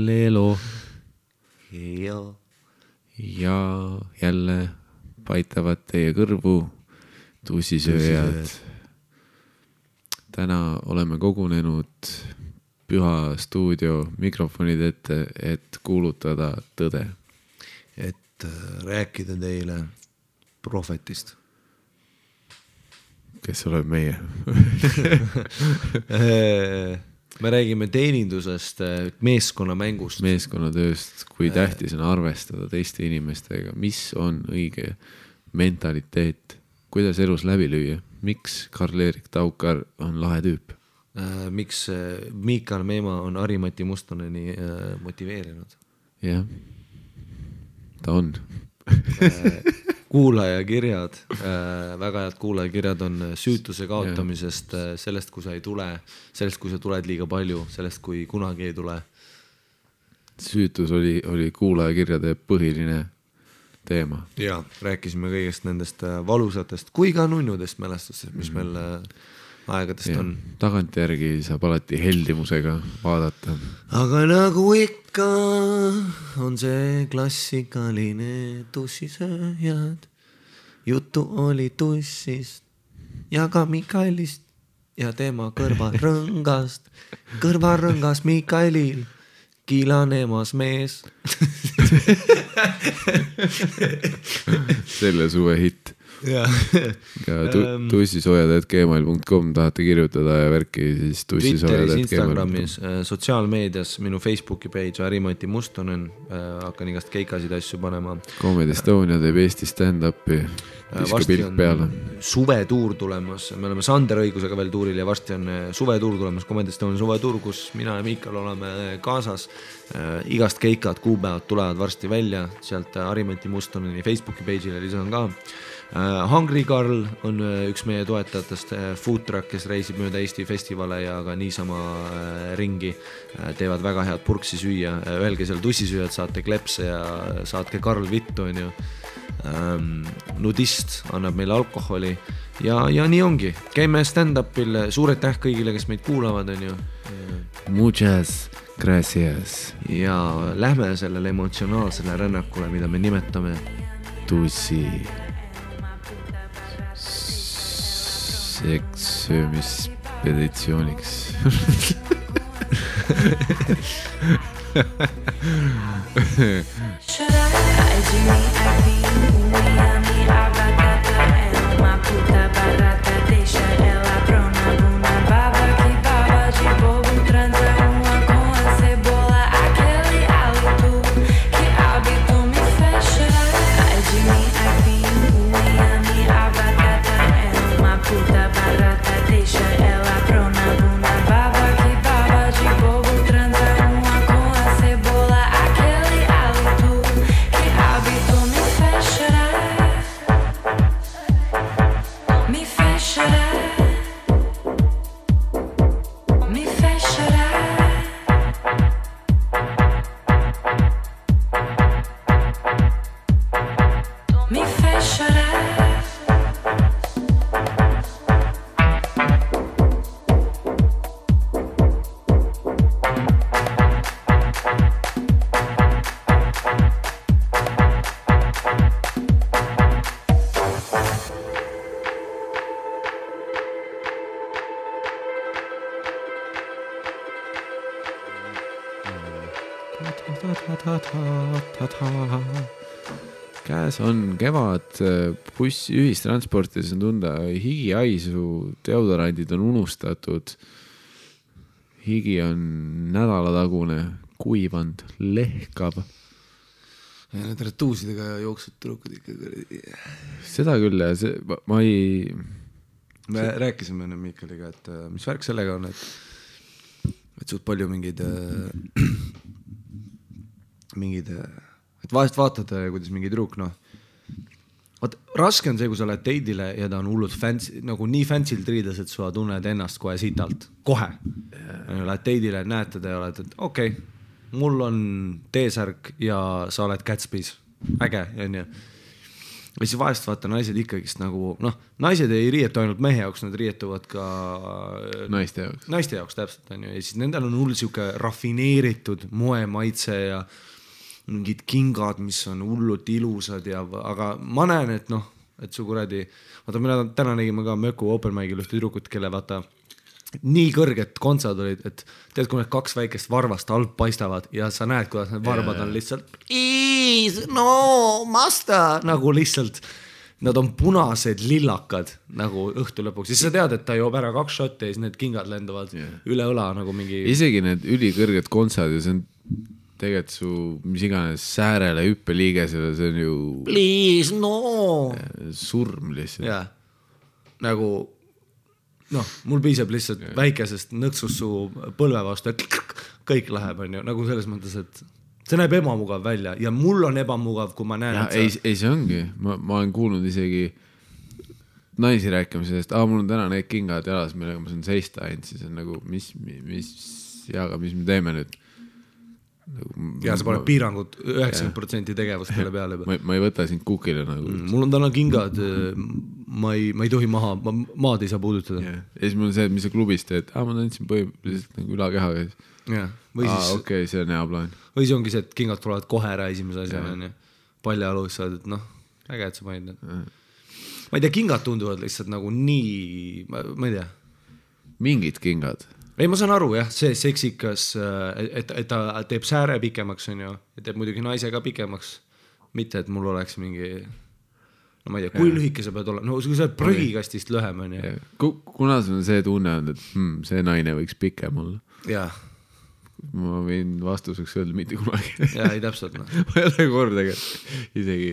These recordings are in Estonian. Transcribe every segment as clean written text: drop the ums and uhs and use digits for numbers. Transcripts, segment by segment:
Lelo. Ja jälle paitavad teie kõrvu tussisööjad. Täna oleme kogunenud Püha stuudio mikrofonid ette, et kuulutada tõde. Et rääkida teile prohvetist. Kes oleb meie? Me räägime teenindusest, meeskonnamängust. Meeskonnatööst, kui tähtis on arvestada teiste inimestega, mis on õige mentaliteet, kuidas elus läbi lüüa, miks Karl-Erik Taukar on lahe tüüp. Miks Miikal Meema on Harimati Mustoneni motiveerinud. Jah, ta on. Kuulajakirjad, väga head kuulajakirjad on süütuse kaotamisest, sellest, kui sa ei tule, sellest, kui sa tuled liiga palju, sellest, kui kunagi ei tule. Süütus oli kuulajakirjade põhiline teema. Ja, rääkisime kõigest nendest valusatest kui ka nunnudest mälestustest, mis meil aegadest on. Tagantjärgi saab alati heldimusega vaadata. Aga nagu ikka on see klassikaline tussisööjad. Juttu oli tussist ja ka Mikaelist ja tema kõrvarõngast. Kõrvarõngas Mikaelil kiilanemas mees. Selle suve hitt. Ja tussisojad@gmail.com tahate kirjutada ja värki siis Twitteris, Instagramis, sotsiaalmeedias, minu Facebooki page Harimati Mustonen, hakkan igast keikasid asju panema. Comedy Estonia teeb Eesti stand-upi, viska pilt peale. Suvetuur tulemas, me oleme Sander õigusega veel tuuril ja varsti on suvetuur tulemas, Comedy Estonia suvetuur, kus mina ja Miikal oleme kaasas. Igast keikad, kuupäevad tulevad varsti välja, sealt Harimati Mustoneni Facebooki page'ile lisan ka. Hungry Carl on üks meie toetajatest, food truck, kes reisib mööda Eesti festivale ja ka niisama ringi, teevad väga head purksi süüa, öelge seal tussisüüjad, saate klepse ja saatke Karl vittu, on ju. Nudist annab meile alkoholi ja nii ongi, käime stand-upil, suur aitäh kõigile, kes meid kuulavad, on ju. Muchas gracias. Ja lähme sellele emotsionaalsele rännakule, mida me nimetame tussi sekssöömispeditsiooniks. Käes on kevad, buss ühistransportis on tunda higiaisu, deodorandid on unustatud, higi on nädalatagune, kuivand, lehkab. Ja need retuusidega jooksud trukud ikka. Seda küll ja ma ei... Me rääkisime enne Miikaliga, et mis värk sellega on, et suht palju mingid et vahest vaatad, kuidas mingi truuk, raske on see, kui sa lähed teidile ja ta on hullult fancy, nagu nii fancy'l triides, et sa tunned ennast kohe sitalt. Kohe. Lähed teidile, näed teda ja oled, et okei, mul on T-särk ja sa oled Gatsby's. Äge, on ju. ja siis vahest vaata naised ikkagist nagu, noh, naised ei riietu ainult mehe jaoks, nad riietuvad ka naiste jaoks täpselt, on ju, ja siis nendel on hull siuke rafineeritud moemaitse ja mingid kingad, mis on hullult ilusad ja, aga ma näen, et noh, et su kuradi, vaata, mina täna nägime ka Möku open mic'il ühte tüdrukut, kelle vaata nii kõrged kontsad olid, et tead, kui need 2 väikest varvast alt paistavad ja sa näed, kuidas need varbad on lihtsalt no masta, nagu lihtsalt nad on punased lillakad nagu õhtu lõpuks, siis sa tead, et ta joob ära 2 šotti ja siis need kingad lenduvad üle õla nagu mingi isegi need ülikõrged kontsad ja see on tegelikult su mis iganes säärele hüppeliigesele, see on ju please, no surm lihtsalt nagu noh, mul piisab lihtsalt väikesest nõksust su põlve vastu, et kõik läheb, on ju, nagu selles mõttes, et see näeb ebamugav välja ja mul on ebamugav, kui ma näen, et ei, see ongi, ma olen kuulnud isegi naisi rääkimisest, mul on täna need kingad jalas, millega ma saan seista ainult, siis on nagu, mis me teeme nüüd? Ja sa paned piirangud 90% tegevust selle peale juba. Ma ei võta sind kukile nagu. Mul on täna kingad, ma ei tohi maad ei saa puudutada. Ja siis mul on see, et mis sa klubis teed, ma tantsin põhimõtteliselt nagu ülakehaga. Okei, see on hea plaan. Või see ongi see, et kingad tulevad kohe ära esimese asjana. Paljajalus saad, et noh, äge, et sa panid need. Ma ei tea, kingad tunduvad lihtsalt nagu nii, ma ei tea. Mingid kingad. Ei, ma saan aru, jah, see seksikas, et ta teeb sääre pikemaks, on ju, ja teeb muidugi naise ka pikemaks. Mitte, et mul oleks mingi, no ma ei tea, kui lühike sa pead olema, no kui sa oled prõgikastist lühem, on ju. Kuna sul on see tunne on, et see naine võiks pikem olla. Jah. Ma võin vastuseks öelda mitte kunagi. Jah, ei täpselt, noh. Ma ei ole kordagi, isegi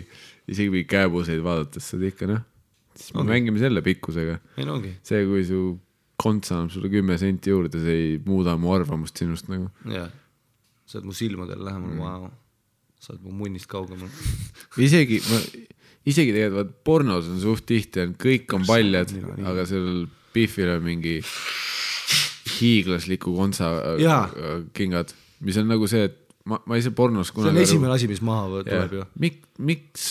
mingi käebuseid vaadates seda ikka, noh. Siis me mängime selle pikkusega. Ei, no ongi. See, kui su konts annab sulle 10 senti juurde, see ei muuda mu arvamust sinust nagu. Jah, sa oled mu silmadel lähemal, wow. Sa oled mu munnist kaugemal. Isegi tegelikult pornos on suht tihti, kõik on paljad, aga sellel Biffil on mingi hiiglasliku kontsa kingad, mis on nagu see, et ma ei saa pornos kunagi. See on esimene asi, mis maha tuleb ju. Miks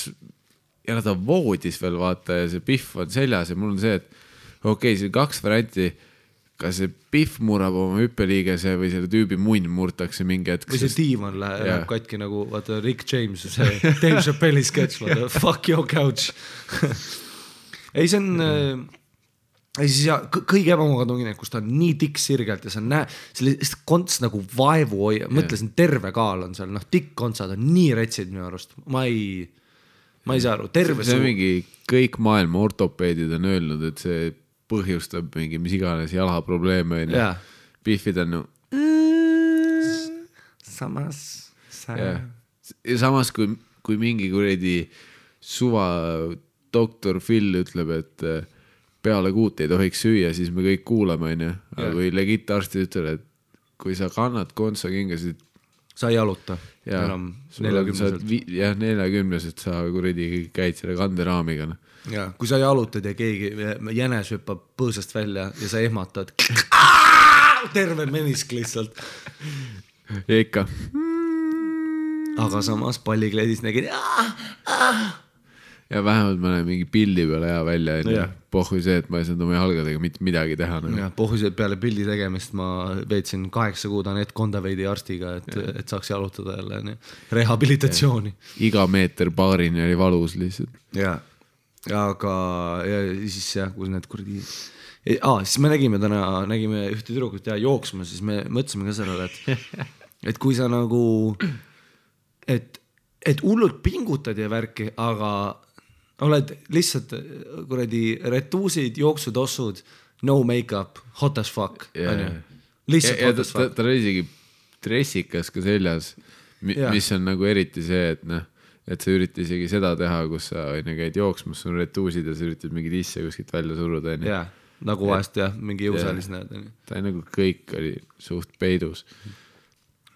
ja ta voodis veel vaata ja see Biff on seljas ja mul on see, et okei, see 2 varianti, kas see Biff murrab oma hüppeliigese või selle tüübi munn murtakse mingi hetk. Või see diivan läheb katki nagu, vaata Rick James, see Dave Chappelli sketch, vaata, fuck your couch. Ei, see on, kõige ebamugav ongi need, kus ta on nii tikk sirgelt ja sa näe, sellist konts nagu vaevu hoia, mõtlesin, terve kaal on seal, noh, tikk kontsad on nii retsid minu arust. Ma ei saa aru, terve see on mingi, kõik maailma ortopeedid on öelnud, et see põhjustab mingi mis iganes jalaprobleeme ja Biffid on samas kui mingi kuredi suva doktor Phil ütleb, et peale 6 ei tohiks süüa, siis me kõik kuulame, on ju. Aga kui legit arstid ütleb, et kui sa kannad kontsa kingasid sa ei jaluta enam 40-selt. Jah, 40-selt sa kuredi käid selle kanderaamiga. Ja, kui sa jalutad ja keegi jänes hüppab põõsast välja ja sa ehmatad terve menisk lihtsalt. Ja ikka. Aga samas pallikleedis nägid ja vähemalt ma näen mingi pildi peale hea välja. Pohhui see, et ma ei saanud oma jalgadega mitte midagi teha. Ja, pohhui see, et peale pildi tegemist ma veetsin 8 kuud Anett Kondaveidi arstiga, et saaks jalutada jälle rehabilitatsiooni. Iga meeter paarini oli valus lihtsalt. Ja, aga ja siis kus need kuradi siis me nägime ühte tüdrukut jooksma, siis me mõtlesime ka sellele, et kui sa nagu et hullult pingutad ja värki, aga oled lihtsalt kuradi retuusid, jooksutossud, no make-up, hot as fuck. Lihtsalt hot as fuck. Ta oli isegi dressikas ka seljas, mis on nagu eriti see, et sa üritad isegi seda teha, kus sa käid jooksmas, sul on retuusid ja sa üritad mingid isse kuskilt välja suruda. Jah, nagu vahest mingi jõusaalis näed. Ta nagu kõik oli suht peidus.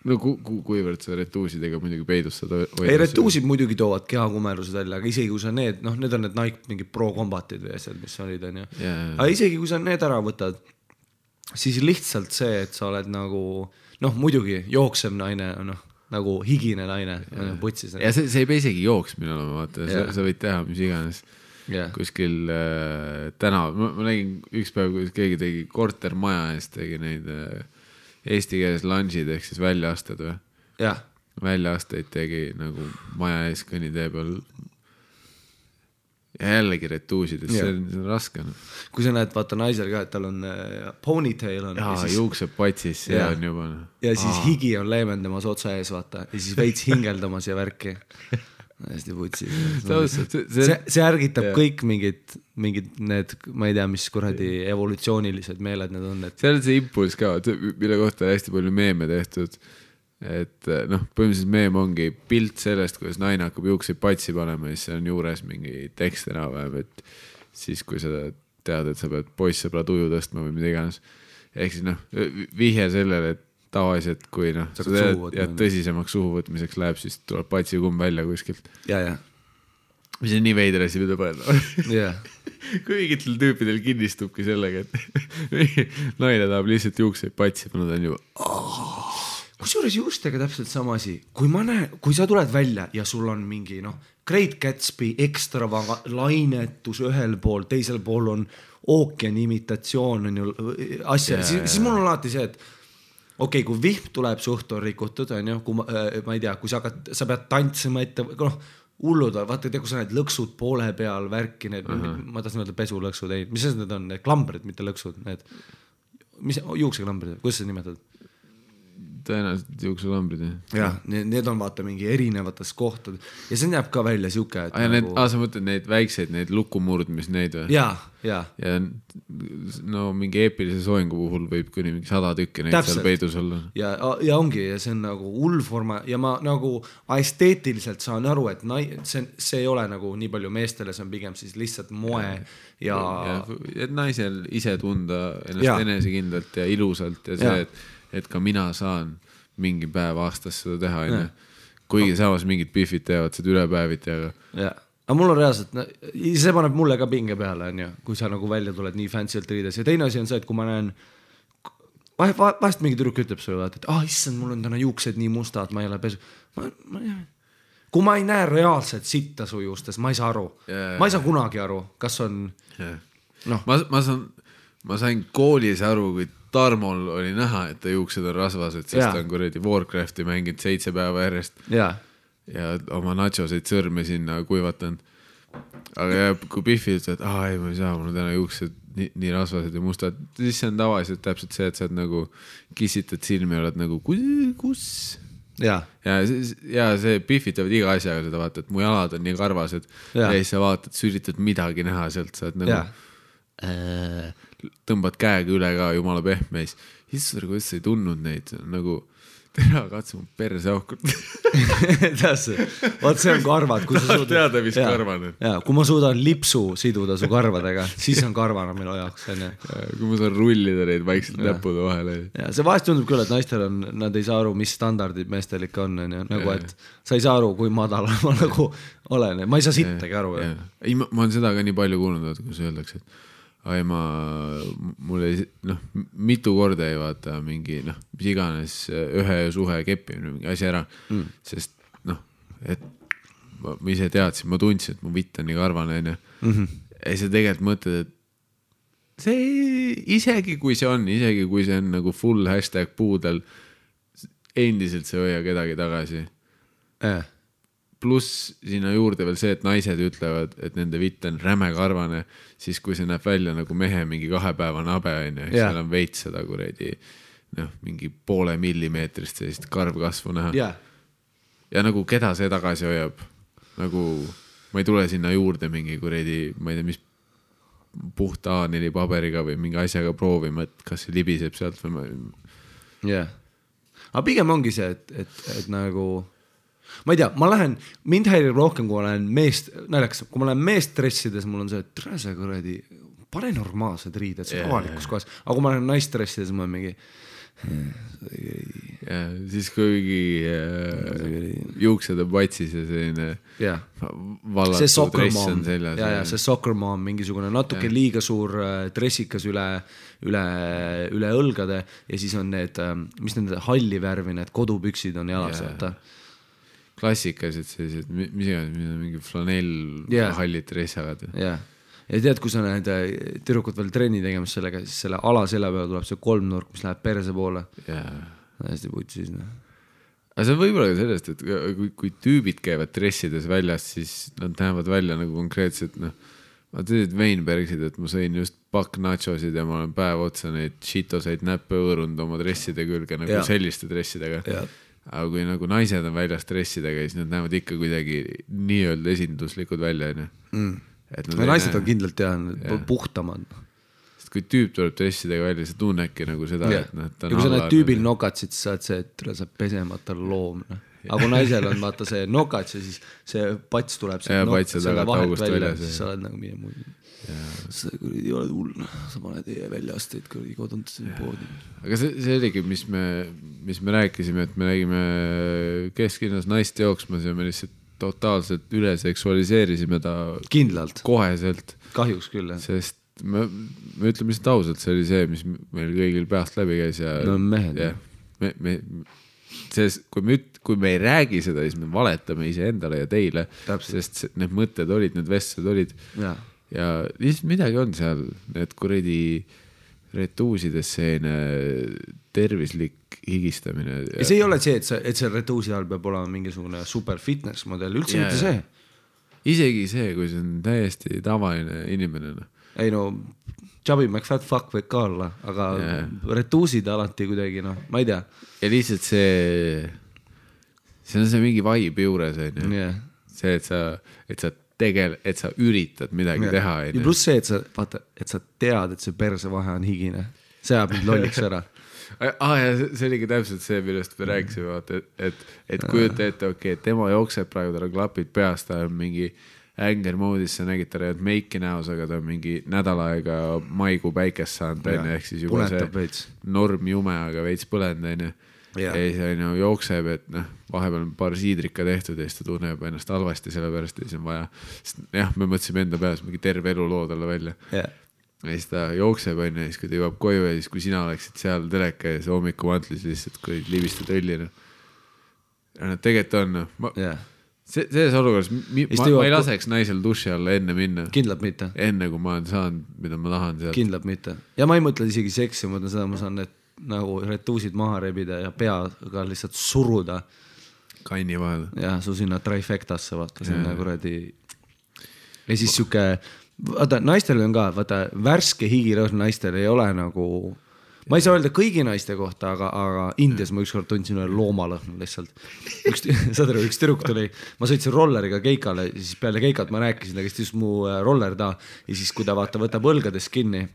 No kuivõrd sa retuusidega muidugi peidus seda hoida. Ei, retuusid muidugi toovad kehakumerused välja, aga isegi kui sa need on need Nike mingi Pro Combatid või asjad, mis olid, on ju. Aga isegi kui sa need ära võtad, siis lihtsalt see, et sa oled nagu, muidugi jooksev naine, nagu higine naine putsis. Ja see ei pea isegi jooksmine olema, vaata, sa võid teha mis iganes kuskil tänav. Ma nägin üks päev, kui keegi tegi kortermaja eest, tegi neid eesti keeles lunge'id ehk siis väljaasted või? Väljaasteid tegi nagu maja ees kõnnitee peal ja jällegi retuusid, et see on raske. Kui sa näed, vaata naisel ka, et tal on ponytail on. Siis... juukseb patsis, see on juba. Ja siis higi on leevendamas otsa ees, vaata. Ja siis veits hingeldamas ja värki. Hästi putsi. See ärgitab kõik mingid need, ma ei tea, mis kuradi evolutsioonilised meeled need on. See on see impuls ka, mille kohta hästi palju meeme tehtud. Et noh, põhimõtteliselt meem ongi pilt sellest, kuidas naine hakkab juukseid patsi panema ja siis on juures mingi tekst enam-vähem, et siis kui sa tead, et sa pead poissõbra tuju tõstma või mida iganes. Ehk siis noh, vihje sellele, et tavaliselt kui noh, sa tead ja tõsisemaks suhuvõtmiseks läheb, siis tuleb patsi kumm välja kuskilt. Mis on nii veider asi, mida panna. Kui mingitel tüüpidel kinnistubki sellega, et naine tahab lihtsalt juukseid patsi panna, ta on juba kusjuures juustega täpselt sama asi. Kui sa tuled välja ja sul on mingi Great Gatsby ekstra lainetus ühel pool, teisel pool on ookeani imitatsioon on ju asja, siis mul on alati see, et okei, kui vihm tuleb, suht on rikutud, on ju, kui ma ei tea, kui sa pead tantsima ette, hullud, vaata, kui sa need lõksud poole peal värki, need, ma tahtsin öelda pesulõksud, mis need on, need klambrid, mitte lõksud, need, mis juukseklambrid, kuidas sa nimetad? Tõenäoliselt juukselambrid. Need on vaata mingi erinevates kohtad ja see näeb ka välja siuke, et nagu... sa mõtled neid väikseid, neid lukumurdmis neid või? Ja no mingi eepilise soengu puhul võib kuni mingi 100 tükki neid seal peidus olla. Ja ongi, ja see on nagu hullforma ja ma nagu esteetiliselt saan aru, et see ei ole nagu nii palju meestele, see on pigem siis lihtsalt moe ja et naisel ise tunda ennast enesekindlalt ja ilusalt ja see, et ka mina saan mingi päev aastas seda teha, kuigi samas mingid biffid teevad seda ülepäeviti, aga mul on reaalselt, see paneb mulle ka pinge peale, kui sa nagu välja tuled nii fancylt riides ja teine asi on see, et kui ma näen vahest mingi tüdruk ütleb sulle, et issand, mul on täna juuksed nii mustad, ma ei ole pesu kui ma ei näe reaalselt sitta su juustes, ma ei saa aru ma ei saa kunagi aru, kas on ma sain koolis aru, kui Tarmol oli näha, et ta juuksed on rasvased, sest ta on kuradi Warcrafti mänginud 7 päeva järjest ja oma nachoseid sõrme sinna kuivatan. Aga kui Biffi ütled, et ei, ma ei saa, mul on täna juuksed nii rasvased ja mustad, siis see on tavaliselt täpselt see, et sa nagu kissitad silmi ja oled nagu, kus? Ja see Biffitavad iga asjaga seda vaata, et mu jalad on nii karvased ja siis sa vaatad, sa üritad midagi näha sealt, sa oled nagu tõmbad käega üle ka, jumala pehmeis. Issar, kuidas sa ei tundnud neid, nagu tere, katsu mu perse aukut. Vaat see on karvad. Teada, mis karvan on. Kui ma suudan lipsu siduda su karvadega, siis on karvana minu jaoks. Kui ma saan rullida neid vaikselt näppude vahele. See vahest tundub küll, et naistel on, nad ei saa aru, mis standardid meestel ikka on. Nagu, et sa ei saa aru, kui madal ma nagu olen. Ma ei saa sittagi aru. Ma olen seda ka nii palju kuulnud, kui sa öeldakse, et mul ei, mitu korda ei vaata mingi, mis iganes ühe suhe keppimine, mingi asi ära, sest et ma ise teadsin, ma tundsin, et mu vitt on nii karvane, ja sa tegelikult mõtled, et see isegi kui see on nagu full #puudel, endiselt see hoia kedagi tagasi. Pluss sinna juurde veel see, et naised ütlevad, et nende vitt on räme karvane, siis kui see näeb välja nagu mehe mingi 2-päevane abe, seal on veits seda kuredi, mingi 0,5 millimeetrist sellist karvkasvu näha. Ja nagu keda see tagasi hoiab, nagu ma ei tule sinna juurde mingi kuredi, ma ei tea, mis puhta A4 paberiga või mingi asjaga proovima, et kas see libiseb sealt või ma... Aga pigem ongi see, et nagu... Ma ei tea, mind häirib rohkem, kui ma lähen kui ma lähen meest dressides, mul on see, et see kuradi, pane normaalsed riided, see avalikus kohas, aga kui ma lähen naist dressides, ma olen mingi, ja siis kuigi juuksed on patsis ja selline vallatud dress on seljas. Ja see soccer mom mingisugune natuke liiga suur dressikas üle õlgade ja siis on need, mis need halli värvi, need kodupüksid on jalas, vaata. Klassikalised sellised, mis iganes, mingi flanell hallid dressavad. Ja tead, kui sa näed tüdrukud veel trenni tegemas sellega, siis selle alasella peal tuleb see kolmnurk, mis läheb perse poole. Hästi putsis. Aga see on võib-olla ka sellest, et kui tüübid käivad dressides väljas, siis nad näevad välja nagu konkreetselt, ma teed Weinbergsid, et ma sõin just pakk nachosid ja ma olen päev otsa neid shitoseid näppe õõrunud oma dresside külge nagu selliste dressidega. Aga kui nagu naised on väljas dressidega, siis nad näevad ikka kuidagi nii-öelda esinduslikud välja. Naised on kindlalt puhtamad. Sest kui tüüp tuleb dressidega välja, sa tunnedki nagu seda, et ja kui sa näed tüübil nokatsid, siis saad see, et sa pesemata loom. Aga kui naisel on vaata see nokats ja siis see pats tuleb selle vahet välja, siis sa oled nagu mine muid. Sa ei ole hull, sa paned väljaasteid koduntasin poodi. Aga see oligi, mis me rääkisime, et me nägime kesklinnas naist jooksmas ja me lihtsalt totaalselt üle seksualiseerisime ta kindlalt koheselt. Kahjuks küll, Sest me ütleme lihtsalt ausalt, see oli see, mis meil kõigil peast läbi käis. No mehed. Kui me ei räägi seda, siis me valetame iseendale ja teile. Sest need mõtted olid, need vestlused olid. Ja lihtsalt midagi on seal, need kuradi retuusides selline tervislik higistamine. Ja see ei ole see, et see retuusi all peab olema mingisugune super fitness model, üldse mitte see. Isegi see, kui see on täiesti tavaline inimene. Ei Chubby McFat fuck võib ka olla, aga retuusid alati kuidagi, ma ei tea. Ja lihtsalt see on see mingi vibe juures. See, et sa üritad midagi teha. Ja pluss see, et sa tead, et see perse vahe on higine. See ajab mind lolliks ära. Ja see oligi täpselt see, millest me rääkisime, et kujuta ette, et tema jookseb praegu, tal on klapid peast, ta on mingi anger moodis, sa nägid, ta räävad meiki näos, aga ta on mingi nädal aega maikuu päikest saanud, ehk siis juba see norm jume, aga veits põlend, ja siis jookseb, et vahepeal on paar siidrika tehtud ja siis ta tunneb ennast halvasti sellepärast ja siis on vaja, me mõtlesime enda peas mingi terve elu loo talle välja. Ja siis ta jookseb ja siis kui ta jõuab koju ja siis kui sina oleksid seal teleka ja see hommikuvantlis lihtsalt kui libistad õllina. Ja nad tegelikult on, selles olukorras ma ei laseks naisel duši alla enne minna. Kindlalt mitte. Enne kui ma olen saanud, mida ma tahan sealt. Kindlalt mitte. Ja ma ei mõtle isegi seksi, ma mõtlen seda, ma saan need nagu retuusid maha rebida ja peaga lihtsalt suruda. Kanni vahel. Ja su sinna trifectasse vaata, sinna kuradi. Ja siis siuke, vaata, naistel on ka, vaata, värske higirõhn naistel ei ole nagu, ma ei saa öelda kõigi naiste kohta, aga Indias ma ükskord tundsin üle loomalõhn lihtsalt. Üks tüdruk tuli, ma sõitsin rolleriga keikale, siis peale keikat ma rääkisin, ta käis mu roller ta ja siis kui ta vaata võtab õlgades kinni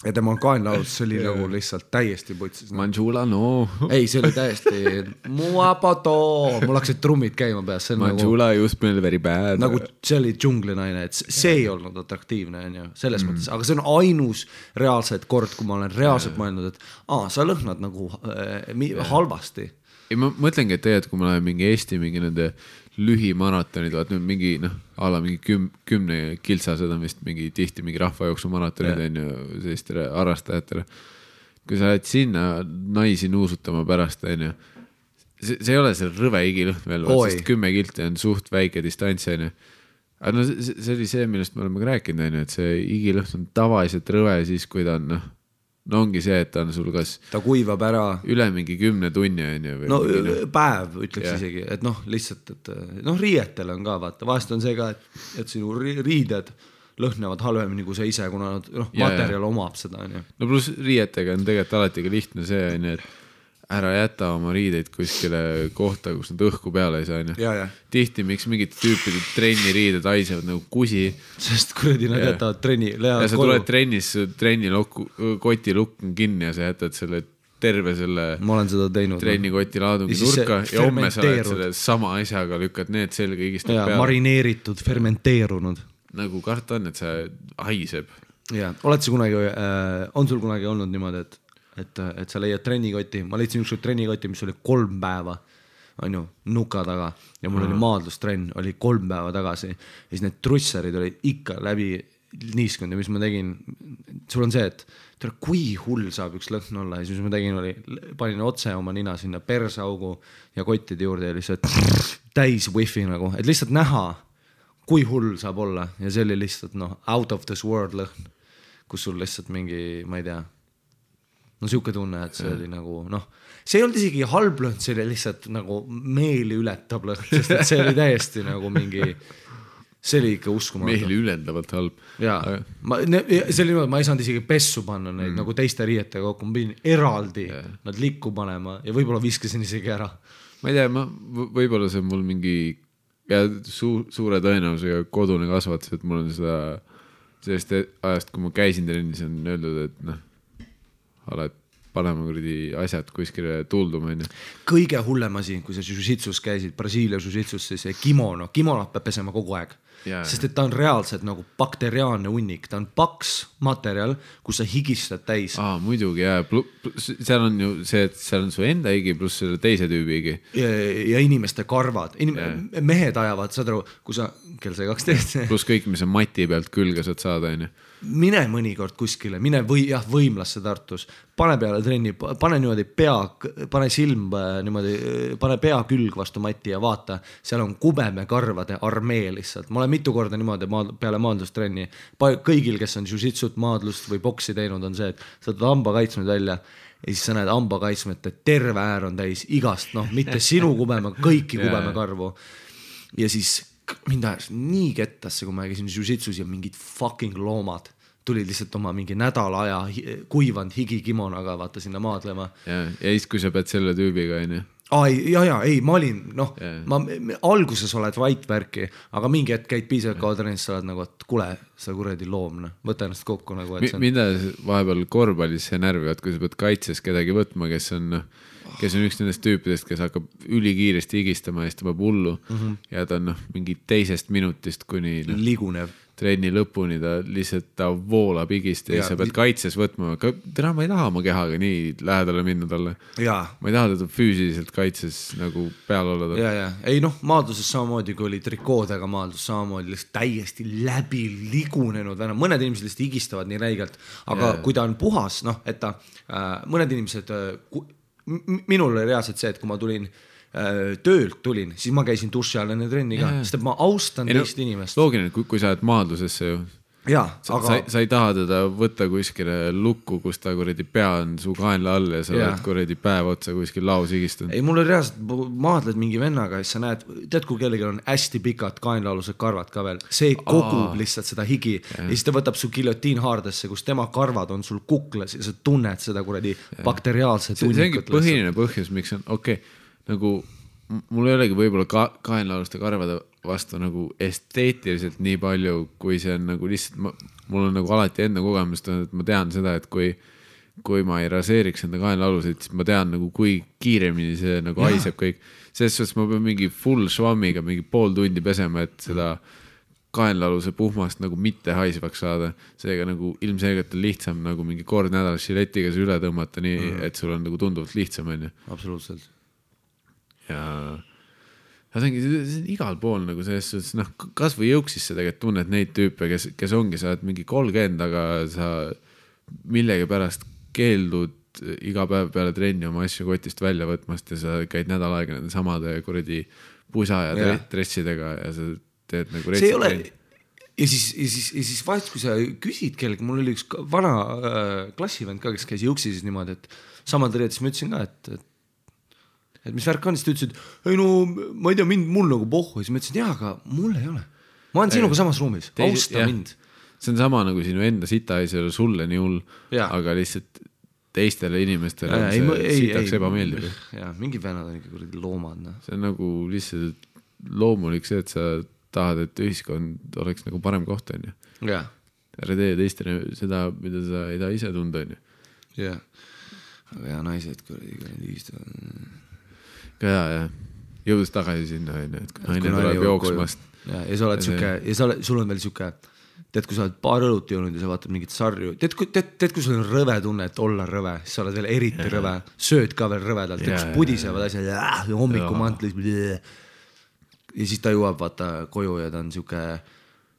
ja tema kaenlaud, see oli nagu lihtsalt täiesti putsis. Manjula, Ei, see oli täiesti muapato, mul hakkasid trummid käima peas. Manjula nagu, just meil very bad. Nagu see oli džunglinaine, et see ei olnud atraktiivne, selles mõttes. Aga see on ainus reaalselt kord, kui ma olen reaalselt mõelnud, et sa lõhnad nagu halvasti. Ja ma mõtlengi, et tegelikult, kui ma lähen mingi Eesti mingi nende lühimaratonid, vaat nüüd mingi, ala mingi 10 kiltsased on vist mingi tihti mingi rahvajooksu maratonid on ju sellistele harrastajatele. Kui sa lähed sinna naisi nuusutama pärast on ju, see ei ole see rõve igilõhn veel, sest 10 kilti on suht väike distants on ju. Aga see oli see, millest me oleme ka rääkinud on ju, et see igilõhn on tavaliselt rõve siis, kui ta on ongi see, et ta on sul kas ta kuivab ära üle mingi 10 tunni on ju. Päev ütleks isegi, et lihtsalt, et riietel on ka vaata, vahest on see ka, et sinu riided lõhnavad halvemini kui sa ise, kuna materjal omab seda on ju. No pluss riietega on tegelikult alati ka lihtne see on ju, et ära jäta oma riideid kuskile kohta, kus nad õhku peale ei saa on ju. Tihti miks mingid tüüpid trenni riided haisevad nagu kusi. Sest kuradi nad jätavad trenni ja sa tuled trennis, trenni koti lukk on kinni ja sa jätad selle terve selle ma olen seda teinud, trenni koti laadungi nurka ja homme sa oled selle sama asjaga lükkad need selga igistad peale. Marineeritud, fermenteerunud. Nagu karta on, et see haiseb. Ja, on sul kunagi olnud niimoodi, et et sa leiad trennikoti, ma leidsin ükskord trennikoti, mis oli 3 päeva, on ju, nuka taga ja mul oli maadlustrenn, oli 3 päeva tagasi ja siis need trussarid olid ikka läbi niiskunud ja mis ma tegin, sul on see, et kui hull saab üks lõhn olla ja siis mis ma tegin oli, panin otse oma nina sinna persaugu ja kottide juurde ja lihtsalt täis wifi nagu, et lihtsalt näha, kui hull saab olla ja see oli lihtsalt out of this world lõhn, kus sul lihtsalt mingi, ma ei tea, siuke tunne, et see oli nagu see ei olnud isegi halb lõhn, see oli lihtsalt nagu meeli ületab lõhn, sest et see oli täiesti nagu mingi, see oli ikka uskumatu. Meeli ületavalt halb. Jaa, see oli niimoodi, ma ei saanud isegi pessu panna neid nagu teiste riietega kokku, ma pidin eraldi nad likku panema ja võib-olla viskasin isegi ära. Ma ei tea, võib-olla see on mul mingi suure tõenäosusega kodune kasvatus, et mul on seda sellest ajast, kui ma käisin trennis, on öeldud, et oled panema kuradi asjad kuskile tulduma. Kõige hullem asi, kui sa jiu-jitsus käisid, Brasiilia jiu-jitsus, siis kimonot peab pesema kogu aeg. Sest et ta on reaalselt nagu bakteriaalne hunnik, ta on paks materjal, kus sa higistad täis. Muidugi, seal on ju see, et seal on su enda higi pluss selle teise tüübi higi. Ja inimeste karvad, mehed ajavad, saad aru, kui sa, kell sai 12. Pluss kõik, mis on mati pealt külge saad saada, on ju. Mine mõnikord kuskile, mine võimlasse Tartus, pane peale trenni, pane niimoodi pane silm niimoodi, pane pea külg vastu mati ja vaata, seal on kubemekarvade armee lihtsalt. Ma olen mitu korda niimoodi peale maadlustrenni. Kõigil, kes on jiu-jitsut, maadlust või boksi teinud, on see, et sa tuled hambakaitsmed välja ja siis sa näed hambakaitsmed, et terve äär on täis igast, mitte sinu kubeme, kõiki kubemekarvu. Ja siis mind ajas nii kettasse, kui ma käisin jiu-jitsus ja mingid fucking loomad tulid lihtsalt oma mingi nädala aja kuivanud higikimonaga vaata sinna maadlema. Ja siis, kui sa pead selle tüübiga, on ju? Ei, ma olin, ma alguses oled vaitvärki, aga mingi hetk käid piisavalt kaua trennis, sa oled nagu, et kule, sa kuradi loom, võta ennast kokku nagu, et mida vahepeal korvpallis see närvivad, kui sa pead kaitses kedagi võtma, kes on üks nendest tüüpidest, kes hakkab ülikiiresti higistama ja siis ta peab hullu ja ta on mingi teisest minutist kuni ligunev trenni lõpuni, ta voolab higist ja sa pead kaitses võtma. Täna ma ei taha oma kehaga nii lähedale minna talle. Ma ei taha teda füüsiliselt kaitses nagu peal olla. Ei maadluses samamoodi, kui oli trikoodega maadlus, samamoodi lihtsalt täiesti läbi ligunenud. Mõned inimesed lihtsalt higistavad nii räigelt, aga kui ta on puhas, et ta mõned inimesed, minul oli reaalselt see, et kui ma töölt tulin, siis ma käisin duši all enne trenni ka, sest et ma austan teist inimest. Loogiline, kui sa oled maadlusesse ju. Sa ei taha teda võtta kuskile lukku, kus ta kuradi pea on su kaenla all ja sa oled kuradi päev otsa kuskil laus higistanud. Ei, mul oli reaalselt, maadled mingi vennaga ja sa näed, tead, kui kellelgi on hästi pikad kaenlaalused karvad ka veel, see kogub lihtsalt seda higi ja siis ta võtab su giljotiin haardesse, kus tema karvad on sul kuklas ja sa tunned seda kuradi bakteriaalset hunnikut. See ongi põhiline põhjus, miks on nagu mul ei olegi võib-olla kaenlaaluste karvade vastu nagu esteetiliselt nii palju, kui see on nagu lihtsalt, mul on nagu alati enda kogemust, et ma tean seda, et kui ma ei raseeriks enda kaenlaalusid, siis ma tean nagu kui kiiremini see nagu haiseb kõik. Selles suhtes ma pean mingi full švammiga mingi pool tundi pesema, et seda kaenlaaluse puhmast nagu mitte haisvaks saada. Seega nagu ilmselgelt on lihtsam nagu mingi kord nädalas žiletiga see üle tõmmata nii, et sul on nagu tunduvalt lihtsam. Absoluutselt. Ja see on igal pool nagu selles suhtes, kas või jõuksis sa tegelikult tunned neid tüüpe, kes ongi, sa oled mingi 30, aga sa millegi pärast keeldud iga päev peale trenni oma asju kotist välja võtmast ja sa käid nädal aega nende samade kuradi pusa ja dressidega ja sa teed nagu see ei ole ja siis vahest, kui sa küsid kellegi, mul oli üks vana klassivend ka, kes käis jõuksis niimoodi, et samad reed, siis ma ütlesin ka, et mis värk on, siis ta ütles, et ei ma ei tea, mul nagu pohhu, siis ma ütlesin, aga mul ei ole. Ma olen sinuga samas ruumis, austa mind. See on sama nagu sinu enda sita ei ole sulle nii hull, aga lihtsalt teistele inimestele see sitaks ebameeldib. Mingi vennad on ikka kuradi loomad. See on nagu lihtsalt loomulik see, et sa tahad, et ühiskond oleks nagu parem koht, on ju. Ära tee teistele seda, mida sa ei taha ise tunda, on ju. Aga naised kuradi ühistavad. Ja jõudus tagasi sinna, et kui naine tuleb jooksmast. Ja sa oled sul on veel siuke tead, kui sa oled paar õlut joonud ja sa vaatad mingit sarju, tead, kui sul on rõve tunne, et olla rõve, siis sa oled veel eriti rõve, sööd ka veel rõvedalt, kus pudisevad asjad ja hommikumantlis ja siis ta jõuab vaata koju ja ta on siuke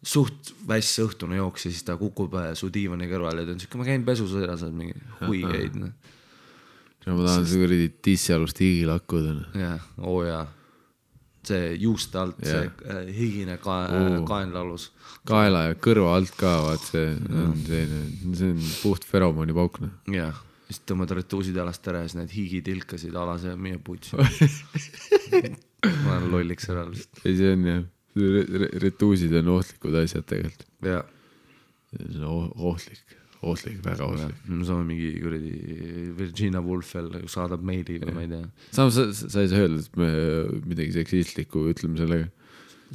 suht väss õhtune jooks ja siis ta kukub su diivani kõrval ja ta on siuke, ma käin pesus ära, sa oled mingi huigeid. Ma tahan see kuradi tissialust higi lakkuda. Jah, jaa. See juuste alt, see higine kaenlalus. Kaela ja kõrva alt ka, vaat see on puht feromooni paukne. Jah, siis tõmmad retuusid alast ära ja siis need higitilkasid alas ja meie putsi. Ma olen lolliks ära. Ei, see on jah, retuusid on ohtlikud asjad tegelikult. Jah. See on ohtlik, väga ohtlik. Me saame mingi kuradi Virginia Woolf veel saadab meili või ma ei tea. Samas sa ei saa öelda, et me midagi seksistlikku ütleme sellega.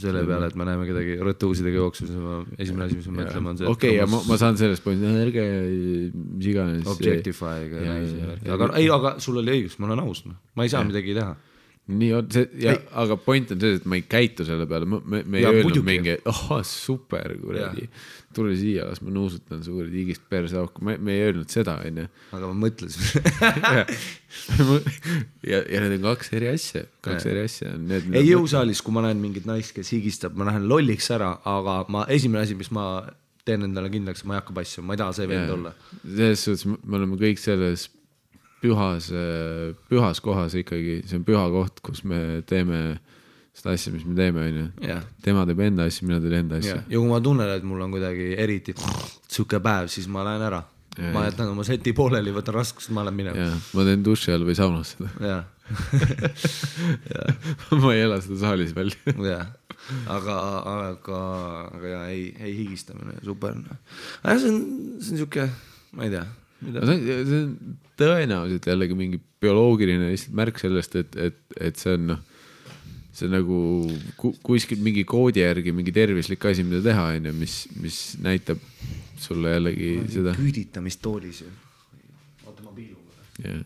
Selle peale, et me näeme kedagi rõtuusidega jooksus, esimene asi, mis me mõtlema on see. Okei, ja ma saan sellest point, ärge mis iganes. Objectify'ga naisi. Aga sul oli õigus, ma olen aus. Ma ei saa midagi teha. Nii on see, aga point on see, et ma ei käitu selle peale, me ei öelnud mingi, super, kuradi, tule siia, las ma nuusutan su kuradi higist perse auku, me ei öelnud seda, onju. Aga ma mõtlesin. ja need on kaks eri asja. Ei jõusaalis, kui ma näen mingit naist, kes higistab, ma lähen lolliks ära, aga esimene asi, mis ma teen endale kindlaks, ma ei hakka passu, ma ei taha see vend olla. Selles suhtes me oleme kõik selles pühas kohas ikkagi, see on püha koht, kus me teeme seda asja, mis me teeme, onju. Tema teeb enda asja, mina teen enda asja. Ja kui ma tunnen, et mul on kuidagi eriti suke päev, siis ma lähen ära. Ma jätan oma seti pooleli, võtan raskust, ma lähen minema. Ma teen duši all või saunas seda. Ma ei ela seda saalis välja. Aga ei higistamine, super. See on siuke, ma ei tea. See on tõenäoliselt jällegi mingi bioloogiline märk sellest, et see on see on nagu kuskil mingi koodi järgi mingi tervislik asi, mida teha, mis näitab sulle jällegi seda. Küüditamistoolis ju. Oota, ma piilun.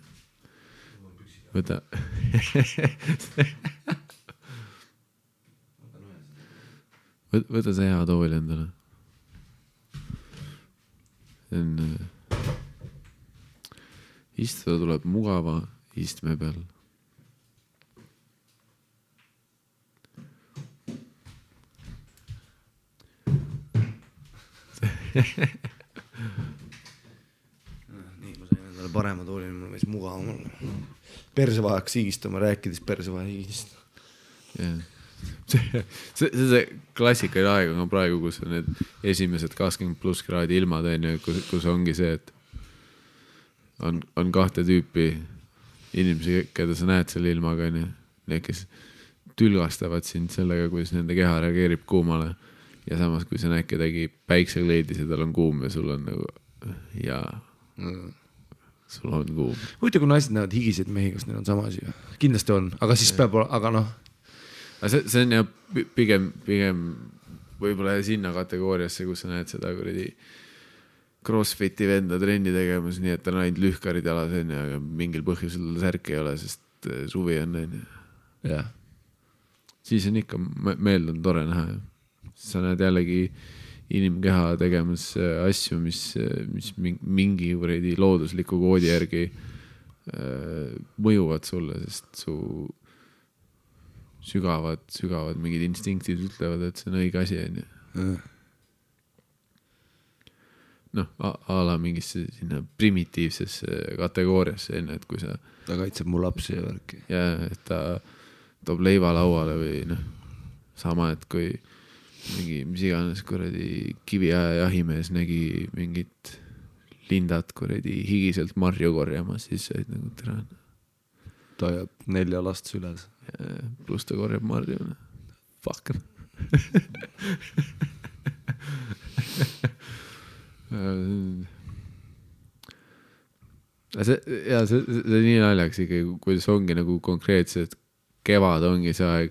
Võta. Võta see hea tool endale. See on... Istuda tuleb mugava istme peal. Nii, ma sain endale parema tooli, mul võis mugavam olla. Persevahaks higistama, rääkides persevaha higist. See klassikaline aeg on praegu, kus on need esimesed 20+ kraadi ilmad, kus ongi see, et on kahte tüüpi inimesi, keda sa näed selle ilmaga, need, kes tülgastavad sind sellega, kuidas nende keha reageerib kuumale ja samas, kui sa näed kedagi päiksekleidis ja tal on kuum ja sul on nagu sul on kuum. Huvitav, kui naised näevad higiseid mehi, kas neil on sama asi? Kindlasti on, aga siis peab, aga noh. See on jah pigem võib-olla sinna kategooriasse, kus sa näed seda kuradi crossfiti venda trenni tegemas, nii et ta on ainult lühkarid jalas, aga mingil põhjusel särk ei ole, sest suvi on. Siis on ikka meeld on tore näha. Sa näed jällegi inimkeha tegemas asju, mis mingi loodusliku koodi järgi mõjuvad sulle, sest su sügavad mingid instinktid ütlevad, et see on õige asi. A la mingisse sinna primitiivsesse kategooriasse, et kui sa... Ta kaitseb mu lapsi ja värki. Ja, et ta toob leiva lauale või sama, et kui mingi, mis iganes kuradi kiviaja jahimees nägi mingit lindat kuradi higiselt marju korjamas, siis said nagu tere. Ta jääb 4 last süles. Plus ta korjab marju. Fuck. See nii naljaks ikkagi, kuidas ongi nagu konkreetselt kevad ongi see aeg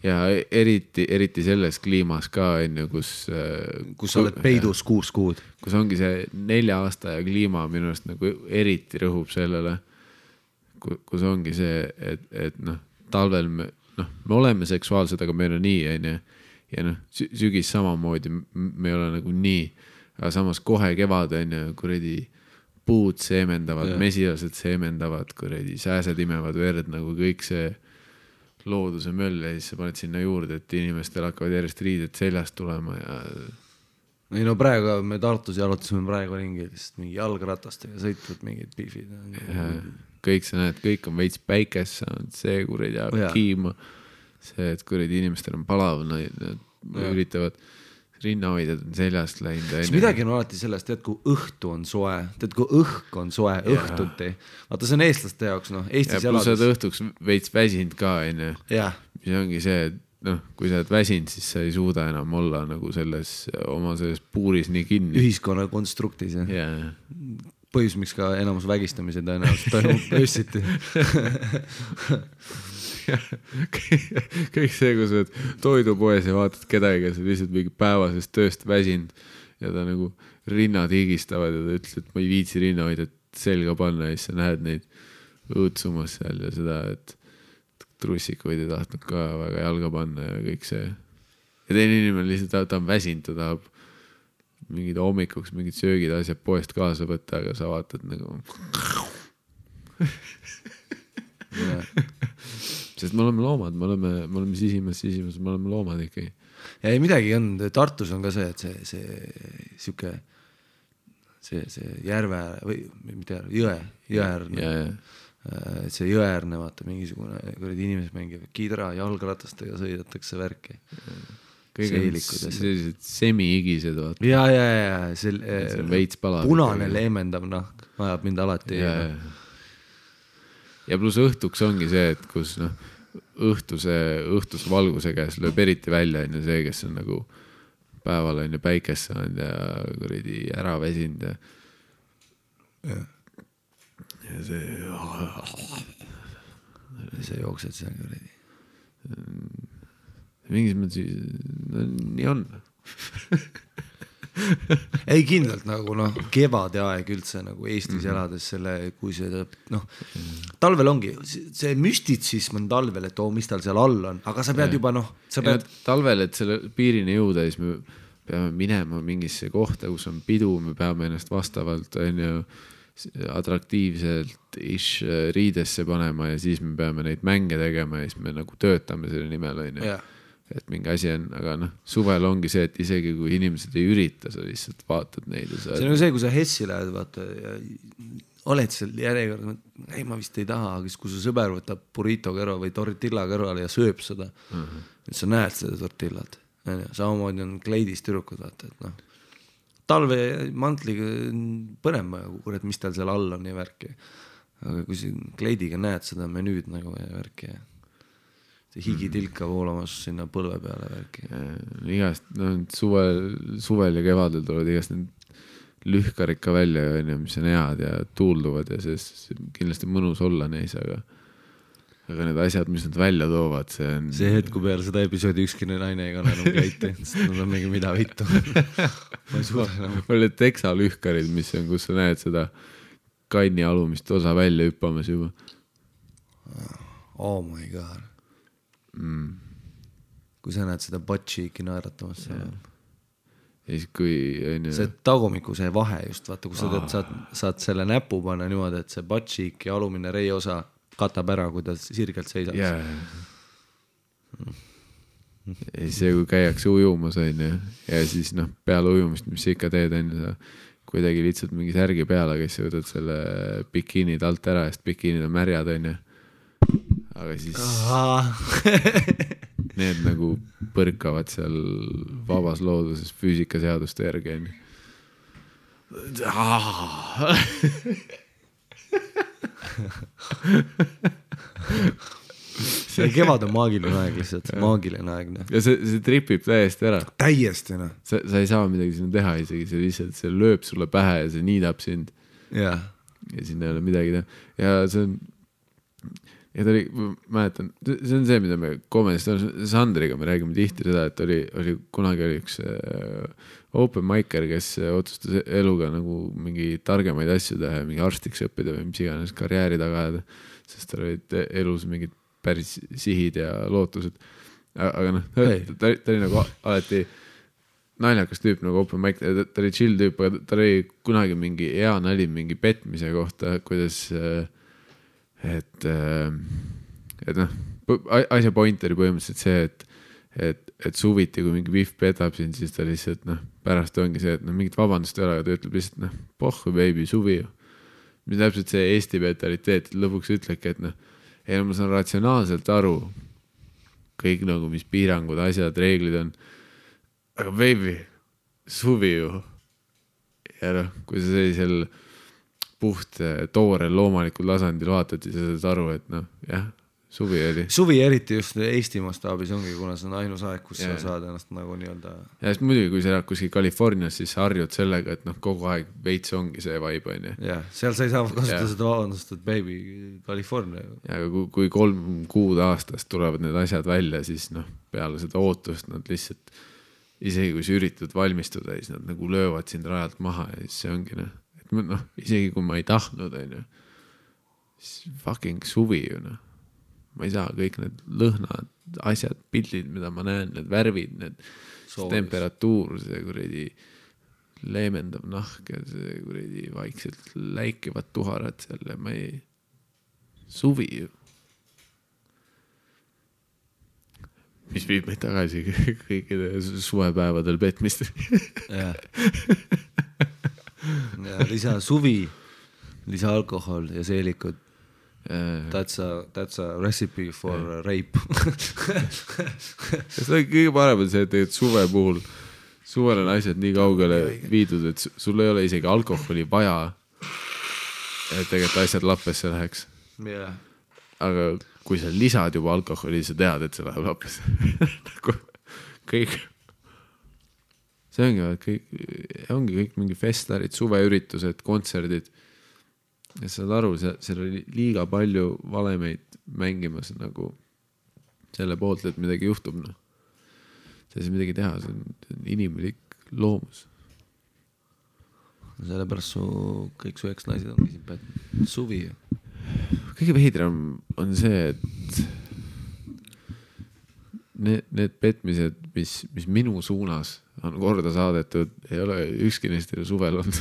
ja eriti selles kliimas ka kus sa oled peidus 6 kuud, kus ongi see 4 aasta ja kliima minu arust nagu eriti rõhub sellele, kus ongi see, et talvel me oleme seksuaalsed, aga meil on nii, ja noh, sügis samamoodi, me ei ole nagu nii, aga samas kohe kevad on ju, kuradi puud seemendavad, mesilased seemendavad, kuradi sääsed imevad verd, nagu kõik see looduse möll ja siis sa paned sinna juurde, et inimestel hakkavad järjest riided seljast tulema ja ei no praegu me Tartus jalutasime praegu ringi lihtsalt mingi jalgratastega sõitvad mingid pihvid. Kõik sa näed, kõik on veits päikes saanud, see kuradi ajab kiima. See, et kuradi inimestel on palav, nad üritavad rinnahoidjad on seljast läinud. Siis midagi on alati sellest, tead, kui õhtu on soe, tead, kui õhk on soe, õhtuti. Vaata, see on eestlaste jaoks, noh, Eestis elades. Ja plus sa oled õhtuks veits väsinud ka, enne. Mis ongi see, et noh, kui sa oled väsinud, siis sa ei suuda enam olla nagu oma selles puuris nii kinni. Ühiskonna konstruktis, jah. Põhjus, miks ka enamus vägistamise tõenäoliselt toimub öösiti. Kõik see, kui sa oled toidupoes ja vaatad kedagi, kes on lihtsalt mingi päevasest tööst väsinud ja ta nagu rinnad higistavad ja ta ütles, et ma ei viitsi rinna hoida, et selga panna ja siis sa näed neid õõtsumas seal ja seda, et trussikuid ei tahtnud ka väga jalga panna ja kõik see. Ja teine inimene lihtsalt ta on väsinud, ta tahab mingid hommikuks, mingid söögid asjad poest kaasa võtta, aga sa vaatad nagu sest me oleme loomad, me oleme sisimas, me oleme loomad ikkagi. Ja ei midagi on, Tartus on ka see, et see järve või mitte jõeäärne. Et see jõeäärne, vaata, mingisugune inimesed mängivad kidra, jalgratastega sõidatakse värki. Sellised semi-igised, vaata. Ja. See veits palab. Punane leemendav nahk ajab mind alati. Ja plus õhtuks ongi see, et kus õhtuse valguse käes lööb eriti välja on see, kes on nagu päeval on päikest saanud ja kuradi ära väsinud ja see jooksed seal kuradi. Mingis mõttes nii on. Ei kindlalt nagu kevade aeg üldse nagu Eestis elades selle, kui see talvel ongi, see müstitsism on talvel, et mis tal seal all on, aga sa pead juba talvel, et selle piirini jõuda, siis me peame minema mingisse kohta, kus on pidu, me peame ennast vastavalt atraktiivselt riidesse panema ja siis me peame neid mänge tegema ja siis me nagu töötame selle nimel, et mingi asi on, aga suvel ongi see, et isegi kui inimesed ei ürita, sa lihtsalt vaatad neid ja see on see, kui sa Hessi lähed, vaata ja oled seal järjekord, ei ma vist ei taha, aga kui su sõber võtab burrito kõrval või tortilla kõrval ja sööb seda, et sa näed seda tortillat, samamoodi on kleidis tüdrukud, vaata, et talve mantliga põnema, kurat, mis tal seal all on ja värki. Aga kui siin kleidiga näed seda menüüd nagu ja värki ja see higitilka voolamas sinna põlve peale värki. Igast, suvel ja kevadel tulevad igast need lühkarid ka välja, mis on head ja tuulduvad ja see kindlasti mõnus olla neis, aga need asjad, mis nad välja toovad, see on... See hetku peale seda episoodi ükski naine ei kanna enam kleiti, sest nad on mingi mida vittu. Ma ei suuda enam. Oli teksalühkarid, mis on, kus sa näed seda kanni alumist osa välja hüppamas juba. Oh my god. Kui sa näed seda butt-cheeki naeratamas seal. Ja siis kui... See tagumiku see vahe just, vaata, kui sa saad selle näpu panna niimoodi, et see butt-cheek ja alumine rei osa katab ära, kui ta sirgelt seisab. Ja see, kui käiakse ujumas on ja siis peale ujumist, mis sa ikka teed on sa kuidagi lihtsalt mingi särgi peale, kes võtad selle bikiinid alt ära, sest bikiinid on märjad on aga siis need nagu põrkavad seal vabas looduses füüsikaseaduste järgi on see kevad on maagiline aeg lihtsalt, maagiline aeg. Ja see tripib täiesti ära. Täiesti, Sa ei saa midagi sinna teha isegi, see lihtsalt see lööb sulle pähe ja see niidab sind. Ja sinna ei ole midagi teha. Ja see on, ja ta oli, mäletan, see on see, mida me komedist on, Sandriga me räägime tihti seda, et kunagi oli üks open micer, kes otsustas eluga nagu mingi targemaid asju teha, mingi arstiks õppida või mis iganes karjääri taga ajada, sest tal olid elus mingid päris sihid ja lootused. aga noh, ta oli nagu alati naljakas tüüp nagu open mic, ta oli chill tüüp, aga ta oli kunagi mingi hea nali mingi petmise kohta, kuidas et noh, asja point oli põhimõtteliselt see, et suviti, kui mingi Vihv petab siin, siis ta lihtsalt noh, pärast ongi see, et noh, mingit vabandust ei ole, aga ta ütleb lihtsalt noh, pohhu baby, suvi ju. Mis täpselt see Eesti mentaliteet, lõpuks ütlebki, et noh, ei, ma saan ratsionaalselt aru kõik nagu, mis piirangud, asjad, reeglid on, aga baby, suvi ju. Ja noh, kui sa sellisel puht toorel loomalikul tasandil vaatad, siis sa saad aru, et noh, jah, suvi oli. Suvi eriti just Eesti mastaabis ongi, kuna see on ainus aeg, kus sa saad ennast nagu nii-öelda... Ja siis muidugi, kui sa elad kuskil Californias, siis sa harjud sellega, et noh, kogu aeg veits ongi see vibe, on ju. Jah, seal sa ei saa kasutada seda vabandust, et baby, California. Ja aga kui 3 kuud aastast tulevad need asjad välja, siis noh, peale seda ootust nad lihtsalt, isegi kui sa üritad valmistuda, siis nad nagu löövad sind rajalt maha ja siis see ongi noh, et noh, isegi kui ma ei tahtnud, on ju, siis fucking suvi ju noh. Ma ei saa kõik need lõhnad, asjad, pildid, mida ma näen, need värvid, need temperatuur, see kuredi leemendav nahk ja see kuredi vaikselt läikivad tuharad seal ja ma ei... Suvi ju. Mis viib meid tagasi kõikide suvepäevadel petmist. Ja lisa suvi, lisa alkohol ja seelikud. That's a recipe for rape. See on kõige parem on see, et suve puhul suvel on asjad nii kaugele viidud, et sul ei ole isegi alkoholi vaja, et tegelikult asjad lappesse läheks. Yeah. Aga kui sa lisad juba alkoholi, sa tead, et see läheb lappesse. Kõik. See ongi kõik mingi festarid, suveüritused, kontserdid. Ja saad aru, seal oli liiga palju valemeid mängimas nagu selle poolt, et midagi juhtub. No. See ei midagi teha, see on inimlik loomus. Sellepärast kõik su eks-naised ongi siin pätt suvi. Kõige veidram on see, et need petmised, mis minu suunas on korda saadetud, ei ole ükski neist suvel olnud.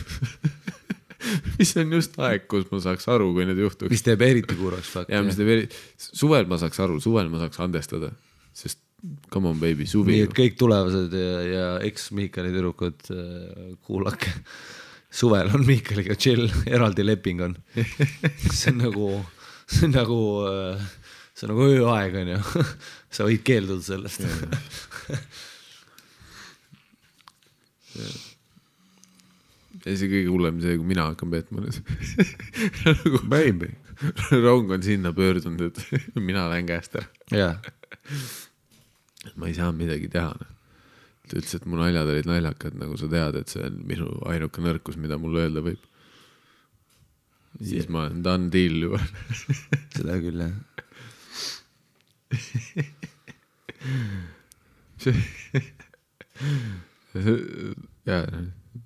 Mis on just aeg, kus ma saaks aru, kui need juhtuks. Mis teeb eriti kurvaks fakt. Ja, mis teeb suvel ma saaks aru, suvel ma saaks andestada. Sest come on baby, suvi. Nii, et kõik tulevased ja eks-Miikali tüdrukud kuulake. Suvel on Miikaliga chill, eraldi leping on. See on nagu ööaeg on ju. Sa võid keelduda sellest. Ja see kõige hullem see, kui mina hakkan petma. Baby. Rong on sinna pöördunud, et mina lähen käest ära. Yeah. Ma ei saa midagi teha. Ta ütles, et mu naljad olid naljakad, nagu sa tead, et see on minu ainuke nõrkus, mida mul öelda võib. Siis ma olen done deal juba. Seda küll, jah.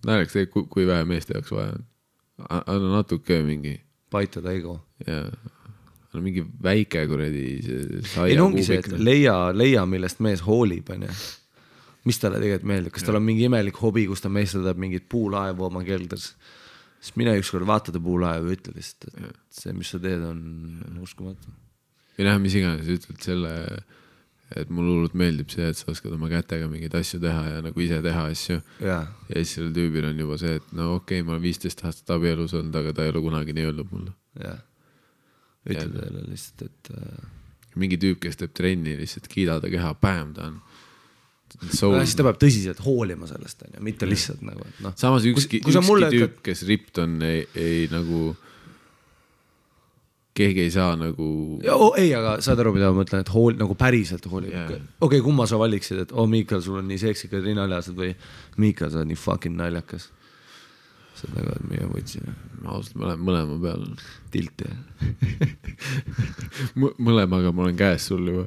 Näeleks see, kui vähe meeste jaoks vaja on. Anna natuke mingi... Paitada ego. Jaa. Anna mingi väike kuredi ei ongi see, et leia, millest mees hoolib, on ju. Mis talle tegelikult meeldib? Kas tal on mingi imelik hobi, kus ta meestadab mingit puulaevu oma kelders? Siis mine ükskord vaatada puulaevu ja ütle lihtsalt, et see, mis sa teed, on uskumatu. Või näha, mis iganes, ütled selle... Et mul hullult meeldib see, et sa oskad oma kätega mingeid asju teha ja nagu ise teha asju. Ja siis selle tüübil on juba see, et no okei, ma olen 15 aastat abielus olnud, aga ta ei ole kunagi nii öelnud mulle. Ja. Ütled teile lihtsalt, et... Mingi tüüp, kes teeb trenni, lihtsalt kiidada keha, päem ta on. Siis ta peab tõsiselt hoolima sellest, mitte lihtsalt nagu, et noh. Samas ükski tüüp, kes ript on, ei nagu... Keegi ei saa nagu... Ei, aga saad aru, mida ma mõtlen, et nagu päriselt hoolib. Okei, kumma sa valiksid, et Miikal, sul on nii seksikad rinnaljased või Miikal, sa on nii fucking naljakas. See on nagu, et meie võtsin. Ma ausalt mõlema peal. Tilt, jah. Mõlemaga ma olen käes sul juba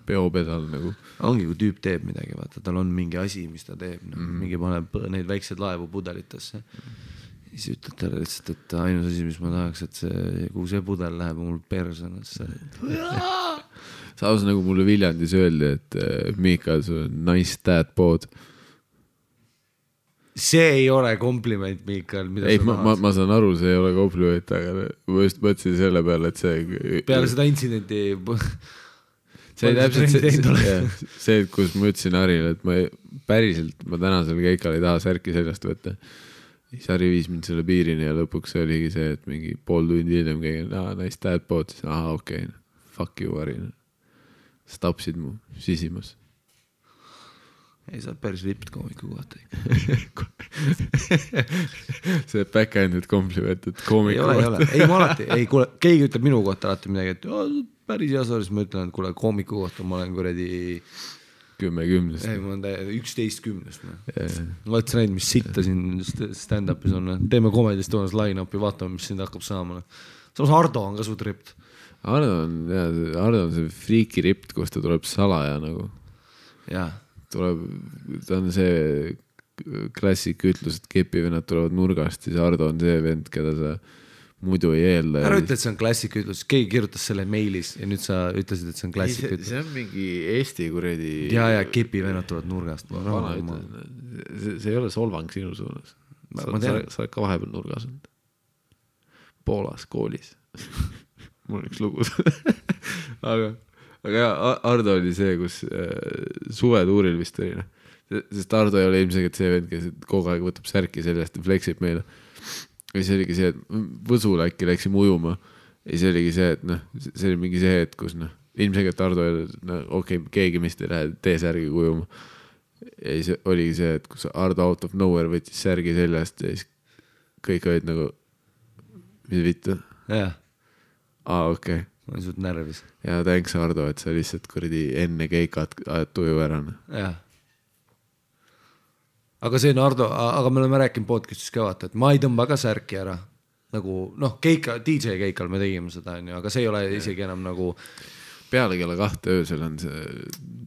peopedal nagu. Ongi, kui tüüp teeb midagi, vaata, tal on mingi asi, mis ta teeb. Mingi paneb neid väikseid laevu pudelitesse. Siis ütled talle lihtsalt, et ainus asi, mis ma tahaks, et kuhu see pudel läheb, mul persona. samas nagu mulle Viljandis öeldi, et Miikal, sul on nice dad bod. See ei ole kompliment, Miikal. Ei, ma saan aru, see ei ole kompliment, aga ma just mõtlesin selle peale, et see... Peale seda intsidenti... See täpselt see, kus ma ütlesin Harile, et ma tänasel keikal ei taha särki seljast võtta. Siis Hari viis mind selle piirini ja lõpuks oligi see, et mingi pool tundi hiljem keegi, nice dad bod, siis okei, fuck you, Hari. Sa tapsid mu sisimas. Ei, sa oled päris ripped koomiku kohta. See back-ended kompliment, et koomiku kohta. Ei, ma alati, kuule, keegi ütleb minu kohta alati midagi, et päris hea saaris, ma ütlen, et kuule, koomiku kohta ma olen kuradi 10-10. Ei, ma olen 11-10. Ma oled näinud, mis sitta siin stand-upis on. Teeme komedist toonas line-upi, vaatame, mis sind hakkab saama. Samas Ardo on ka suht ript. Ardo on see friiki ript, kus ta tuleb salaja nagu. Jaa. Ta on see klassik ütlus, et kepivennad tulevad nurgast, siis Ardo on see vend, keda sa muidu ei eelda. Ära ütle, et see on klassik ütlus, keegi kirjutas selle meilis ja nüüd sa ütlesid, et see on klassik ütlus. See on mingi Eesti kuredi... Ja kepivennad tulevad nurgast. See ei ole solvang sinu suunas. Sa oled ka vahepeal nurgas olnud. Poolas koolis. Mul on üks lugu. Aga Ardo oli see, kus suvetuuril vist oli. Sest Ardo ei ole ilmselt see vend, kes kogu aeg võtab särki sellest ja fleksib meile. Ja see oligi see, et Võsul äkki läksime ujuma. Ja see oligi see, et see oli mingi see, et kus ilmselt Ardo okei, keegi mist ei lähe tee särgi ujuma. Ja see oligi see, et kus Ardo out of nowhere võttis särgi seljast ja siis kõik olid nagu mis vittu? Jah. Okei. Ma olen suht närvis. Ja thanks Ardo, et sa lihtsalt kuradi enne keikat ajad tuju ära. Jah. Aga see on Ardo, aga me oleme rääkinud podcastis ka vaata, et ma ei tõmba ka särki ära. Nagu, DJ keikal me tegime seda, aga see ei ole isegi enam nagu... Peale kella 2 öösel on see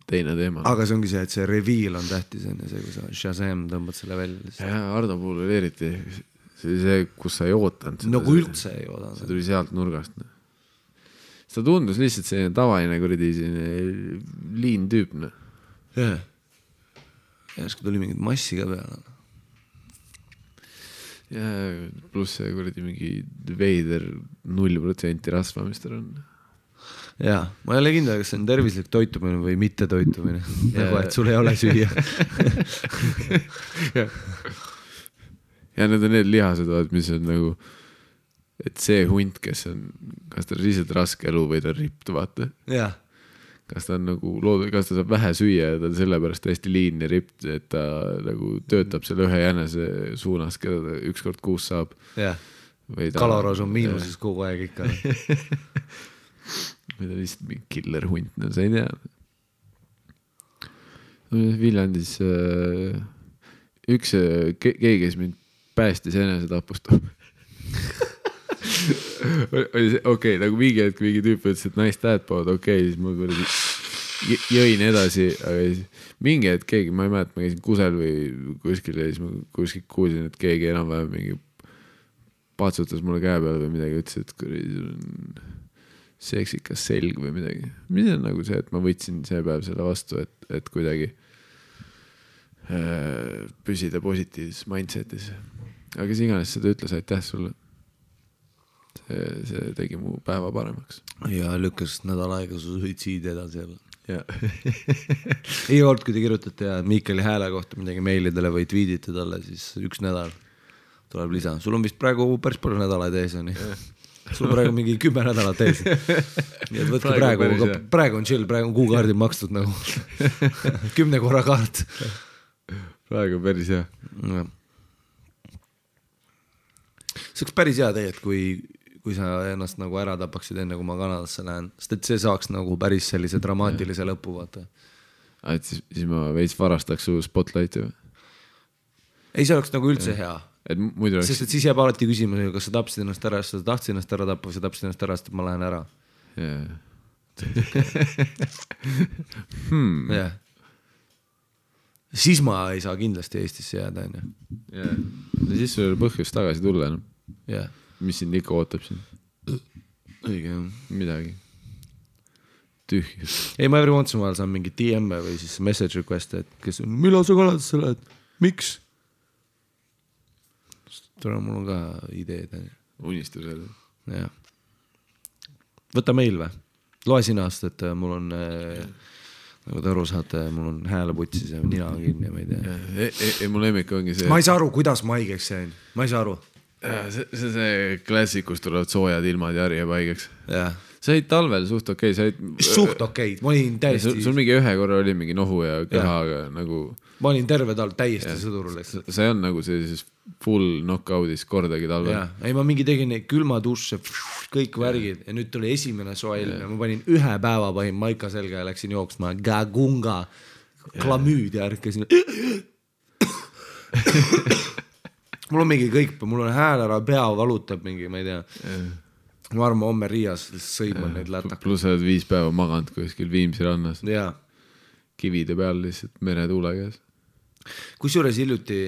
teine teema. Aga see ongi see, et see reveal on tähtis, see, kui sa Shazam tõmbad selle välja. Ja Ardo puhul oli eriti see, kus sa ei ootanud. Nagu üldse ei oodanud. See tuli sealt nurgast. See tundus lihtsalt selline tavaline kuradi liin tüüp. Jah. Järsku tuli mingid massi ka peale. Ja pluss see kuradi mingi veider 0% rasvamist on. Jaa, ma ei ole kindel, kas see on tervislik toitumine või mitte toitumine. Nagu, et sul ei ole süüa. Ja need on need lihased, mis on nagu, et see hunt, kes on, kas ta on lihtsalt raske elu või ta on ript, vaata. Jah. Kas ta on nagu kas ta saab vähe süüa ja ta on sellepärast hästi liin ja ript, et ta nagu töötab selle ühe jänese suunas, keda ta ükskord kuus saab. Jah, kaloros on miinuses kogu aeg ikka. Või ta lihtsalt mingi killer hunt, sa ei tea. Viljandis üks keegi, kes mind päästis enese tapust. Okei, nagu mingi hetk mingi tüüp ütles, et nice dad bod, okei, siis ma jõin edasi, aga mingi hetk keegi, ma ei mäleta, ma käisin kusel või kuskil ja siis ma kuskil kuulsin, et keegi enam-vähem mingi patsutas mulle käe peale või midagi, ütles, et sul on seksikas selg või midagi. Mis on nagu see, et ma võtsin see päev selle vastu, et kuidagi püsida positiivses mindsetis. Aga kes iganes seda ütles, aitäh sulle. See tegi mu päeva paremaks. Ja lükkas nädal aega su suitsiidi edasi jälle. Ei olnud, kui te kirjutate ja Miikali hääle kohta midagi meilidele või tweetite talle, siis 1 nädal tuleb lisa. Sul on vist praegu päris palju nädalaid ees. Sul on praegu mingi 10 nädalat ees. Nii et võtke praegu on chill, praegu on kuukaardil makstud nagu 10 korra kaart. Praegu on päris hea. See oleks päris hea tegelikult, kui sa ennast nagu ära tapaksid enne, kui ma Kanadasse lähen. Sest et see saaks nagu päris sellise dramaatilise lõpu, vaata. Et siis ma veits varastaks su spotlighti või? Ei, see oleks nagu üldse hea. Sest et siis jääb alati küsimus, kas sa tapsid ennast ära, sa tahtsid ennast ära tappa või sa tapsid ennast ära, sest ma lähen ära. Yeah. Siis ma ei saa kindlasti Eestisse jääda. Ja siis sul põhjus tagasi tulla. Mis sind ikka ootab siin? Õige, midagi. tühjus. Ei, ma every once in a while saan mingi DM-e või siis message request, et kes on, millal sa Kanadasse lähed, miks? Tule, mul on ka ideed. Unistused. Jah. Võta meil või? Loe sina, et mul on, nagu te aru saate, mul on hääleputsis ja nina kinni, ma ei tea. Mu lemmik ongi see. Ma ei saa aru, kuidas ma haigeks jäin. Ma ei saa aru. See klassikus tulevad soojad ilmad ja harjab haigeks. Jah. Sa olid talvel suht okei. Suht okei. Ma olin täiesti... Sul mingi ühe korra oli mingi nohu ja kehaga nagu... Ma olin terve talv täiesti sõdurul. Sa ei on nagu sellises full knockoutis kordagi talvel. Ja. Ei, ma mingi tegin neid külma duše, kõik värgid ja nüüd tuli esimene soe ilm ja ma panin ühe päeva pahin maika selga ja läksin jooksma gagunga, klamüüd ja ärkasin. Mul on mingi kõik, mul on hääl ära, pea valutab mingi, ma ei tea. Ma arvan, homme Riias sõiman neid lätak. Plus oled 5 päeva maganud kuskil Viimsi rannas. Jaa. Kivide peal lihtsalt meretuule käes. Kusjuures hiljuti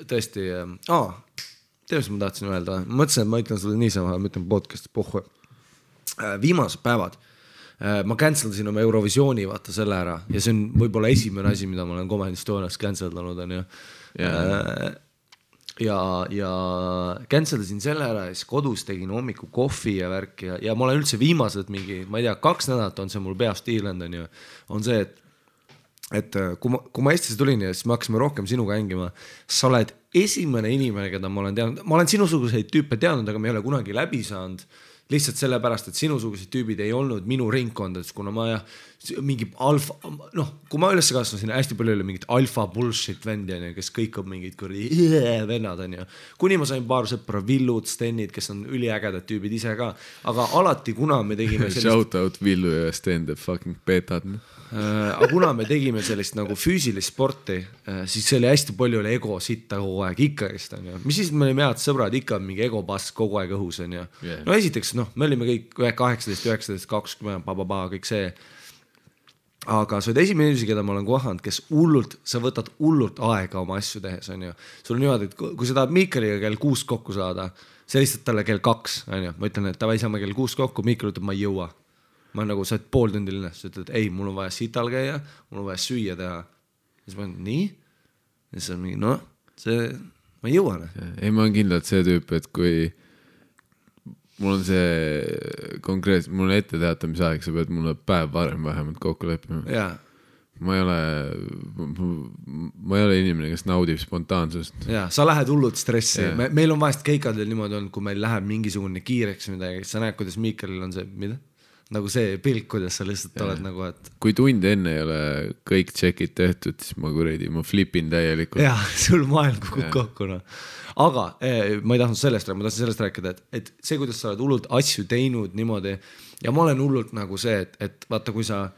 tõesti, tead, ma tahtsin öelda, mõtlesin, et ma ütlen sulle niisama, ma ütlen podcast'i pohhu. Viimased päevad ma canceldasin oma Eurovisiooni vaata selle ära ja see on võib-olla esimene asi, mida ma olen Comedy Estonias canceldanud on ju. Ja canceldasin selle ära ja siis kodus tegin hommiku kohvi ja värki ja ma olen üldse viimased mingi, ma ei tea, 2 nädalat on see mul peast Iirland on ju, on see, et kui ma Eestisse tulin ja siis me hakkasime rohkem sinuga hängima, sa oled esimene inimene, keda ma olen teadnud, ma olen sinusuguseid tüüpe teadnud, aga me ei ole kunagi läbi saanud lihtsalt sellepärast, et sinusugused tüübid ei olnud minu ringkondades, kuna ma mingi alfa, kui ma üles kasvasin, hästi palju oli mingit alfa bullshit vendi, kes kõik on mingid vennad, on ju. Kuni ma sain paar sõpra, Villud, Stenid, kes on üliägedad tüübid ise ka, aga alati, kuna me tegime sellist... Shout out Villu ja Sten, the fucking petad. Aga kuna me tegime sellist nagu füüsilist sporti, siis see oli hästi palju oli ego sitta kogu aeg, ikka just on ju. Mis siis me olime head sõbrad, ikka mingi ego pass kogu aeg õhus on ju. No esiteks, me olime kõik 18, 19, 20, kõik see. Aga sa oled esimene inimesi, keda ma olen kohanud, kes hullult, sa võtad hullult aega oma asju tehes on ju. Sul on niimoodi, et kui sa tahad Miikaliga kell 6 kokku saada, see lihtsalt talle kell 2 on ju. Ma ütlen, et tavai saame kell 6 kokku, Miikal ütleb, ma ei jõua. Ma nagu, sa oled pool tundi linnas, sa ütled, ei, mul on vaja sital käia, mul on vaja süüa teha. Ja siis ma olen, nii? Ja siis on mingi, ma ei jõua. Ei, ma olen kindlalt see tüüp, et kui mul on see konkreetselt, mul on ette teatamise aeg, sa pead mulle päev varem vähemalt kokku leppima. Jaa. Ma ei ole inimene, kes naudib spontaansust. Jaa, sa lähed hullult stressi. Meil on vahest keikadel niimoodi olnud, kui meil läheb mingisugune kiireks midagi, sa näed, kuidas Miikalil on see, mida? Nagu see pilk, kuidas sa lihtsalt oled nagu, et... Kui tund enne ei ole kõik tšekid tehtud, siis ma flipin täielikult. Jaa, sul maailm kukub kokku. No. Aga ma ei tahtnud sellest rääkida, et see, kuidas sa oled hullult asju teinud niimoodi ja ma olen hullult nagu see, et vaata, kui sa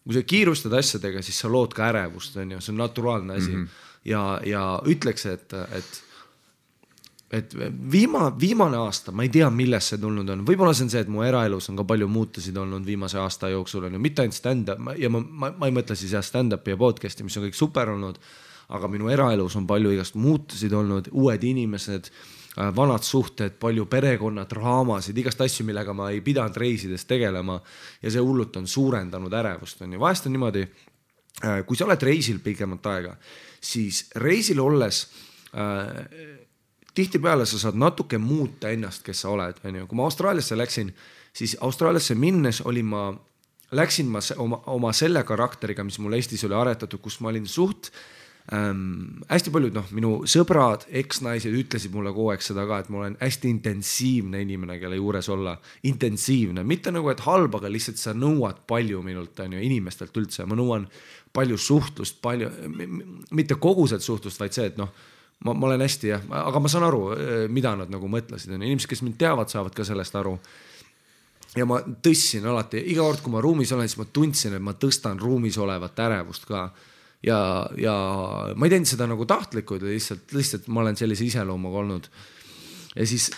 kiirustad asjadega, siis sa lood ka ärevust, on ju, see on naturaalne asi ja ütleks, et viimane aasta, ma ei tea, millest see tulnud on. Võib-olla see on see, et mu eraelus on ka palju muutusid olnud viimase aasta jooksul, on ju, mitte ainult stand-up ja ma ei mõtle siis stand-upi ja podcasti, mis on kõik super olnud, aga minu eraelus on palju igast muutusid olnud, uued inimesed, vanad suhted, palju perekonna draamasid, igast asju, millega ma ei pidanud reisides tegelema ja see hullult on suurendanud ärevust. On ju. Vahest on niimoodi, kui sa oled reisil pikemat aega, siis reisil olles tihtipeale sa saad natuke muuta ennast, kes sa oled. Kui ma Austraaliasse läksin, siis Austraaliasse minnes läksin ma oma selle karakteriga, mis mul Eestis oli aretatud, kus ma olin suht hästi paljud, minu sõbrad, eksnaised ütlesid mulle kogu aeg seda ka, et ma olen hästi intensiivne inimene, kelle juures olla. Intensiivne, mitte nagu, et halb, aga lihtsalt sa nõuad palju minult, inimestelt üldse. Ma nõuan palju suhtlust, mitte koguselt suhtlust, vaid see, et ma olen hästi, aga ma saan aru, mida nad nagu mõtlesid. Inimesed, kes mind teavad, saavad ka sellest aru. Ja ma tõssin alati, iga kord, kui ma ruumis olen, siis ma tundsin, et ma tõstan ruumis olevat ärevust ka. Ja ma ei teinud seda nagu tahtlikult, lihtsalt ma olen sellise iseloomuga olnud. ja siis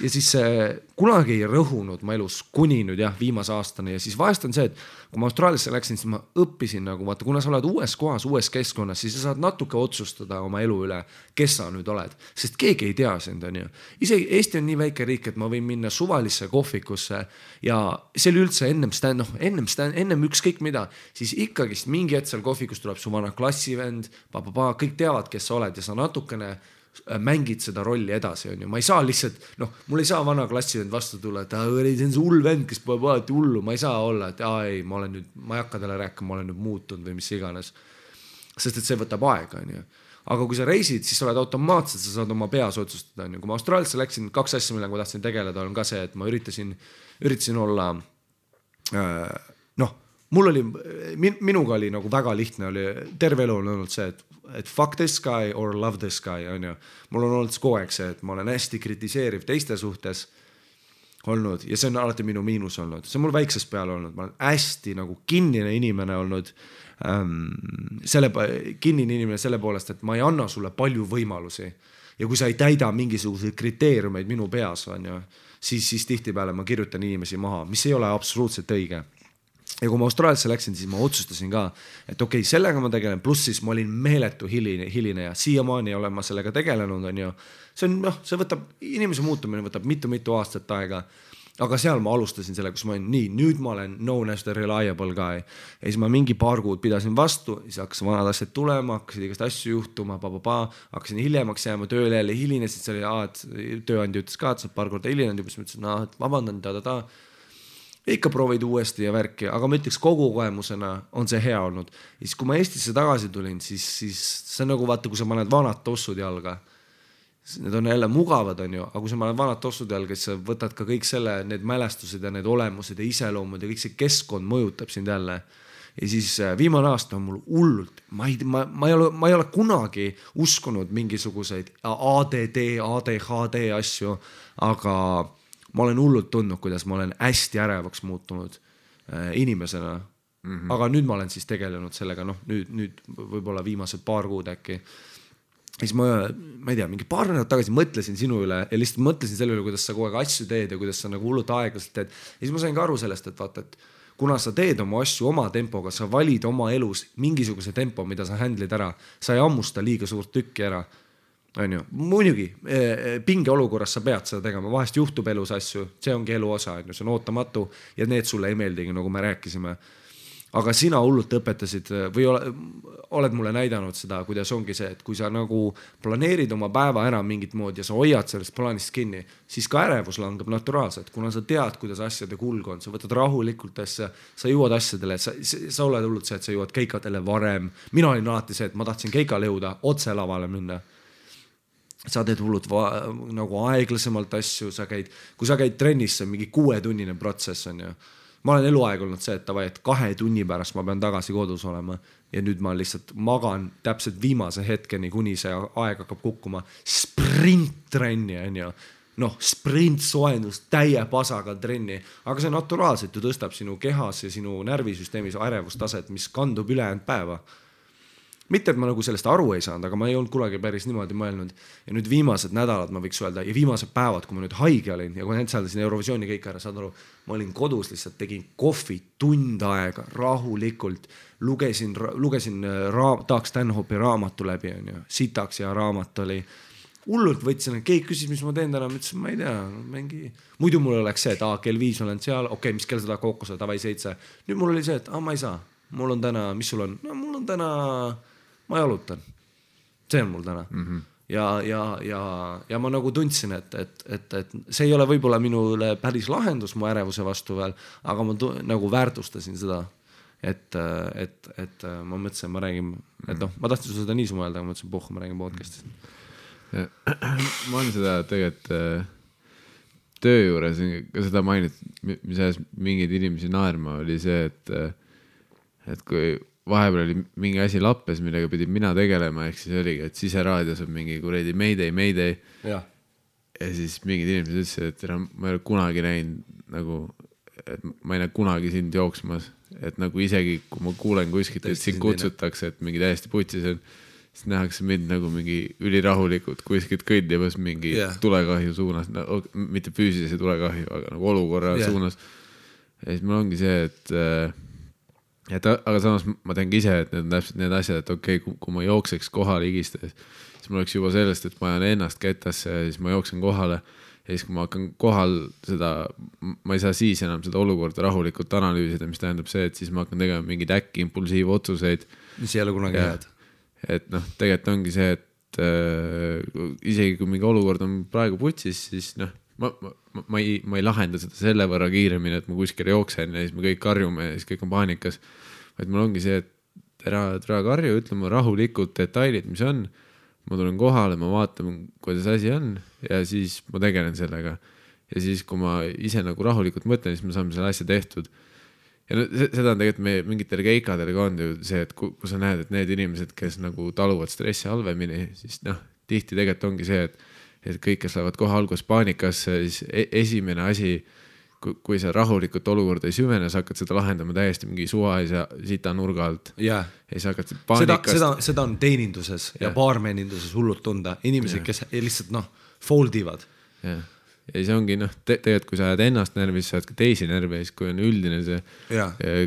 kunagi ei rõhunud ma elus kuni nüüd jah, viimase aastani ja siis vahest on see, et kui ma Austraaliasse läksin, siis ma õppisin nagu vaata, kuna sa oled uues kohas, uues keskkonnas, siis sa saad natuke otsustada oma elu üle, kes sa nüüd oled, sest keegi ei tea sind, on ju. Isegi Eesti on nii väike riik, et ma võin minna suvalisse kohvikusse ja see oli üldse ennem ükskõik mida, siis ikkagist mingi hetk seal kohvikus tuleb su vana klassivend, kõik teavad, kes sa oled ja sa natukene mängid seda rolli edasi, on ju. Ma ei saa lihtsalt, mul ei saa vana klassivend vastu tulla, et see on see hull vend, kes pole alati hullu, ma ei saa olla, et ei, ma ei hakka talle rääkima, ma olen nüüd muutunud või mis iganes. Sest et see võtab aega, on ju. Aga kui sa reisid, siis sa oled automaatselt, sa saad oma peas otsustada, on ju. Kui ma Austraaliasse läksin, 2 asja, millega ma tahtsin tegeleda, on ka see, et ma üritasin olla, minuga oli nagu väga lihtne, oli terve elu on olnud see, et fuck this guy or love this guy, on ju. Mul on olnud kogu aeg see, et ma olen hästi kritiseeriv teiste suhtes olnud ja see on alati minu miinus olnud. See on mul väiksest peale olnud. Ma olen hästi nagu kinnine inimene olnud, kinnine inimene selle poolest, et ma ei anna sulle palju võimalusi. Ja kui sa ei täida mingisuguseid kriteeriumeid minu peas, on ju, siis tihtipeale ma kirjutan inimesi maha, mis ei ole absoluutselt õige. Ja kui ma Austraaliasse läksin, siis ma otsustasin ka, et okei, sellega ma tegelen, pluss siis ma olin meeletu hiline ja siiamaani olen ma sellega tegelenud, on ju. See võtab, inimese muutumine võtab mitu aastat aega, aga seal ma alustasin selle, kus ma olin nii, nüüd ma olen known as the reliable guy. Ja siis ma mingi paar kuud pidasin vastu, siis hakkas vanad asjad tulema, hakkasid igast asju juhtuma, hakkasin hiljemaks jääma tööle jälle hilinesid, see oli, et tööandja ütles ka, et sa paar korda hilinenud juba, siis ma ütlesin, et vabandan, ikka proovid uuesti ja värki, aga ma ütleks kogu kogemusena on see hea olnud. Ja siis kui ma Eestisse tagasi tulin, siis see on nagu vaata, kui sa paned vanad tossud jalga. Need on jälle mugavad, on ju, aga kui sa paned vanad tossud jalga, siis sa võtad ka kõik need mälestused ja need olemused ja iseloomud ja kõik see keskkond mõjutab sind jälle. Ja siis viimane aasta on mul hullult, ma ei ole kunagi uskunud mingisuguseid ADHD asju, aga ma olen hullult tundnud, kuidas ma olen hästi ärevaks muutunud inimesena. Aga nüüd ma olen siis tegelenud sellega, nüüd võib-olla viimased paar kuud äkki. Siis ma ei tea, mingi paar nädalat tagasi mõtlesin sinu üle ja lihtsalt mõtlesin selle üle, kuidas sa kogu aeg asju teed ja kuidas sa nagu hullult aeglaselt teed. Ja siis ma sain ka aru sellest, et vaata, et kuna sa teed oma asju oma tempoga, sa valid oma elus mingisuguse tempo, mida sa handlid ära, sa ei ammusta liiga suurt tükki ära. On ju, muidugi, pinge olukorras sa pead seda tegema, vahest juhtub elus asju, see ongi elu osa, see on ootamatu ja need sulle ei meeldigi, nagu me rääkisime. Aga sina hullult õpetasid või oled mulle näidanud seda, kuidas ongi see, et kui sa nagu planeerid oma päeva ära mingit moodi ja sa hoiad sellest plaanist kinni, siis ka ärevus langeb naturaalselt, kuna sa tead, kuidas asjade kulg on, sa võtad rahulikult asja, sa jõuad asjadele, sa oled hullult see, et sa jõuad keikadele varem. Mina olin alati see, et ma tahtsin keikale jõuda, otse lavale minna. Sa teed hullud nagu aeglasemalt asju, kui sa käid trennis, see on mingi 6-tunnine protsess on ju. Ma olen eluaeg olnud see, et 2 tunni pärast ma pean tagasi kodus olema ja nüüd ma lihtsalt magan täpselt viimase hetkeni, kuni see aeg hakkab kukkuma. Sprint-trenni on ju, sprint-soendus, täie pasaga trenni, aga see naturaalselt ju tõstab sinu kehas ja sinu närvisüsteemis ärevustaset, mis kandub ülejäänud päeva. Mitte, et ma nagu sellest aru ei saanud, aga ma ei olnud kunagi päris niimoodi mõelnud. Ja nüüd viimased nädalad ma võiks öelda ja viimased päevad, kui ma nüüd haige olin ja kui händsaldasin Eurovisiooni kõik ära, saad aru, ma olin kodus lihtsalt, tegin kohvi tund aega rahulikult, lugesin Doug Stanhope'i raamatu läbi, on ju, sitaks ja raamat oli. Hullult võtsin, keegi küsis, mis ma teen täna, ma ütlesin, ma ei tea, muidu mul oleks see, et kell 5 olen seal, okei, mis kell seda kookose, tavai 7. Nüüd mul oli see, et ma ei saa, mul on täna, mis sul on? No mul on täna, ma jalutan. See on mul täna. Ja ma nagu tundsin, et see ei ole võib-olla minule päris lahendus mu ärevuse vastu veel, aga ma nagu väärtustasin seda, et ma mõtlesin, ma räägin, et ma tahtsin seda nii sumelda, aga ma mõtlesin, ma räägin podcastist. Ma olen seda tegelikult töö juures ka seda mainit, mis ajas mingid inimesi naerma, oli see, et kui vahepeal oli mingi asi lappes, millega pidin mina tegelema, ehk siis oligi, et siseraadios on mingi kuredi Mayday. Ja siis mingid inimesed ütlesid, et ma ei ole kunagi näinud nagu, et ma ei näe kunagi sind jooksmas, et nagu isegi kui ma kuulen kuskilt, et sind kutsutakse, et mingi täiesti putsis on, siis nähakse mind nagu mingi ülirahulikult kuskilt kõndimas mingi tulekahju suunas, mitte füüsilise tulekahju, aga nagu olukorra suunas. Ja siis mul ongi see, et aga samas ma teangi ise, et need on täpselt need asjad, et okei, kui ma jookseks kohale higistades, siis mul oleks juba sellest, et ma ajan ennast ketasse ja siis ma jooksen kohale ja siis kui ma hakkan kohal seda, ma ei saa siis enam seda olukorda rahulikult analüüsida, mis tähendab see, et siis ma hakkan tegema mingeid äkki impulsiivotsuseid. Mis ei ole kunagi head. Et noh, tegelikult ongi see, et isegi kui mingi olukord on praegu putsis, siis noh, ma ei lahenda seda selle võrra kiiremini, et ma kuskil jooksen ja siis me kõik karjume ja siis kõik on paanikas, vaid mul ongi see, et ära karju, ütleme rahulikult detailid, mis on, ma tulen kohale, ma vaatan, kuidas asi on ja siis ma tegelen sellega ja siis, kui ma ise nagu rahulikult mõtlen, siis me saame selle asja tehtud ja no, seda on tegelikult meie mingitel keikadel ka on ju see, et kui sa näed, et need inimesed, kes nagu taluvad stressi halvemini, siis noh, tihti tegelikult ongi see, et kõik, kes lähevad kohe alguses paanikasse, siis esimene asi, kui sa rahulikult olukorda ei süvene, sa hakkad seda lahendama täiesti mingi suva ja sita nurga alt. Ja sa hakkad paanikast... Seda on teeninduses ja baarmeninduses hullult tunda. Inimesed, kes lihtsalt foldivad. Ja see ongi, tegelikult kui sa ajad ennast närvis, sa ajad ka teisi närvis, kui on üldine see,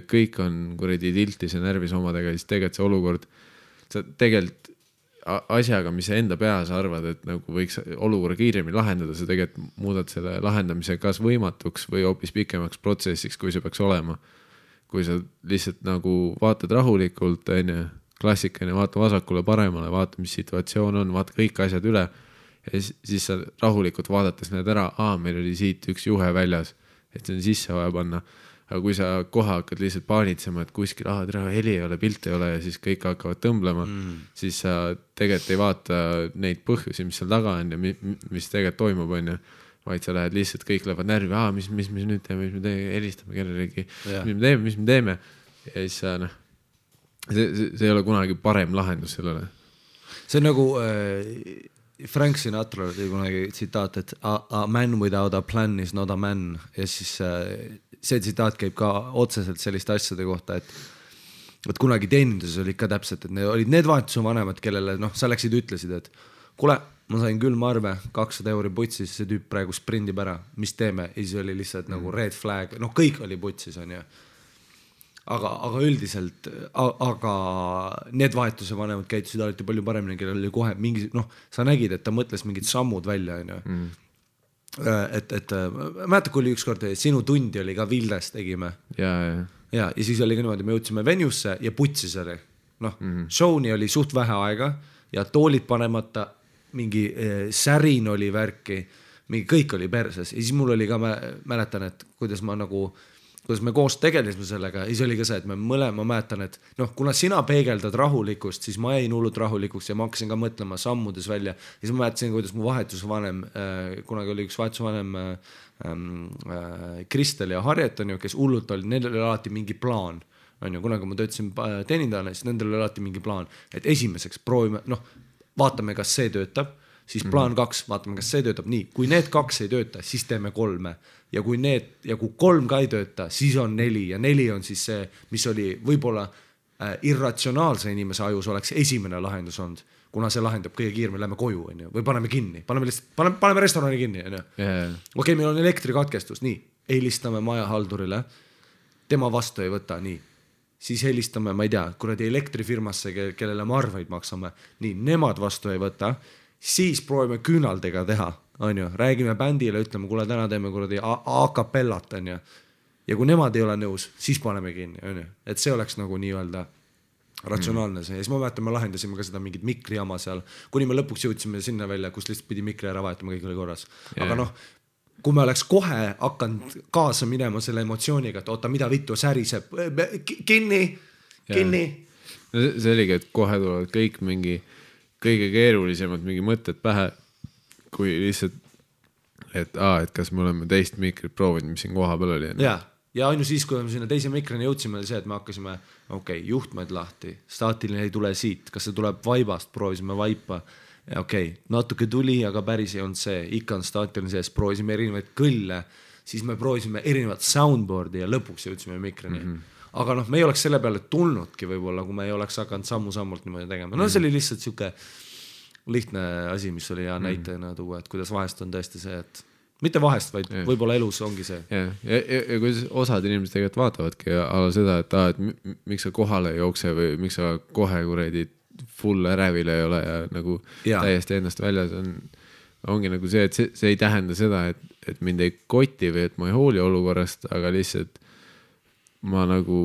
kõik on kuradi tiltis ja närvis omadega, siis tegelikult see olukord, sa tegelikult asjaga, mis sa enda peas arvad, et nagu võiks olukorra kiiremini lahendada, sa tegelikult muudad selle lahendamise kas võimatuks või hoopis pikemaks protsessiks, kui see peaks olema. Kui sa lihtsalt nagu vaatad rahulikult, klassikaline, vaata vasakule paremale, vaata, mis situatsioon on, vaata kõik asjad üle ja siis sa rahulikult vaadates näed ära, meil oli siit üks juhe väljas, et see on sisse vaja panna. Aga kui sa kohe hakkad lihtsalt paanitsema, et kuskil heli ei ole, pilt ei ole ja siis kõik hakkavad tõmblema, siis sa tegelikult ei vaata neid põhjusi, mis seal taga on ja mis tegelikult toimub, vaid sa lähed lihtsalt, kõik lähevad närvi, mis nüüd teeme, mis me helistame kellelegi, mis me teeme ja siis sa see ei ole kunagi parem lahendus sellele. See on nagu Frank Sinatra oli kunagi tsitaat, et a man without a plan is not a man ja siis see tsitaat käib ka otseselt selliste asjade kohta, et kunagi teeninduses oli ka täpselt, et need olid need vahetuse vanemad, kellele sa läksid ütlesid, et kuule, ma sain külmarve, 200 euri putsis, see tüüp praegu sprindib ära, mis teeme? Ja siis oli lihtsalt nagu red flag, kõik oli putsis, on ju. Aga üldiselt, aga need vahetuse vanemad käitusid alati palju paremini, kellel oli kohe mingi, sa nägid, et ta mõtles mingid sammud välja, on ju. Et mäeta, kui oli ükskord sinu tundi oli ka Vildes tegime ja siis oli ka niimoodi, me jõudsime venusse ja putsis oli showni oli suht vähe aega ja toolid panemata, mingi särin oli värki, mingi kõik oli perses ja siis mul oli ka, mäletan, et kuidas me koos tegelisime sellega ja siis oli ka see, et me mõlema mäletan, et kuna sina peegeldad rahulikust, siis ma jäin hullult rahulikuks ja ma hakkasin ka mõtlema sammudes välja ja siis ma mäetasin, kuidas mu vahetusvanem, kunagi oli üks vahetusvanem Kristel ja Harjet, on ju, kes hullult oli, neil oli alati mingi plaan, on ju, kunagi ma töötasin teenindajana, siis nendel oli alati mingi plaan, et esimeseks proovime, vaatame, kas see töötab, siis plaan 2, vaatame, kas see töötab nii, kui need 2 ei tööta, siis teeme 3 ja kui 3 ka ei tööta, siis on 4 ja 4 on siis see, mis oli võib-olla irratsionaalse inimese ajus oleks esimene lahendus olnud, kuna see lahendab kõige kiiremini, lähme koju, on ju, või paneme kinni, paneme restorani kinni, on ju. Okei, meil on elektrikatkestus, nii, helistame majahaldurile, tema vastu ei võta, nii. Siis helistame, ma ei tea, kuradi elektrifirmasse, kellele me arveid maksame, nii, nemad vastu ei võta, siis proovime küünaldega teha, on ju, räägime bändile, ütleme, kuule, täna teeme kuradi a-capellat, on ju, ja kui nemad ei ole nõus, siis paneme kinni, on ju, et see oleks nagu nii-öelda ratsionaalne see, ja siis ma mäletan, me lahendasime ka seda mingit mikrijama seal, kuni me lõpuks jõudsime sinna välja, kus lihtsalt pidi mikri ära vahetama, kõik oli korras, aga kui me oleks kohe hakanud kaasa minema selle emotsiooniga, et oota, mida vittu säriseb, kinni. See oligi, et kohe tulevad kõik mingi kõige keerulisemad mingi mõtted pähe, kui lihtsalt, et kas me oleme teist mikrit proovinud, mis siin koha peal oli. Ja ainu siis, kui me sinna teise mikroni jõudsime, oli see, et me hakkasime, juhtmed lahti, staatiline ei tule siit, kas see tuleb vaibast, proovisime vaipa. Natuke tuli, aga päris ei olnud see, ikka on staatiline sees, proovisime erinevaid kõlle, siis me proovisime erinevat soundboardi ja lõpuks jõudsime mikroni. aga noh, me ei oleks selle peale tulnudki võib-olla, kui me ei oleks hakanud sammu-sammult niimoodi tegema. No see oli lihtsalt siuke lihtne asi, mis oli hea näitena tuua, et kuidas vahest on tõesti see, et mitte vahest, vaid võib-olla elus ongi see. Ja kuidas osad inimesed tegelikult vaatavadki ala seda, et miks sa kohale ei jookse või miks sa kohe kuredi full ärevil ei ole ja nagu täiesti ennast väljas ongi nagu see, et see ei tähenda seda, et mind ei koti või et ma ei hooli olukorrast, aga lihtsalt ma nagu,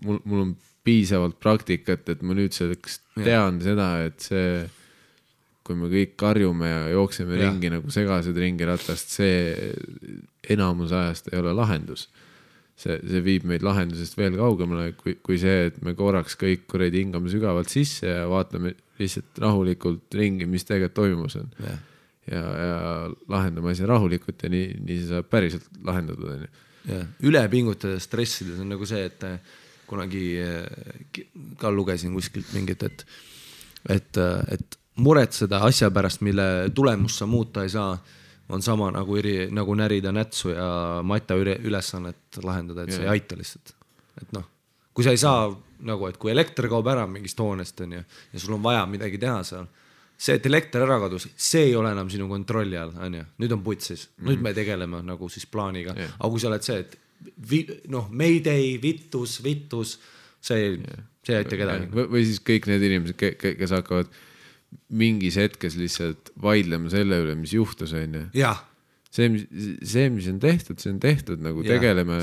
mul on piisavalt praktikat, et ma nüüd selleks tean seda, et see kui me kõik karjume ja jookseme ringi nagu segased ringi ratast, see enamus ajast ei ole lahendus. See viib meid lahendusest veel kaugemale, kui see, et me korraks kõik kuredi hingame sügavalt sisse ja vaatame lihtsalt rahulikult ringi, mis tegelikult toimus on. Ja lahendame asja rahulikult ja nii see saab päriselt lahendatud. Ülepingutada stressides on nagu see, et kunagi ka lugesin kuskilt mingit, et muretseda asja pärast, mille tulemust sa muuta ei saa, on sama nagu närida nätsu ja matta ülesannet lahendada, et see ei aita lihtsalt. Et noh, kui sa ei saa, nagu, et kui elekter kaob ära mingist hoonest on ja sul on vaja midagi teha seal, see, et elekter ära kadus, see ei ole enam sinu kontrolli all, on ju. Nüüd on putsis. Nüüd me tegeleme nagu siis plaaniga. Aga kui sa oled see, et Mayday, vittus, see ei aita kedagi. Või siis kõik need inimesed, kes hakkavad mingis hetkes lihtsalt vaidlema selle üle, mis juhtus, on ju. Jah. See, mis on tehtud, nagu tegeleme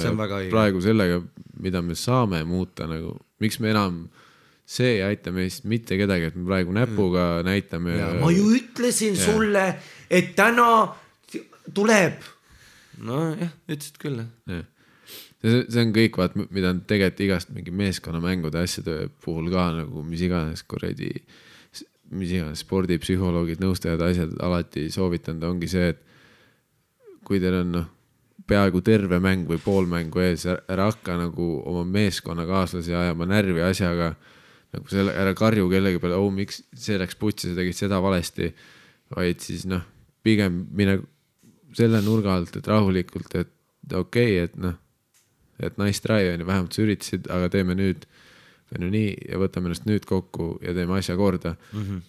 praegu sellega, mida me saame muuta, nagu miks me enam see ei aita meist mitte kedagi, et me praegu näpuga näitame. Ma ju ütlesin sulle, et täna tuleb. No jah, ütlesid küll. See on kõik, mida on tegelikult igast mingi meeskonnamängude asjade puhul ka, nagu mis iganes spordipsühholoogid, nõustajad, asjad alati soovitanud, ongi see, et kui teil on peaaegu terve mäng või pool mängu ees, ära hakka nagu oma meeskonnakaaslasi ajama närvi asjaga, nagu selle, ära karju kellegi peale, miks see läks putsi, sa tegid seda valesti, vaid siis pigem mine selle nurga alt, et rahulikult, et okei, et nice try, vähemalt sa üritasid, aga teeme nüüd nii ja võtame ennast nüüd kokku ja teeme asja korda,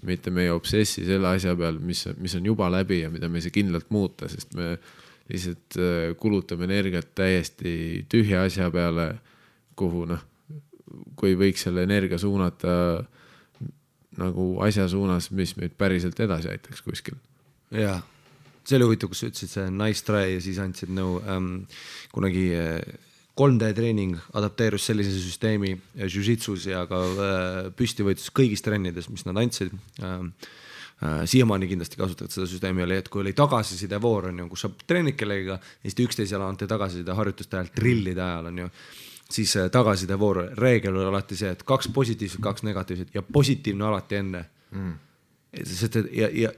mitte meie obsessi selle asja peal, mis on juba läbi ja mida me ei saa kindlalt muuta, sest me lihtsalt kulutame energiat täiesti tühja asja peale, kuhu kui võiks selle energia suunata nagu asja suunas, mis meid päriselt edasi aitaks kuskil. Jaa, see oli huvitav, kus sa ütlesid see nice try ja siis andsid kunagi 3D treening adapteerus sellise süsteemi jiu-jitsus ja ka püstivõitlus kõigis trennides, mis nad andsid. Siiamaani kindlasti kasutavad seda süsteemi oli, et kui oli tagasiside voor, kus sa treenid kellegiga, Eesti 11 jala ante tagasiside harjutuste ajal, trillide ajal on ju, siis tagasiside voor reegel oli alati see, et 2 positiivset, 2 negatiivset ja positiivne alati enne.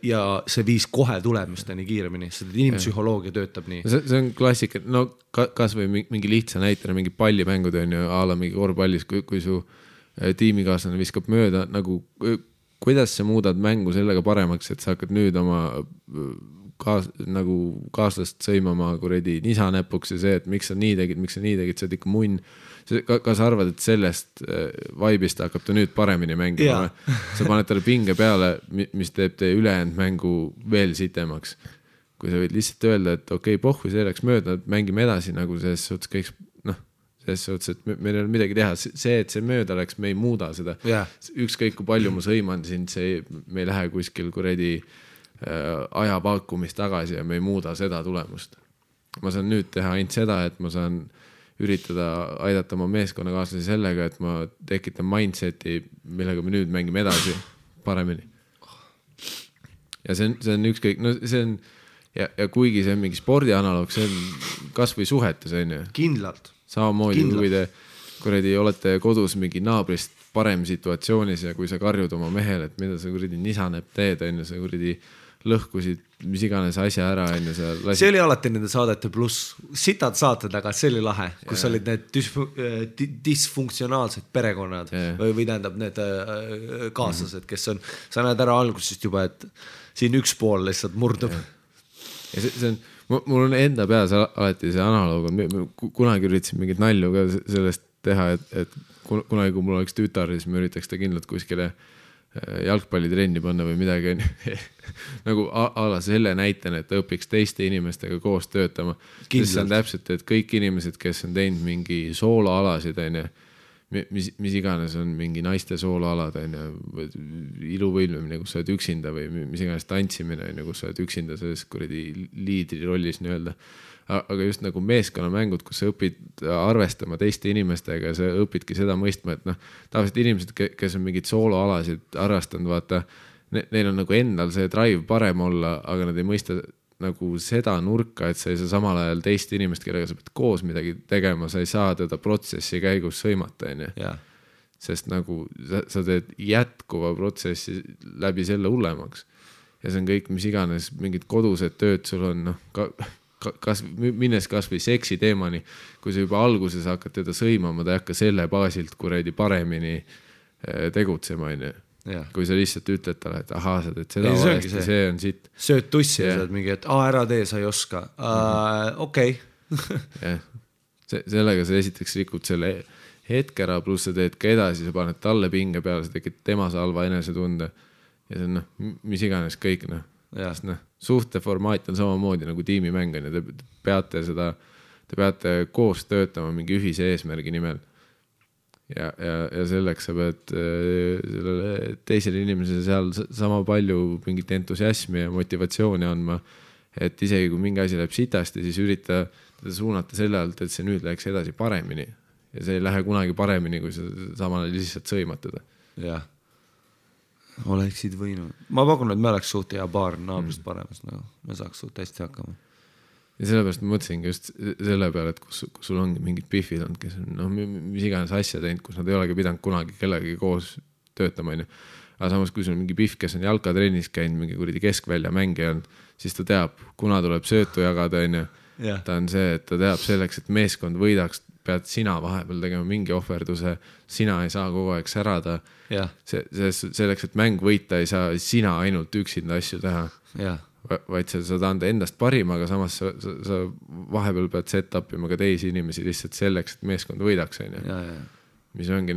Ja see viis kohe tulemusteni kiiremini, sest inimpsühholoogia töötab nii. See on klassika, kas või mingi lihtsa näitena, mingi pallimängud on ju ala mingi korvpallis, kui su tiimikaaslane viskab mööda, nagu kuidas sa muudad mängu sellega paremaks, et sa hakkad nüüd oma kaaslast sõimama kuredi nisanäpuks ja see, et miks sa nii tegid, sa oled ikka munn. Kas arvad, et sellest vaibist hakkab ta nüüd paremini mängima? Sa paned talle pinge peale, mis teeb teie ülejäänud mängu veel sitemaks. Kui sa võid lihtsalt öelda, et okei, pohhu, see läks mööda, mängime edasi nagu selles suhtes kõik, selles suhtes, et meil ei ole midagi teha. See, et see mööda läks, me ei muuda seda. Ükskõik kui palju ma sõiman sind, me ei lähe kuskil kuredi aja pakkumist tagasi ja me ei muuda seda tulemust. Ma saan nüüd teha ainult seda, et ma saan üritada aidata oma meeskonnakaaslasi sellega, et ma tekitan mindseti, millega me nüüd mängime edasi paremini. Ja see on ükskõik, see on, ja kuigi see on mingi spordi analoog, see on kas või suhetes, on ju. Kindlalt. Samamoodi, kui te kuredi olete kodus mingi naabrist parem situatsioonis ja kui sa karjud oma mehele, et mida sa kuredi nisaneb teed, on ju, sa kuredi lõhkusid mis iganes asja ära enne sa lasid. See oli alati nende saadete pluss. Sitad saated, aga see oli lahe, kus olid need disfunktsionaalsed perekonnad või tähendab need kaaslased, kes on, sa näed ära algusest juba, et siin üks pool lihtsalt murdub. Ja see on, mul on enda peas alati see analoog, kunagi üritasin mingit nalju ka sellest teha, et kunagi, kui mul oleks tütar, siis ma üritaks ta kindlalt kuskile jalgpallitrenni panna või midagi nagu ala selle näitena, et ta õpiks teiste inimestega koos töötama. Sest see on täpselt, et kõik inimesed, kes on teinud mingi sooloalasid, mis iganes on mingi naiste sooloalad, iluvõilmimine, kus sa oled üksinda või mis iganes tantsimine, kus sa oled üksinda selles kuradi liidri rollis nii-öelda. Aga just nagu meeskonnamängud, kus sa õpid arvestama teiste inimestega ja sa õpidki seda mõistma, et tavaliselt inimesed, kes on mingid sooloalasid harrastanud, vaata, neil on nagu endal see drive parem olla, aga nad ei mõista nagu seda nurka, et sa ei saa samal ajal teist inimest, kellega sa pead koos midagi tegema, sa ei saa teda protsessi käigus sõimata, sest nagu sa teed jätkuva protsessi läbi selle hullemaks ja see on kõik, mis iganes mingid kodused tööd sul on, minnes kas või seksi teemani, kui sa juba alguses hakkad teda sõimama, ta ei hakka selle baasilt kuradi paremini tegutsema, kui sa lihtsalt ütled talle, et ahaa, sa teed seda valesti, see on siit. Sööd tussi ja saad mingi, et ära tee, sa ei oska. Okei. Sellega sa esiteks rikud selle hetke ära, pluss sa teed ka edasi, sa paned talle pinge peale, sa tekid tema salva enesetunde ja see on mis iganes kõik, suhte formaat on samamoodi nagu tiimimäng ja te peate koos töötama mingi ühise eesmärgi nimel ja selleks sa pead sellele teisele inimesele seal sama palju mingit entusiasmi ja motivatsiooni andma, et isegi kui mingi asi läheb sitasti, siis ürita teda suunata selle alt, et see nüüd läheks edasi paremini ja see ei lähe kunagi paremini, kui sa samal lihtsalt sõimad teda. Jah. Oleksid võinud. Ma pakun, et me oleks suht hea paar naabrist paremas, me saaks suht hästi hakkama. Ja sellepärast ma mõtlesingi just selle peale, et kus sul ongi mingid pihvid olnud, kes on mis iganes asja teinud, kus nad ei olegi pidanud kunagi kellegagi koos töötama. Aga samas, kui sul on mingi pihv, kes on jalkatrennis käinud, mingi kuradi keskvälja mängija on, siis ta teab, kuna tuleb söötu jagada, ta on see, et ta teab selleks, et meeskond võidaks, pead sina vahepeal tegema mingi ohverduse, sina ei saa kogu aeg särada. Selleks, et mäng võita, ei saa sina ainult üksinda asju teha, vaid sa saad anda endast parima, aga samas sa vahepeal pead set upima ka teisi inimesi lihtsalt selleks, et meeskond võidaks. Mis ongi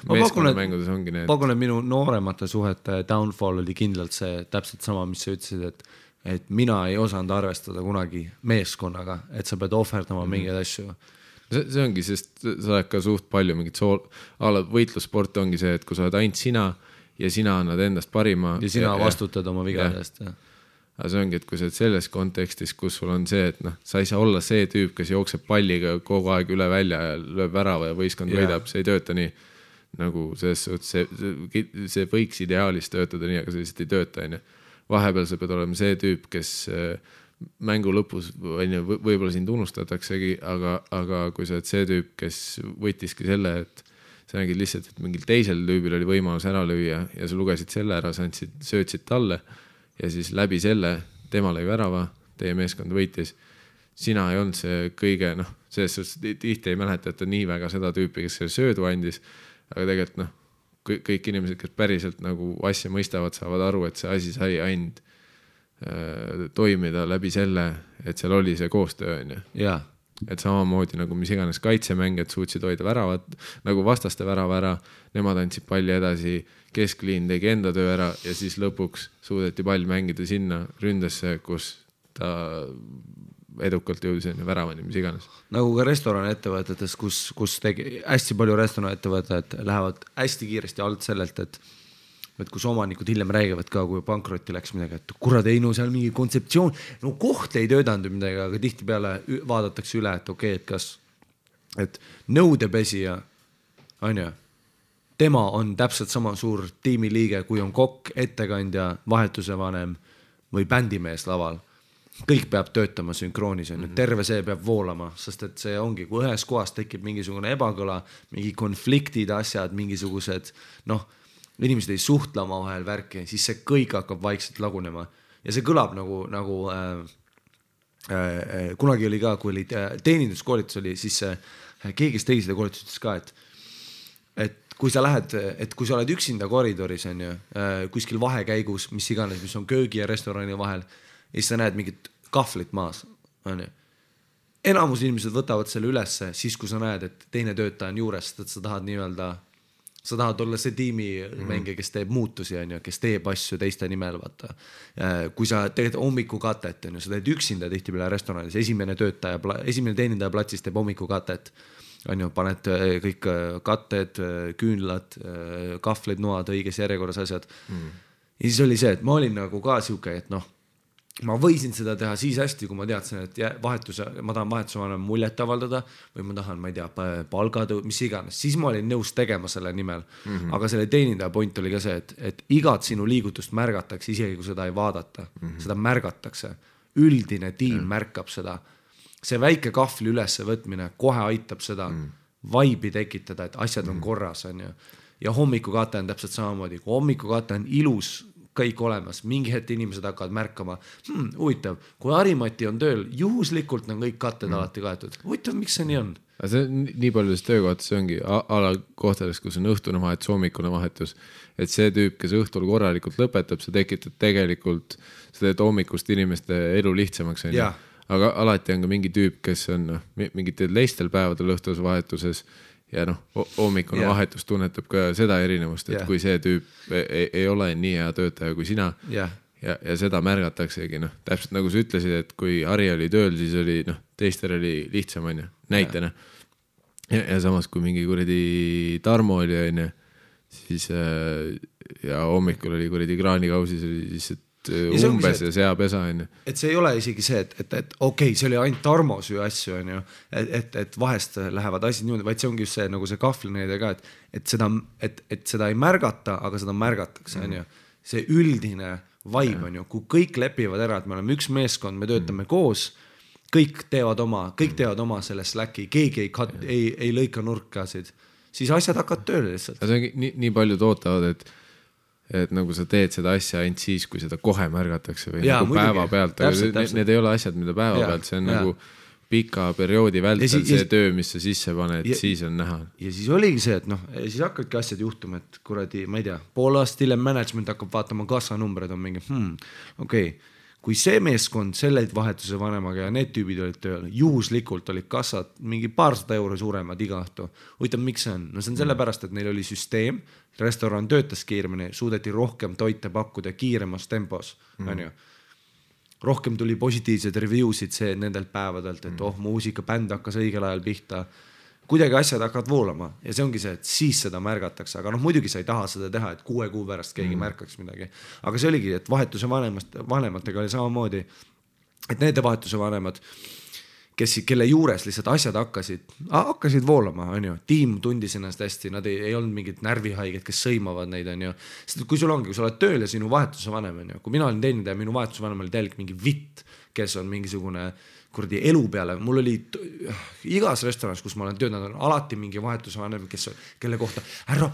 meeskonnamängudes ongi need. Pakun, et minu nooremate suhete downfall oli kindlalt see täpselt sama, mis sa ütlesid, et mina ei osanud arvestada kunagi meeskonnaga, et sa pead ohverdama mingeid asju. See ongi, sest sa oled ka suht palju mingit võitlussport ongi see, et kui sa oled ainult sina ja sina annad endast parima. Ja sina vastutad oma vigadest. Aga see ongi, et kui sa oled selles kontekstis, kus sul on see, et sa ei saa olla see tüüp, kes jookseb palliga kogu aeg üle välja ja lööb värava ja võistkond võidab, see ei tööta nii. Nagu see võiks ideaalis töötada nii, aga see lihtsalt ei tööta. Vahepeal sa pead olema see tüüp, kes mängu lõpus võib-olla sind unustataksegi, aga kui sa oled see tüüp, kes võttiski selle, et sa nägid lihtsalt, et mingil teisel tüübil oli võimalus ära lüüa ja sa lugesid selle ära, sa söötsid talle ja siis läbi selle tema lõi värava, teie meeskond võitis. Sina ei olnud see kõige, selles suhtes tihti ei mäleta, et ta nii väga seda tüüpi, kes selle söödu andis, aga tegelikult kõik inimesed, kes päriselt nagu asja mõistavad, saavad aru, et see asi sai ainult toimida läbi selle, et seal oli see koostöö. Et samamoodi nagu mis iganes kaitsemängijad suutsid hoida väravat, nagu vastaste värava ära, nemad andsid palli edasi, keskliin tegi enda töö ära ja siis lõpuks suudeti pall mängida sinna ründesse, kus ta edukalt jõudis väravani, mis iganes. Nagu ka restorani-ettevõtetes, kus hästi palju restorani-ettevõtted lähevad hästi kiiresti alt sellelt, et kus omanikud hiljem räägivad ka, kui pankrotti läks midagi, et kurad ei, seal mingi kontseptsioon, koht ei töötanud midagi, aga tihti peale vaadatakse üle, et okei, et kas, et nõudepesija, tema on täpselt sama suur tiimiliige, kui on kokk, ettekandja, vahetuse vanem või bändimees laval. Kõik peab töötama sünkroonis, terve see peab voolama, sest et see ongi, kui ühes kohas tekib mingisugune ebakõla, mingi konfliktid, asjad, mingisugused, inimesed ei suhtla oma vahel värki, siis see kõik hakkab vaikselt lagunema. Ja see kõlab nagu kunagi oli ka, kui oli teeninduskoolitus oli, siis keegi, kes tegi seda koolitustes ka, et kui sa lähed, et kui sa oled üksinda koridoris, kuskil vahekäigus, mis iganes, mis on köögi ja restorani vahel, ja siis sa näed mingit kahvlit maas. enamus inimesed võtavad selle ülesse siis, kui sa näed, et teine töötaja on juures, et sa tahad nii-öelda, sa tahad olla see tiimi mängija, kes teeb muutusi, on ju, kes teeb asju teiste nimel, vaata. Kui sa teed hommikukatet, on ju, sa teed üksinda tihtipeale restoranis, esimene teenindaja platsis teeb hommikukatet, on ju, paned kõik katted, küünlad, kahvlid, noad, õiges järjekorras asjad. Ja siis oli see, et ma olin nagu ka siuke, et noh, ma võisin seda teha siis hästi, kui ma teadsin, et ma tahan vahetuse vanem muljet avaldada või ma tahan, ma ei tea, palgatõu, mis iganes. Siis ma olin nõus tegema selle nimel. Aga selle teenindaja point oli ka see, et igat sinu liigutust märgatakse, isegi kui seda ei vaadata. Seda märgatakse. Üldine tiim märkab seda. See väike kahvli ülesse võtmine kohe aitab seda vaibi tekitada, et asjad on korras. On ju. Ja hommikukate on täpselt samamoodi. Kui hommikukate on ilus kõik olemas, mingi hetk inimesed hakkavad märkama, huvitav, kui Harimati on tööl, juhuslikult on kõik katted alati kaetud. Huvitav, miks see nii on? See nii paljudes töökohtas ongi ala kohtades, kus on õhtune vahetus, hommikune vahetus, et see tüüp, kes õhtul korralikult lõpetab, see tekitab tegelikult, see teeb hommikust inimeste elu lihtsamaks. Aga alati on ka mingi tüüp, kes on mingitel teistel päevadel õhtus vahetuses ja hommikune vahetus tunnetab ka seda erinevust, et kui see tüüp ei ole nii hea töötaja kui sina ja seda märgataksegi, täpselt nagu sa ütlesid, et kui Harri oli tööl, siis oli teistel oli lihtsam, on ju, näitena. Ja samas, kui mingi kuradi Tarmo oli, on ju, siis ja hommikul oli kuradi kraanikausis, oli siis umbes ja seapesa, on ju. Et see ei ole isegi see, et okei, see oli ainult Tarmo süü asju, on ju, et vahest lähevad asjad niimoodi, vaid see ongi just see, nagu see kahvlineide ka, et seda ei märgata, aga seda märgatakse, on ju. See üldine vaib, on ju, kui kõik lepivad ära, et me oleme üks meeskond, me töötame koos, kõik teevad oma selle Slacki, keegi ei lõika nurkasid, siis asjad hakkavad tööle lihtsalt. See ongi nii palju tootavad, et nagu sa teed seda asja ainult siis, kui seda kohe märgatakse või nagu päeva pealt, aga need ei ole asjad, mida päeva pealt, see on nagu pika perioodi vältel see töö, mis sa sisse paned, siis on näha. Ja siis oligi see, et siis hakkadki asjad juhtuma, et kuradi, ma ei tea, pool aastat hiljem management hakkab vaatama kassanumbreid, on mingi, okei, kui see meeskond selle vahetuse vanemaga ja need tüübid olid tööl, juhuslikult olid kassad mingi paarsada euro suuremad iga õhtu. Huvitav, miks see on? See on sellepärast, et neil oli süsteem, restoran töötas kiiremini, suudeti rohkem toite pakkuda kiiremas tempos, on ju. Rohkem tuli positiivsed reviewsid nendelt päevadelt, et muusika, bänd hakkas õigel ajal pihta. Kuidagi asjad hakkavad voolama ja see ongi see, et siis seda märgatakse, aga muidugi sa ei taha seda teha, et 6 kuu pärast keegi märkaks midagi. Aga see oligi, et vahetuse vanematega oli samamoodi, et need vahetuse vanemad, kelle juures lihtsalt asjad hakkasid voolama, on ju. Tiim tundis ennast hästi, nad ei olnud mingid närvihaiged, kes sõimavad neid, on ju. Sest kui sul ongi, kui sa oled tööl ja sinu vahetuse vanem, on ju. Kui mina olin teenindaja, minu vahetuse vanem oli täielik mingi vitt, kes on mingisugune kuradi elu peale. Mul oli igas restoranis, kus ma olen töötanud, on alati mingi vahetuse vanem, kelle kohta ära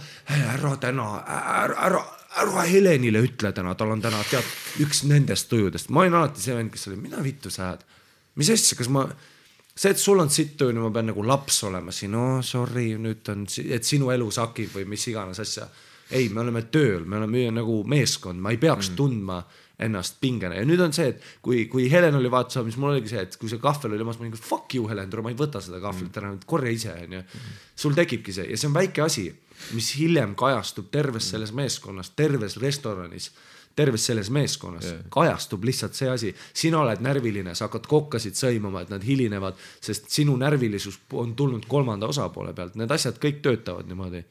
Helenile ütle täna, tal on täna üks nendest tujudest. Ma olin alati see vend, kes oli, mida vittu sa ajad? Mis asja, kas see, et sul on sitt tuju, ma pean nagu laps olema siin, sorry, nüüd on, et sinu elu sakib või mis iganes asja. Ei, me oleme tööl, me oleme nagu meeskond, ma ei peaks tundma ennast pingena. Ja nüüd on see, et kui Helen oli vaatuse, mis mul oligi see, et kui see kahvel oli, ma olin, fuck you Helen, ma ei võta seda kahvelit ära, korja ise. Sul tekibki see ja see on väike asi, mis hiljem kajastub terves selles meeskonnas, terves restoranis, terves selles meeskonnas, kajastub lihtsalt see asi. Sina oled närviline, sa hakkad kokkasid sõimama, et nad hilinevad, sest sinu närvilisus on tulnud kolmanda osapoole pealt. Need asjad kõik töötavad niimoodi.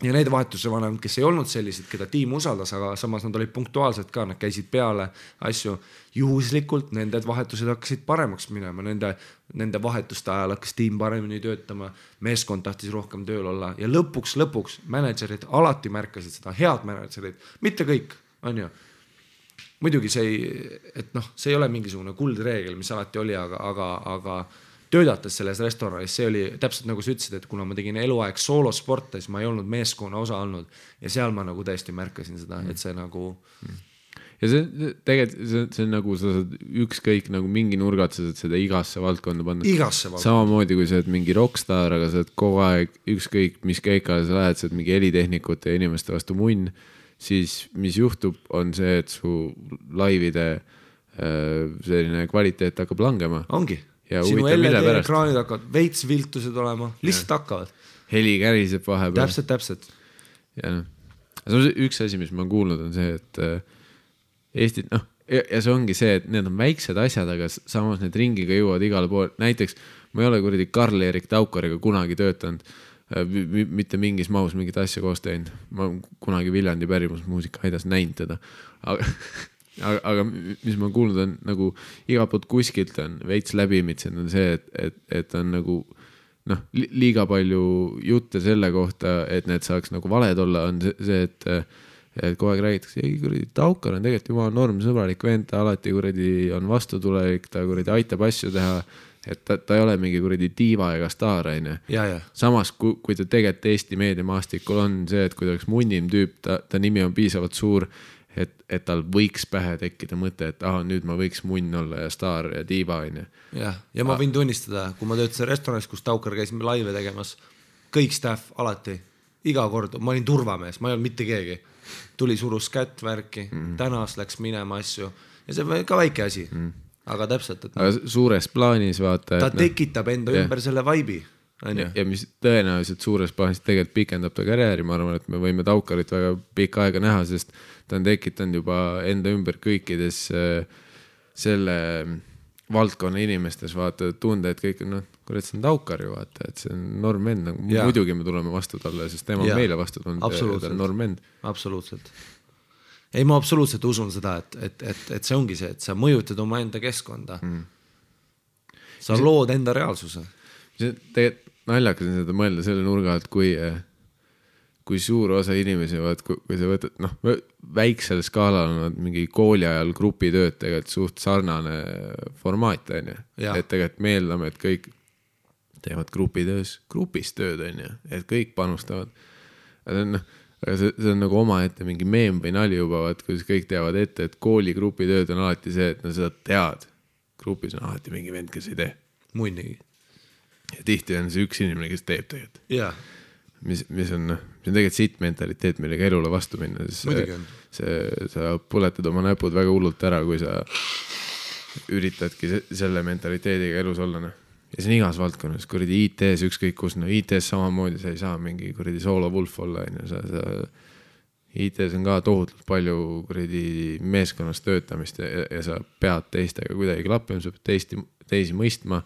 Ja need vahetuse vanemad, kes ei olnud sellised, keda tiim usaldas, aga samas nad olid punktuaalsed ka, nad käisid peale asju. Juhuslikult nende vahetused hakkasid paremaks minema, nende vahetuste ajal hakkas tiim paremini töötama, meeskond tahtis rohkem tööl olla ja lõpuks managerid alati märkasid seda, head managerid, mitte kõik, on ju. Muidugi see ei ole mingisugune kuldreegel, mis alati oli, aga töödates selles restoranis, see oli täpselt nagu sa ütlesid, et kuna ma tegin eluaeg soolosporte, siis ma ei olnud meeskonna osa olnud ja seal ma nagu tõesti märkasin seda, et see nagu... Ja see tegelikult, see on nagu sa saad ükskõik nagu mingi nurgat, sa saad seda igasse valdkonda panna. Samamoodi kui sa oled mingi rockstar, aga sa oled kogu aeg ükskõik, mis keikale sa lähed, sa oled mingi helitehnikute ja inimeste vastu munn, siis mis juhtub, on see, et su laivide selline kvaliteet hakkab langema. Ongi. ja sinu huvitav, mille pärast. LED-ekraanid hakkavad veits viltused olema, lihtsalt hakkavad. Heli käriseb vahepeal. Täpselt. Ja üks asi, mis ma olen kuulnud, on see, et Eestit, ja see ongi see, et need on väiksed asjad, aga samas need ringiga jõuavad igale pool. Näiteks ma ei ole kuradi Karl-Erik Taukariga kunagi töötanud, mitte mingis mahus mingit asja koos teinud. Ma kunagi Viljandi pärimusmuusika aidas näinud teda. Aga mis ma kuulnud on, nagu iga poolt kuskilt on veits läbimitsen, on see, et on nagu liiga palju jutte selle kohta, et need saaks nagu valed olla, on see, et kogu aeg räägitakse, ei kuradi Taukar on tegelikult juba normsõbralik vend, ta alati kuradi on vastutulelik, ta kuradi aitab asju teha, et ta ei ole mingi kuradi diiva ega staar, aine. Samas, kui ta tegelikult Eesti meediamaastikul on see, et kui ta oleks munnim tüüp, ta nimi on piisavalt suur, et tal võiks pähe tekkida mõte, et nüüd ma võiks munn olla ja staar ja diiva, aine. Ja ma võin tunnistada, kui ma töötasin restoranis, kus Taukar käis laive tegemas, kõik staff alati, iga kord, ma olin turvamees, ma ei olnud mitte keegi. Tuli surus kätt värki, tänas läks minema asju ja see on ka väike asi, aga täpselt. Aga suures plaanis vaata. Ta tekitab enda ümber selle vaibi. Ja mis tõenäoliselt suures plaanis tegelikult pikendab ta karjääri, ma arvan, et me võime Taukarit väga pikka aega näha, sest ta on tekitanud juba enda ümber kõikides selle valdkonna inimestes vaata tunde, et kõik on, kurat, see on Taukar ju vaata, et see on normend, muidugi me tuleme vastu talle, sest tema on meile vastu tulnud, ta on normend. Absoluutselt. Ei, ma absoluutselt usun seda, et see ongi see, et sa mõjutad oma enda keskkonda. Sa lood enda reaalsuse. See tegelikult naljakas on seda mõelda selle nurga, et kui suur osa inimesi, kui sa võtad, väiksel skaalal on mingi kooli ajal grupitööd tegelikult suht sarnane formaat, on ju. Et tegelikult me eeldame, et kõik teevad grupis tööd, on ju, et kõik panustavad. Aga see on nagu oma ette mingi meem või nali juba, kuidas kõik teavad ette, et kooli grupitööd on alati see, et seda tead. Grupis on alati mingi vend, kes ei tee. Muidugi. Ja tihti on see üks inimene, kes teeb tegelikult. Jaa. Mis on tegelikult siit mentaliteet, millega elule vastu minna. Sa põletad oma näpud väga hullult ära, kui sa üritadki selle mentaliteediga elus olla. Ja see on igas valdkonnas, kuradi IT-s ükskõik kus, IT-s samamoodi sa ei saa mingi kuradi solo wolf olla. IT-s on ka tohutult palju kuradi meeskonnas töötamist ja sa pead teistega kuidagi klappima, sa pead teisi mõistma.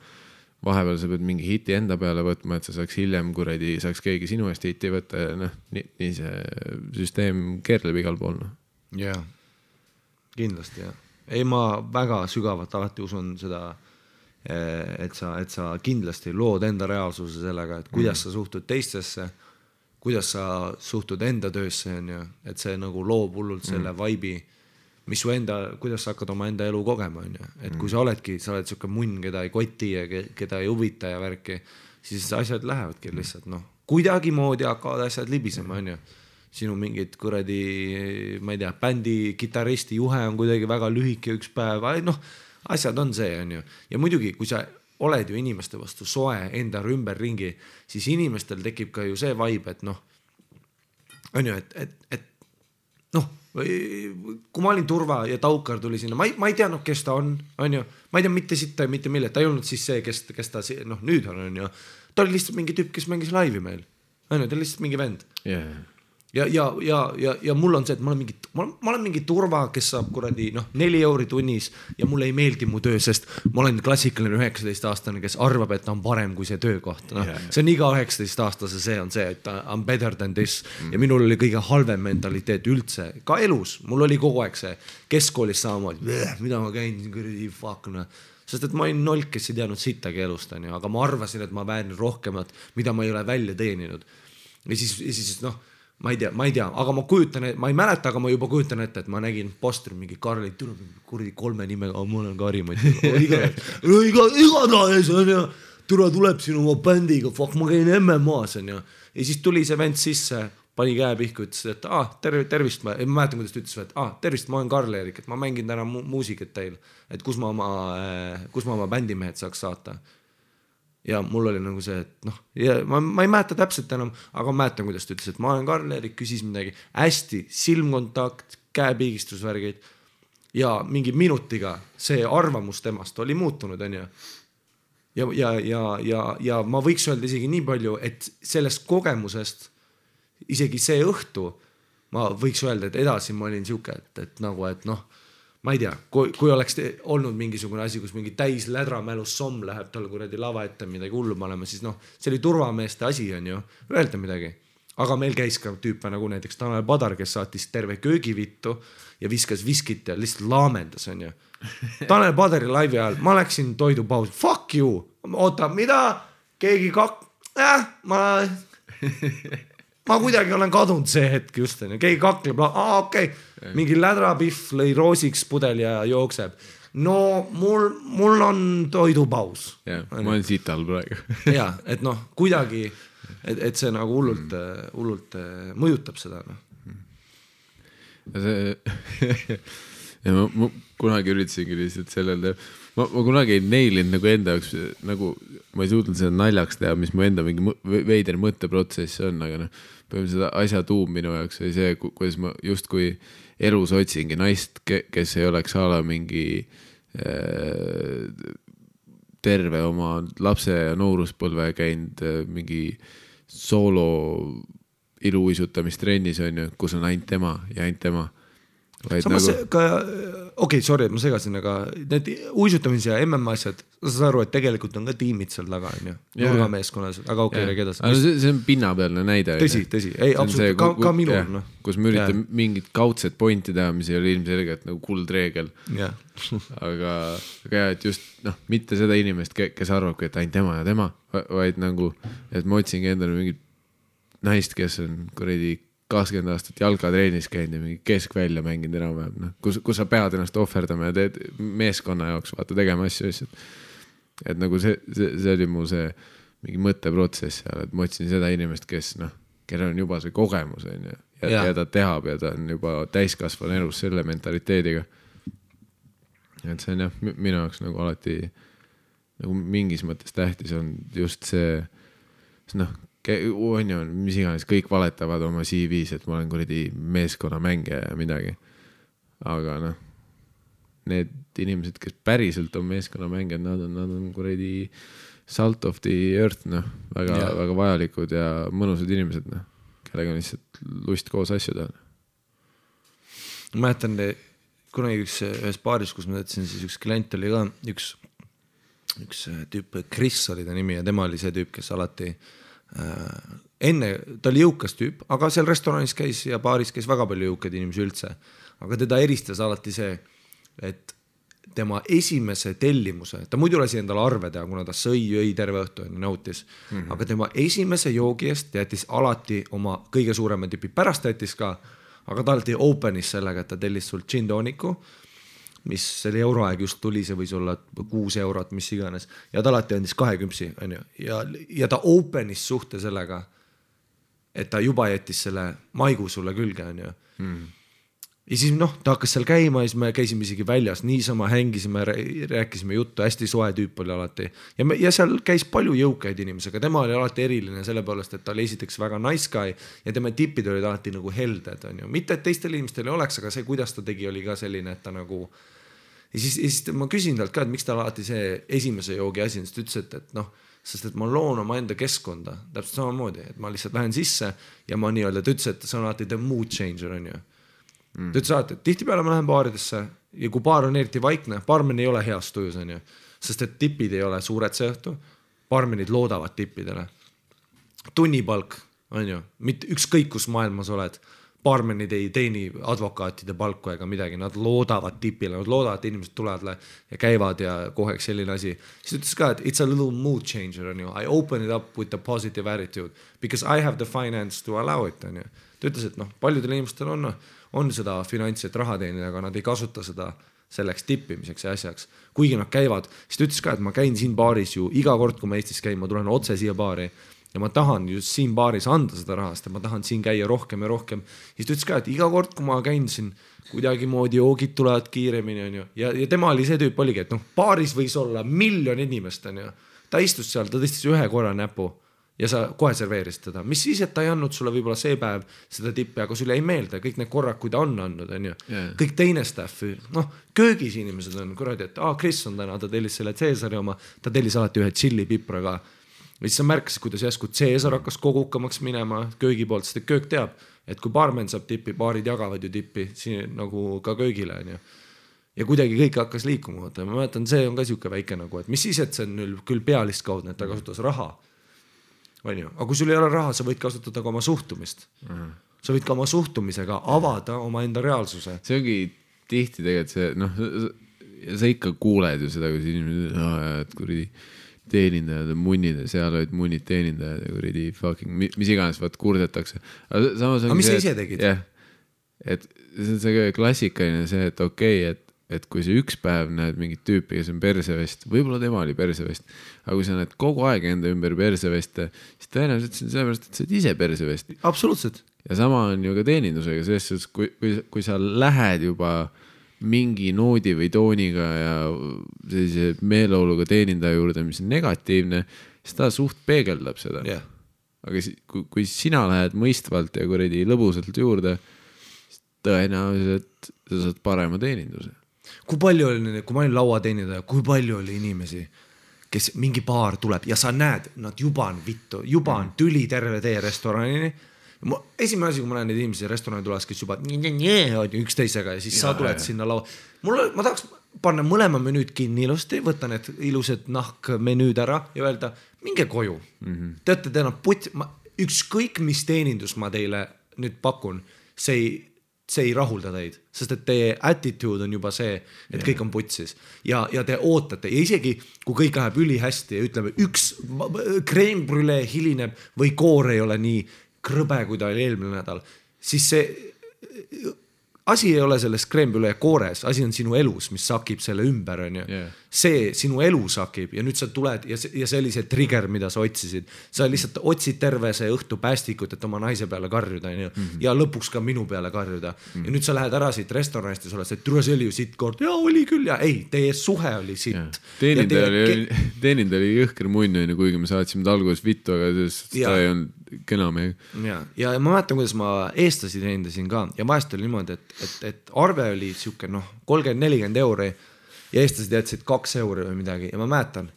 Vahepeal sa pead mingi hiti enda peale võtma, et sa saaks hiljem kuradi, saaks keegi sinu eest hiti võtta ja nii see süsteem keerleb igal pool. Jaa, kindlasti jah. Ei, ma väga sügavalt alati usun seda, et sa kindlasti lood enda reaalsuse sellega, et kuidas sa suhtud teistesse, kuidas sa suhtud enda töösse, et see nagu loob hullult selle vaibi, mis su kuidas sa hakkad oma enda elu kogema, et kui sa oled siuke munn, keda ei koti ja keda ei huvita ja värki, siis asjad lähevadki lihtsalt, kuidagi moodi hakkavad asjad libisema, sinu mingid kuradi, ma ei tea, bändi kitaristi juhe on kuidagi väga lühike üks päev, asjad on see, ja muidugi, kui sa oled ju inimeste vastu soe enda ümber ringi, siis inimestel tekib ka ju see vibe, et kui ma olin Turva ja Taukar tuli sinna, ma ei teadnud, kes ta on, ma ei tea mitte sitta ja mitte mille, ta ei olnud siis see, kes ta nüüd on, ta oli lihtsalt mingi tüüp, kes mängis laivi meil, ta oli lihtsalt mingi vend. Ja mul on see, et ma olen mingi Turva, kes saab kuradi 4 euri tunnis ja mulle ei meeldi mu töö, sest ma olen klassikaline 19-aastane, kes arvab, et ta on parem kui see töökoht. See on iga 19-aastase, see on see, et I'm better than this ja minul oli kõige halvem mentaliteet üldse, ka elus, mul oli kogu aeg see keskkoolis samamoodi, mida ma käin, kuradi fuck, sest et ma olin nolk, kes ei teadnud sittagi elust, aga ma arvasin, et ma väärin rohkemat, mida ma ei ole välja teeninud. Ja siis ma ei tea, aga ma ei mäleta, aga ma juba kujutan ette, et ma nägin postri mingi Karli, kuradi 3 nimega, ma olen Kari, igatahes on ja tuleb sinu oma bändiga, fuck, ma käin MMA-s on ja siis tuli see vend sisse, pani käe pihku, ütles, et tervist, ma mäletan, kuidas ta ütles, et tervist, ma olen Karl-Erik, et ma mängin täna muusikat teil, et kus ma oma bändimehed saaks saata. Ja mul oli nagu see, et ma ei mäleta täpselt enam, aga ma mäletan, kuidas ta ütles, et ma olen Karl-Erik, küsis midagi hästi, silmkontakt, käepiigistusvärgid ja mingi minutiga see arvamus temast oli muutunud, on ju. ja ma võiks öelda isegi nii palju, et sellest kogemusest isegi see õhtu ma võiks öelda, et edasi ma olin siuke, et nagu, et noh, ma ei tea, kui oleks olnud mingisugune asi, kus mingi täis lädramälus somm läheb tal kuradi lava ette midagi hullu panema, siis noh, see oli turvameeste asi on ju, öelda midagi. Aga meil käis ka tüüpe nagu näiteks Tanel Padar, kes saatis terve köögivittu ja viskas viskit ja lihtsalt laamendas on ju. Tanel Padari laivi ajal, ma läksin toidupausi, fuck you, oota, mida? Keegi ma kuidagi olen kadunud see hetk just, keegi kakleb, okei. Mingi lädrapihv lõi roosiks pudel ja jookseb. No mul on toidupaus. Ja, ma olen sital praegu. Ja, et noh, kuidagi, et see nagu hullult mõjutab seda. Ja ma kunagi üritasingi lihtsalt sellele, ma kunagi ei neilinud nagu enda jaoks, nagu ma ei suutnud seda naljaks teha, mis mu enda mingi veider mõtteprotsess on, aga noh, seda asja tuum minu jaoks oli see, kuidas ma justkui elus otsingi naist, kes ei oleks ala mingi terve oma lapse ja nooruspõlve käinud mingi soolo iluuisutamistreenis on ju, kus on ainult tema ja ainult tema. Samas nagu... ka, okei, sorry, et ma segasin, aga need uisutamise ja MM asjad, sa saad aru, et tegelikult on ka tiimid seal taga, on ju, nurgameeskonnas, aga okei, edasi. See on pinnapealne näide. Tõsi, ei, absoluutselt, ka minul. No. Kus me üritan mingit kaudset pointi teha, mis ei ole ilmselgelt nagu kuldreegel. aga jah, et just mitte seda inimest, kes arvabki, et ainult tema ja tema, vaid nagu, et ma otsingi endale mingit naist, kes on kuradi 20 aastat jalgatreenis käinud ja mingi keskvälja mänginud enam-vähem, kus sa pead ennast ohverdama ja teed meeskonna jaoks, vaata tegema asju. Et nagu see oli mu see mingi mõtteprotsess seal, et ma otsin seda inimest, kes kellel on juba see kogemus on ja ta tehab ja ta on juba täiskasvan elus selle mentaliteediga. Et see on minu jaoks nagu alati nagu mingis mõttes tähtis on just see on ju, mis iganes, kõik valetavad oma CV-s, et ma olen kuradi meeskonna mängija ja midagi. Aga need inimesed, kes päriselt on meeskonna mängijad, nad on kuradi salt of the earth, väga vajalikud ja mõnusad inimesed, kellega on lihtsalt lust koos asju teha. Ma mäletan, kunagi ühes baaris, kus ma teadsin, siis üks klient oli ka, üks tüüp, Chris oli ta nimi ja tema oli see tüüp, kes alati enne, ta oli jõukas tüüp, aga seal restoranis käis ja baaris käis väga palju jõukaid inimesi üldse, aga teda eristas alati see, et tema esimese tellimuse, ta muidu lasi endale arve teha, kuna ta jõi terve õhtu ja nautis, aga tema esimese joogi eest jättis alati oma kõige suurema tipi, pärast jättis ka, aga ta alati openis sellega, et ta tellis sul gin tooniku, mis selle euroaeg just tuli, see võis olla 6 eurot, mis iganes. Ja ta alati andis 2 küpsi, on ju. Ja ta openis suhte sellega, et ta juba jättis selle maigu sulle külge, on ju. Ja siis ta hakkas seal käima ja siis me käisime isegi väljas, niisama hängisime, rääkisime juttu, hästi soe tüüp oli alati. Ja seal käis palju jõukaid inimesi, aga tema oli alati eriline selle poolest, et ta oli esiteks väga nice guy ja tema tipid olid alati nagu helded, on ju. Mitte, et teistel inimestel ei oleks, aga see, kuidas ta tegi, oli ka selline, et ta nagu... Ja siis ma küsin talt ka, et miks ta alati see esimese joogi asi, sest ütles, et sest et ma loon oma enda keskkonda täpselt samamoodi, et ma lihtsalt lähen sisse ja ma nii-öelda, ta ütles, et see on alati the mood changer, on ju. Ta ütles alati, et tihtipeale ma lähen baaridesse ja kui baar on eriti vaikne, baarmen ei ole heas tujus, on ju, sest et tipid ei ole suured see õhtu, baarmenid loodavad tippidele. Tunnipalk, on ju, mitte ükskõik kus maailmas oled, baarmenid ei teeni advokaatide palku ega midagi, nad loodavad tipile, nad loodavad, et inimesed tulevad ja käivad ja koheks selline asi. Siis ütles ka, et it's a little mood changer, on ju. I open it up with a positive attitude because I have the finance to allow it, on ju. Ta ütles, et paljudel inimestel on seda finantsi, et raha teenida, aga nad ei kasuta seda selleks tippimiseks ja asjaks. Kuigi nad käivad, siis ta ütles ka, et ma käin siin baaris ju iga kord, kui ma Eestis käin, ma tulen otse siia baari ja ma tahan just siin baaris anda seda rahast ja ma tahan siin käia rohkem ja rohkem. Siis ta ütles ka, et iga kord, kui ma käin siin kuidagi moodi joogid tulevad kiiremini, on ju. Ja tema oli see tüüp oligi, et baaris võis olla 1 miljon inimest, on ju. Ta istus seal, ta tõstis 1 korra näpu ja sa kohe serveerisid teda, mis siis, et ta ei andnud sulle võib-olla see päev seda tippi, aga sulle ei meelde kõik need korrad, kui ta on andnud, on ju. Kõik teine staff, noh, köögis inimesed on kuradi, et Chris on täna, ta tellis selle Caesari oma, ta tellis alati ühe chili pipraga. Ja siis sa märkasid, kuidas jäsku Caesar hakkas kogukamaks minema köögi poolt, sest köök teab, et kui baarmen saab tippi, baarid jagavad ju tippi siin nagu ka köögile, on ju. Ja kuidagi kõik hakkas liikuma. Ma mäletan, see on ka siuke väike nagu, et mis siis, et see on küll pealistkaudne, et ta kasutas raha. On ju? Aga kui sul ei ole raha, sa võid kasutada ka oma suhtumist. Sa võid ka oma suhtumisega avada oma enda reaalsuse. See ongi tihti tegelikult see, noh, sa ikka kuuled ju seda, kui inimesed, et kuridi teenindajad on munnid ja seal olid munnid teenindajad ja kuridi fucking, mis iganes vaat kurdetakse. Aga mis sa ise tegid? Jah, et see on see klassikaline see, et okei, et kui sa üks päev näed mingit tüüpi, kes on persevest, võib-olla tema oli persevest, aga kui sa näed kogu aeg enda ümber perseveste, siis tõenäoliselt see on sellepärast, et sa oled ise persevest. Absoluutselt. Ja sama on ju ka teenindusega, selles, kui sa lähed juba mingi noodi või tooniga ja sellise meeleoluga teenindaja juurde, mis on negatiivne, siis ta suht peegeldab seda. Yeah. Aga kui sina lähed mõistvalt ja kuradi lõbusalt juurde, siis tõenäoliselt sa saad parema teeninduse. Kui palju oli, kui ma olin lauateenindaja, kui palju oli inimesi, kes mingi baar tuleb ja sa näed, nad juba on vittu, juba on tüli terve tee restoranini. Esimene asi, kui ma näen neid inimesi restorani tules, kes juba üksteisega ja siis sa tuled sinna laua. Ma tahaks panna mõlema menüüd kinni ilusti, võtta need ilused nahkmenüüd ära ja öelda, minge koju. Teate, teil on ükskõik mis teenindus ma teile nüüd pakun, see ei rahulda teid, sest et teie attitude on juba see, et kõik on putsis ja te ootate ja isegi kui kõik läheb üli hästi ja ütleme üks crème brûlée hilineb või koor ei ole nii krõbe, kui ta oli eelmine nädal, siis see asi ei ole selles crème brûlée koores, asi on sinu elus, mis sakib selle ümber, on ju. See sinu elu sakib ja nüüd sa tuled ja see oli see trigger, mida sa otsisid. Sa lihtsalt otsid terve see õhtu päästikut, et oma naise peale karjuda, on ju. Ja lõpuks ka minu peale karjuda. Ja nüüd sa lähed ära siit restoranist ja sa oled see, et tule see oli ju sitt kord. Ja oli küll ja ei, teie suhe oli sitt. Teenindaja oli jõhker munn, kuigi me saatsime alguses vittu, aga ta ei olnud kena meiega. Ja ma mäletan, kuidas ma eestlasi teenindasin ka ja vahest oli niimoodi, et arve oli siuke 30-40 euri ja eestlased jätsid 2 euri või midagi ja ma mäletan,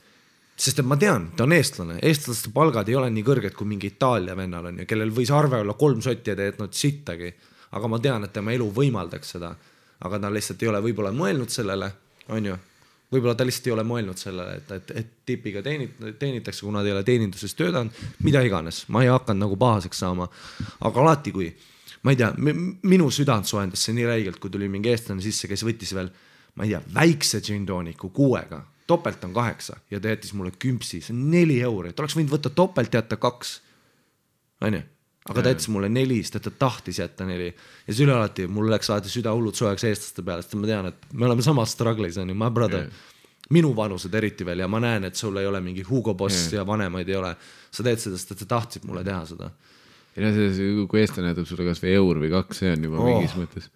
sest et ma tean, ta on eestlane, eestlaste palgad ei ole nii kõrged kui mingi Itaalia vennal on ju, kellel võis arve olla 3 sotti ja te jätnud sittagi, aga ma tean, et tema elu võimaldaks seda, aga ta lihtsalt ei ole võib-olla mõelnud sellele, on ju. Võib-olla ta lihtsalt ei ole mõelnud sellele, et tipiga teenitakse, kuna ta ei ole teeninduses töötanud, mida iganes. Ma ei hakanud nagu pahaseks saama. Aga alati kui, ma ei tea, minu südant soendas see nii räigelt, kui tuli mingi eestlane sisse, kes võttis veel, ma ei tea, väikse džintooniku 6-ga. Topelt on 8 ja ta jättis mulle 10, see on 4 euri. Ta oleks võinud võtta topelt jätta 2. On ju? Aga ta jättis mulle 4, sest ta tahtis jätta 4. Ja see üle alati, mul läks alati süda hullud soojaks eestlaste peale, sest ma tean, et me oleme samas struggles, on ju, my brother. Minu vanused eriti veel ja ma näen, et sul ei ole mingi Hugo Boss ja vanemaid ei ole. Sa teed seda, sest sa tahtsid mulle teha seda. Ja kui eestlane jätab sulle kas või eur või 2, see on juba mingis mõttes.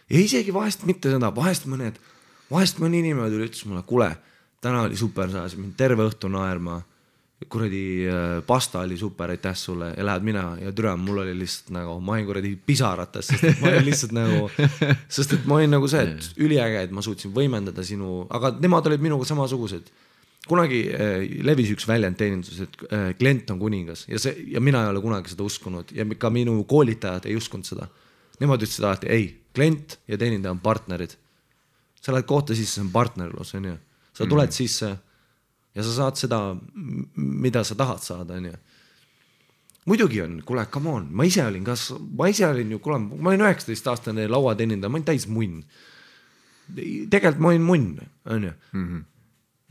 Ja isegi vahest mitte seda, vahest mõni inimene tuli ütles mulle, kule, täna oli super, sa mind terve õhtu naerma. Kuradi pasta oli super, aitäh sulle ja lähed mina ja türa, mul oli lihtsalt nagu, ma olin kuradi pisarates, sest et ma olin lihtsalt nagu, sest et ma olin nagu see, et üliäge, et ma suutsin võimendada sinu, aga nemad olid minuga samasugused. Kunagi levis üks väljend teenindus, et klient on kuningas ja mina ei ole kunagi seda uskunud ja ka minu koolitajad ei uskunud seda. Nemad ütlesid alati, ei, klient ja teenindaja on partnerid. Sa lähed kohta sisse, see on partnerlus, on ju. Sa tuled sisse ja sa saad seda, mida sa tahad saada, on ju. Muidugi on, kuule, come on, ma ise olin ju, kuule, ma olin 19-aastane lauateenindaja, ma olin täis munn. Tegelikult ma olin munn, on ju.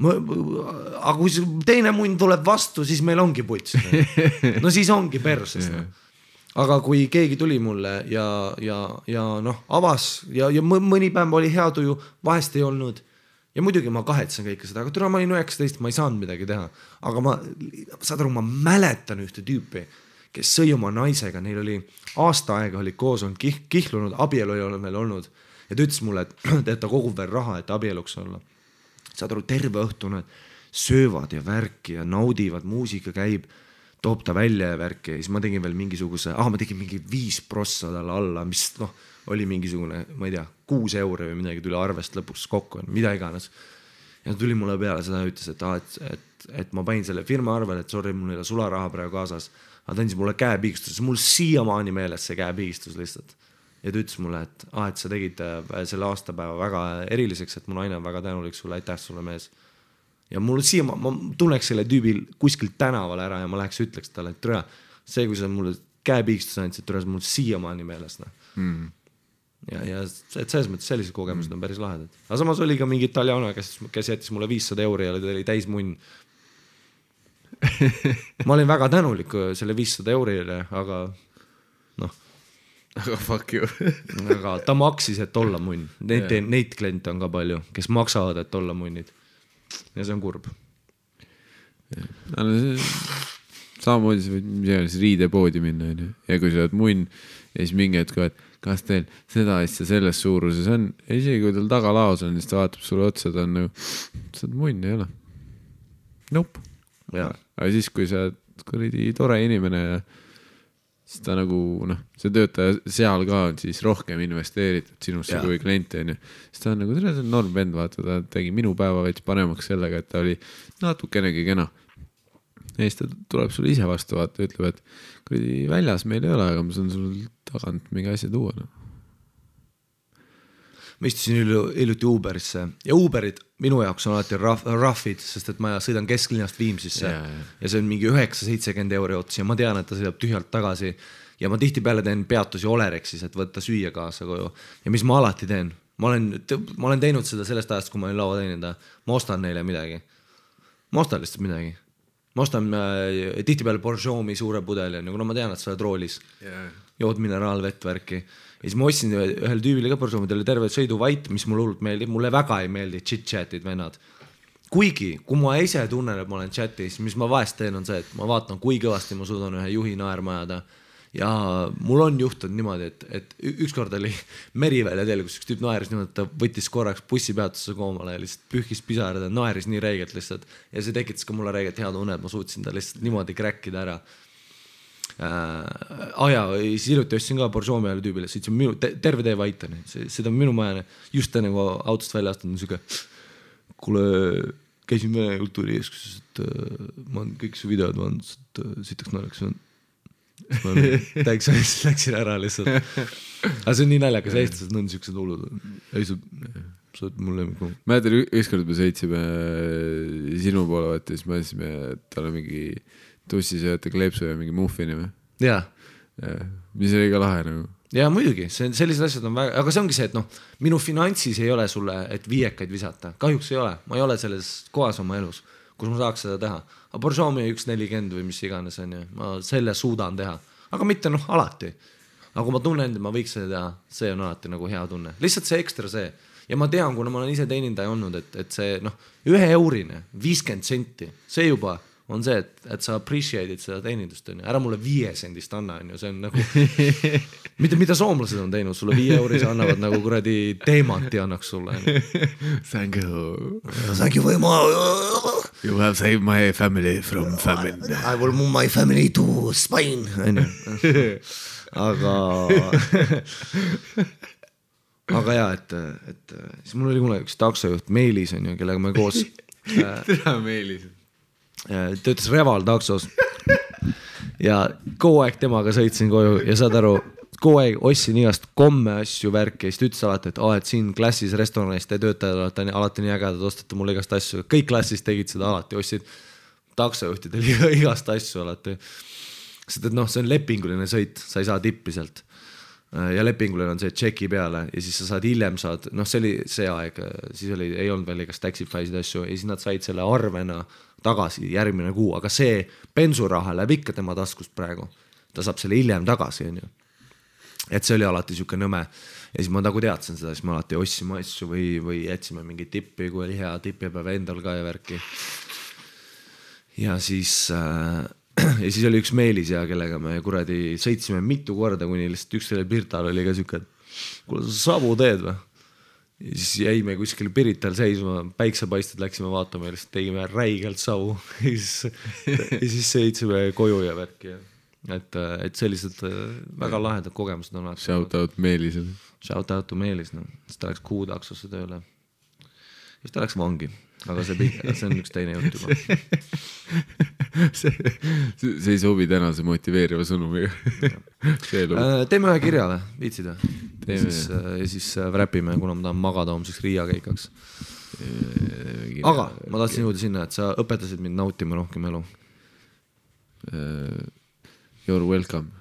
Aga kui teine munn tuleb vastu, siis meil ongi puts. No siis ongi perses. Aga kui keegi tuli mulle ja avas ja mõni päev oli hea tuju, vahest ei olnud. Ja muidugi ma kahetsen kõike seda, aga türa ma olin 19, ma ei saanud midagi teha. Aga ma mäletan ühte tüüpi, kes sõi oma naisega, neil oli aasta aega oli koos, on kihlunud, abielu ei ole meil olnud. Ja ta ütles mulle, et ta kogub veel raha, et abieluks olla. Saad aru, terve õhtu nad söövad ja värki ja naudivad, muusika käib. toob ta välja ja värki ja siis ma tegin veel mingisuguse, ma tegin mingi 5 prossa talle alla, mis noh, oli mingisugune, ma ei tea, 6 euro või midagi tuli arvest lõpuks kokku, mida iganes. Ja tuli mulle peale seda ja ütles, et ma panin selle firma arvel, et sorry, mul ei ole sularaha praegu kaasas, aga ta andis mulle käepigistus, mul siiamaani meeles see käepigistus lihtsalt. Ja ta ütles mulle, et sa tegid selle aastapäeva väga eriliseks, et mu naine on väga tänulik sulle, aitäh sulle mees. Ja mul ma tunneks selle tüübil kuskilt tänaval ära ja ma läheks ütleks talle, et türa, see, kui sa mulle käepigistus andsid, türa, mul siiamaani meeles. Ja et selles mõttes sellised kogemused on päris lahedad. Aga samas oli ka mingi italiano, kes jättis mulle 500 euri ja oli täis munn. Ma olin väga tänulik selle 500 eurile, aga noh. Aga fuck you. Aga ta maksis, et olla munn. Neid kliente on ka palju, kes maksavad, et olla munnid. Ja see on kurb. Samamoodi sa võid riidepoodi minna. Ja kui sa oled munn ja siis mingi hetk, et kas teil seda asja selles suuruses on, ja isegi kui tal tagalaos on, siis ta vaatab sulle otsa, ta on nagu, sa oled munn, ei ole. Nope. Aga siis, kui sa oled tore inimene ja siis ta nagu, see töötaja seal ka on siis rohkem investeeritud sinusse kui klienti, siis ta on nagu, see on norm vend, vaata, ta tegi minu päeva veits panemaks sellega, et ta oli natukenegi kena. Ja siis ta tuleb sulle ise vastu, vaata, ütleb, et kui väljas meil ei ole, aga ma saan sul tagant mingi asja tuua. Ma istusin hiljuti Uberisse ja Uberid minu jaoks on alati raffid, sest et ma sõidan kesklinnast Viimsisse ja see on mingi 9-70 euro ots ja ma tean, et ta sõidab tühjalt tagasi ja ma tihtipeale teen peatusi Olerexis, et võtta süüa kaasa koju ja mis ma alati teen, ma olen teinud seda sellest ajast, kui ma olin laua teenida, ma ostan neile midagi, ma ostan lihtsalt midagi. Ma ostan tihtipeale Borjomi suure pudeli, kuna ma tean, et sa oled roolis, jood mineraalvett värki. Ja siis ma ostsin ühel tüübile ka Borjomi, ta oli terve sõiduvait, mis mulle hullult meeldib, mulle väga ei meeldi chit-chatid vennad. Kuigi, kui ma ise tunnen, et ma olen chatis, mis ma vahest teen on see, et ma vaatan, kui kõvasti ma suudan ühe juhi naerma ajada. Ja mul on juhtunud niimoodi, et ükskord oli Merivälja teel, kus üks tüüp naeris niimoodi, et ta võttis korraks bussipeatusse koomale ja lihtsalt pühkis pisarad ja naeris nii reegelt lihtsalt. Ja see tekitas ka mulle reegelt hea tunne, et ma suutsin ta lihtsalt niimoodi kräkkida ära. Siis hiljuti ostsin ka Borjomi ajal tüübile, sõitsin terve tee vaitani, seda on minu majane, just enne kui autost välja astunud, siuke, kuule, käisin Vene kultuuri eeskuses, et ma olen kõik su videod vaadanud, et sitaks naeraks on. Ma täiks läksin ära lihtsalt. Aga see on nii naljakas, eestlased on siuksed hullud. Ei, sa oled mulle lemmik. Mäletan, ükskord me sõitsime sinu poole, vaata, siis mõtlesime, et tal on mingi tussisööta kleepsu ja mingi muffini või? Jaa. Mis oli ka lahe nagu. Jaa, muidugi, sellised asjad on väga, aga see ongi see, et minu finantsis ei ole sulle, et viiekaid visata. Kahjuks ei ole, ma ei ole selles kohas oma elus, kus ma saaks seda teha. Aga Borjomi 1.40 või mis iganes on ja ma selle suudan teha. Aga mitte alati. Aga kui ma tunnen, et ma võiks seda teha, see on alati nagu hea tunne. Lihtsalt see ekstra see. Ja ma tean, kuna ma olen ise teenindaja olnud, et see 1 eurine, 50 senti, see juba on see, et sa appreciate'id seda teenindust. Ära mulle 5 sendist anna, see on nagu, mida soomlased on teinud, sulle 5 euris annavad nagu kuradi teemanti annaks sulle. Thank you. Thank you very much. You have saved my family from famine. I will move my family to Spain. Aga jaa, et siis mul oli kunagi üks taksojuht Meelis, kellega me koos Tere Meelis töötas Reval taksos ja kogu aeg temaga sõitsin koju ja saad aru, kogu aeg ostsin igast komme asju värki ja siis ütles alati, et siin klassis restoranis te töötajad alati nii ägedad, ostate mulle igast asju, kõik klassis tegid seda alati, ostsid taksojuhtidel igast asju alati, sest et see on lepinguline sõit, sa ei saa tippi sealt ja lepinguline on see tšeki peale ja siis sa saad hiljem see oli see aeg, siis ei olnud veel igast Taxify'sid asju ja siis nad said selle arvena tagasi järgmine kuu, aga see bensuraha läheb ikka tema taskust praegu, ta saab selle hiljem tagasi, et see oli alati siuke nõme ja siis ma nagu teadsin seda, siis ma alati ossime asju või jätsime mingi tippi, kui oli hea tippipäev endal ka ja värki ja siis oli üks Meelis ja kellega me kuradi sõitsime mitu korda, kuni lihtsalt üks selle Pirtal oli ka siuke, et kuule sa sabu teed või? siis jäime kuskil Pirital seisma, päiksepaisted läksime vaatama ja lihtsalt tegime räigelt savu ja siis sõitsime koju ja värki. Et sellised väga lahedad kogemused on. Shout out Meelisele. Shout out to Meelis, no. Siis ta läks kuutaksosse tööle. Siis ta läks vangi, aga see on üks teine jutt juba. see ei sobi tänase motiveeriva sõnumiga. Teeme ühe kirja või? Viitsid või? Ja siis räpime, kuna ma tahan magada homseks Riia keikaks. Aga ma tahtsin jõuda sinna, et sa õpetasid mind nautima rohkem elu. You're welcome.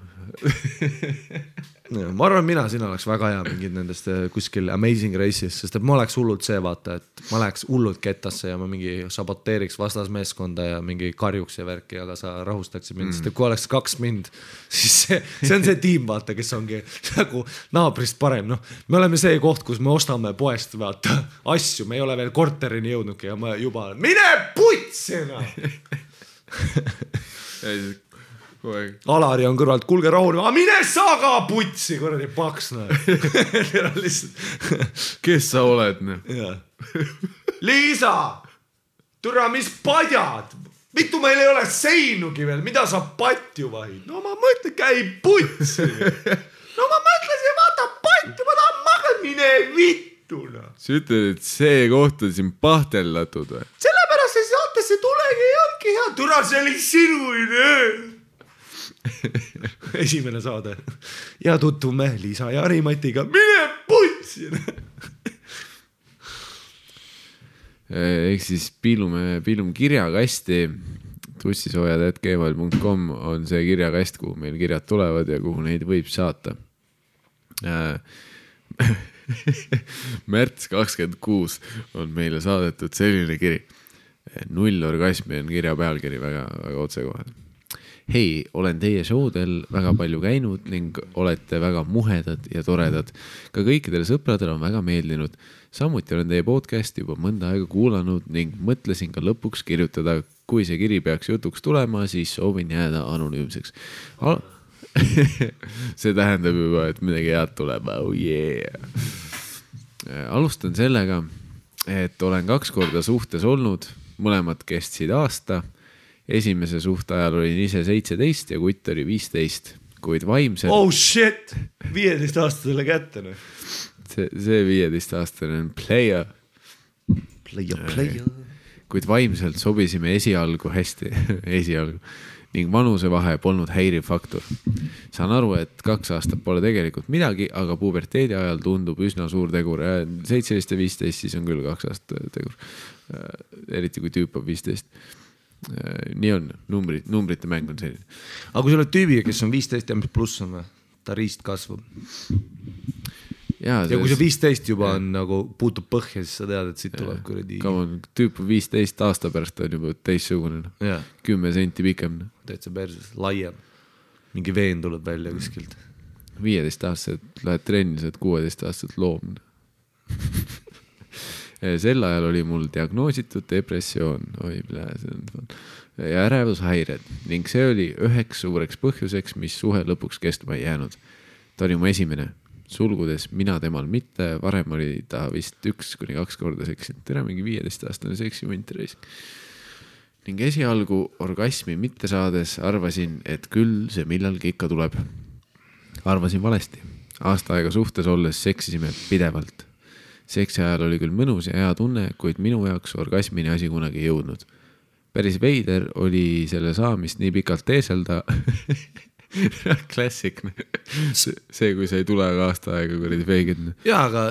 Ma arvan, sina oleks väga hea mingid nendest kuskil Amazing Races, sest et ma oleks hullult see vaata, et ma läheks hullult kettasse ja ma mingi saboteeriks vastasmeeskonda ja mingi karjuks ja värki, aga sa rahustaksid mind, sest et kui oleks 2 mind, siis see on see tiim vaata, kes ongi nagu naabrist parem, noh, me oleme see koht, kus me ostame poest vaata asju, me ei ole veel korterini jõudnudki ja ma juba mine putsina! Alari on kõrvalt, kulge rahul, mine sa ka putsi, kuradi paks, kes sa oled? Liisa, türa, mis padjad, mitu meil ei ole seinugi veel, mida sa patju vahid? No ma mõtlen, käi putsi. No ma mõtlesin, vaata patju, ma tahan magada, mine vittuna. Sa ütled, et see koht on siin pahtellatud või? Sellepärast see saatesse tulegi ei olnudki hea, türa, see oli sinu idee. Esimene saade ja tutvume Liisa ja Harimatiga, mine putsi. Ehk siis piilume kirjakasti. tussisoojad@gmail.com on see kirjakast, kuhu meil kirjad tulevad ja kuhu neid võib saata. Märts 26 on meile saadetud selline kiri. 0 orgasmi on kirja pealkiri, väga, väga otsekohane. Hei, olen teie showdel väga palju käinud ning olete väga muhedad ja toredad. Ka kõikidele sõpradele on väga meeldinud. Samuti olen teie podcasti juba mõnda aega kuulanud ning mõtlesin ka lõpuks kirjutada. Kui see kiri peaks jutuks tulema, siis soovin jääda anonüümseks. See tähendab juba, et midagi head tuleb. Oh yeah. Alustan sellega, et olen 2 korda suhtes olnud. Mõlemad kestsid aasta. Esimese suhte ajal olin ise 17 ja kutt oli 15, kuid vaimselt... Oh shit! 15-aastasele kätte. See 15-aastane on player. Player. Kuid vaimselt sobisime esialgu hästi. Esialgu. Ning vanusevahe polnud häiriv faktor. Saan aru, et 2 aastat pole tegelikult midagi, aga puberteedi ajal tundub üsna suur tegur. 17 ja 15 siis on küll 2 aastat tegur. Eriti kui tüüp on 15. Nii on, numbrite mäng on selline. Aga kui sa oled tüübiga, kes on 15 ja mis pluss on või? Ta riist kasvab. Ja kui see 15 juba on nagu puutub põhja, siis sa tead, et siit tuleb kuradi. Tüüp 15 aasta pärast on juba teissugune. 10 senti pikem. Täitsa perses, laiem. Mingi veen tuleb välja kuskilt. 15 aastased lähed trenni, saad 16 aastased loom. Sel ajal oli mul diagnoositud depressioon ja ärevushäired ning see oli üheks suureks põhjuseks, mis suhe lõpuks kestma ei jäänud. Ta oli mu esimene, sulgudes mina temal mitte, varem oli ta vist 1-2 korda seksinud. Tere mingi 15-aastane seksimunt reis. Ning esialgu orgasmi mitte saades arvasin, et küll see millalgi ikka tuleb. Arvasin valesti. Aasta aega suhtes olles seksisime pidevalt. Seksi ajal oli küll mõnus ja hea tunne, kuid minu jaoks orgasmini asi kunagi ei jõudnud. Päris veider oli selle saamist nii pikalt teeselda. Klassik. See, kui sa ei tule aasta aega kuradi feigid. Jaa, aga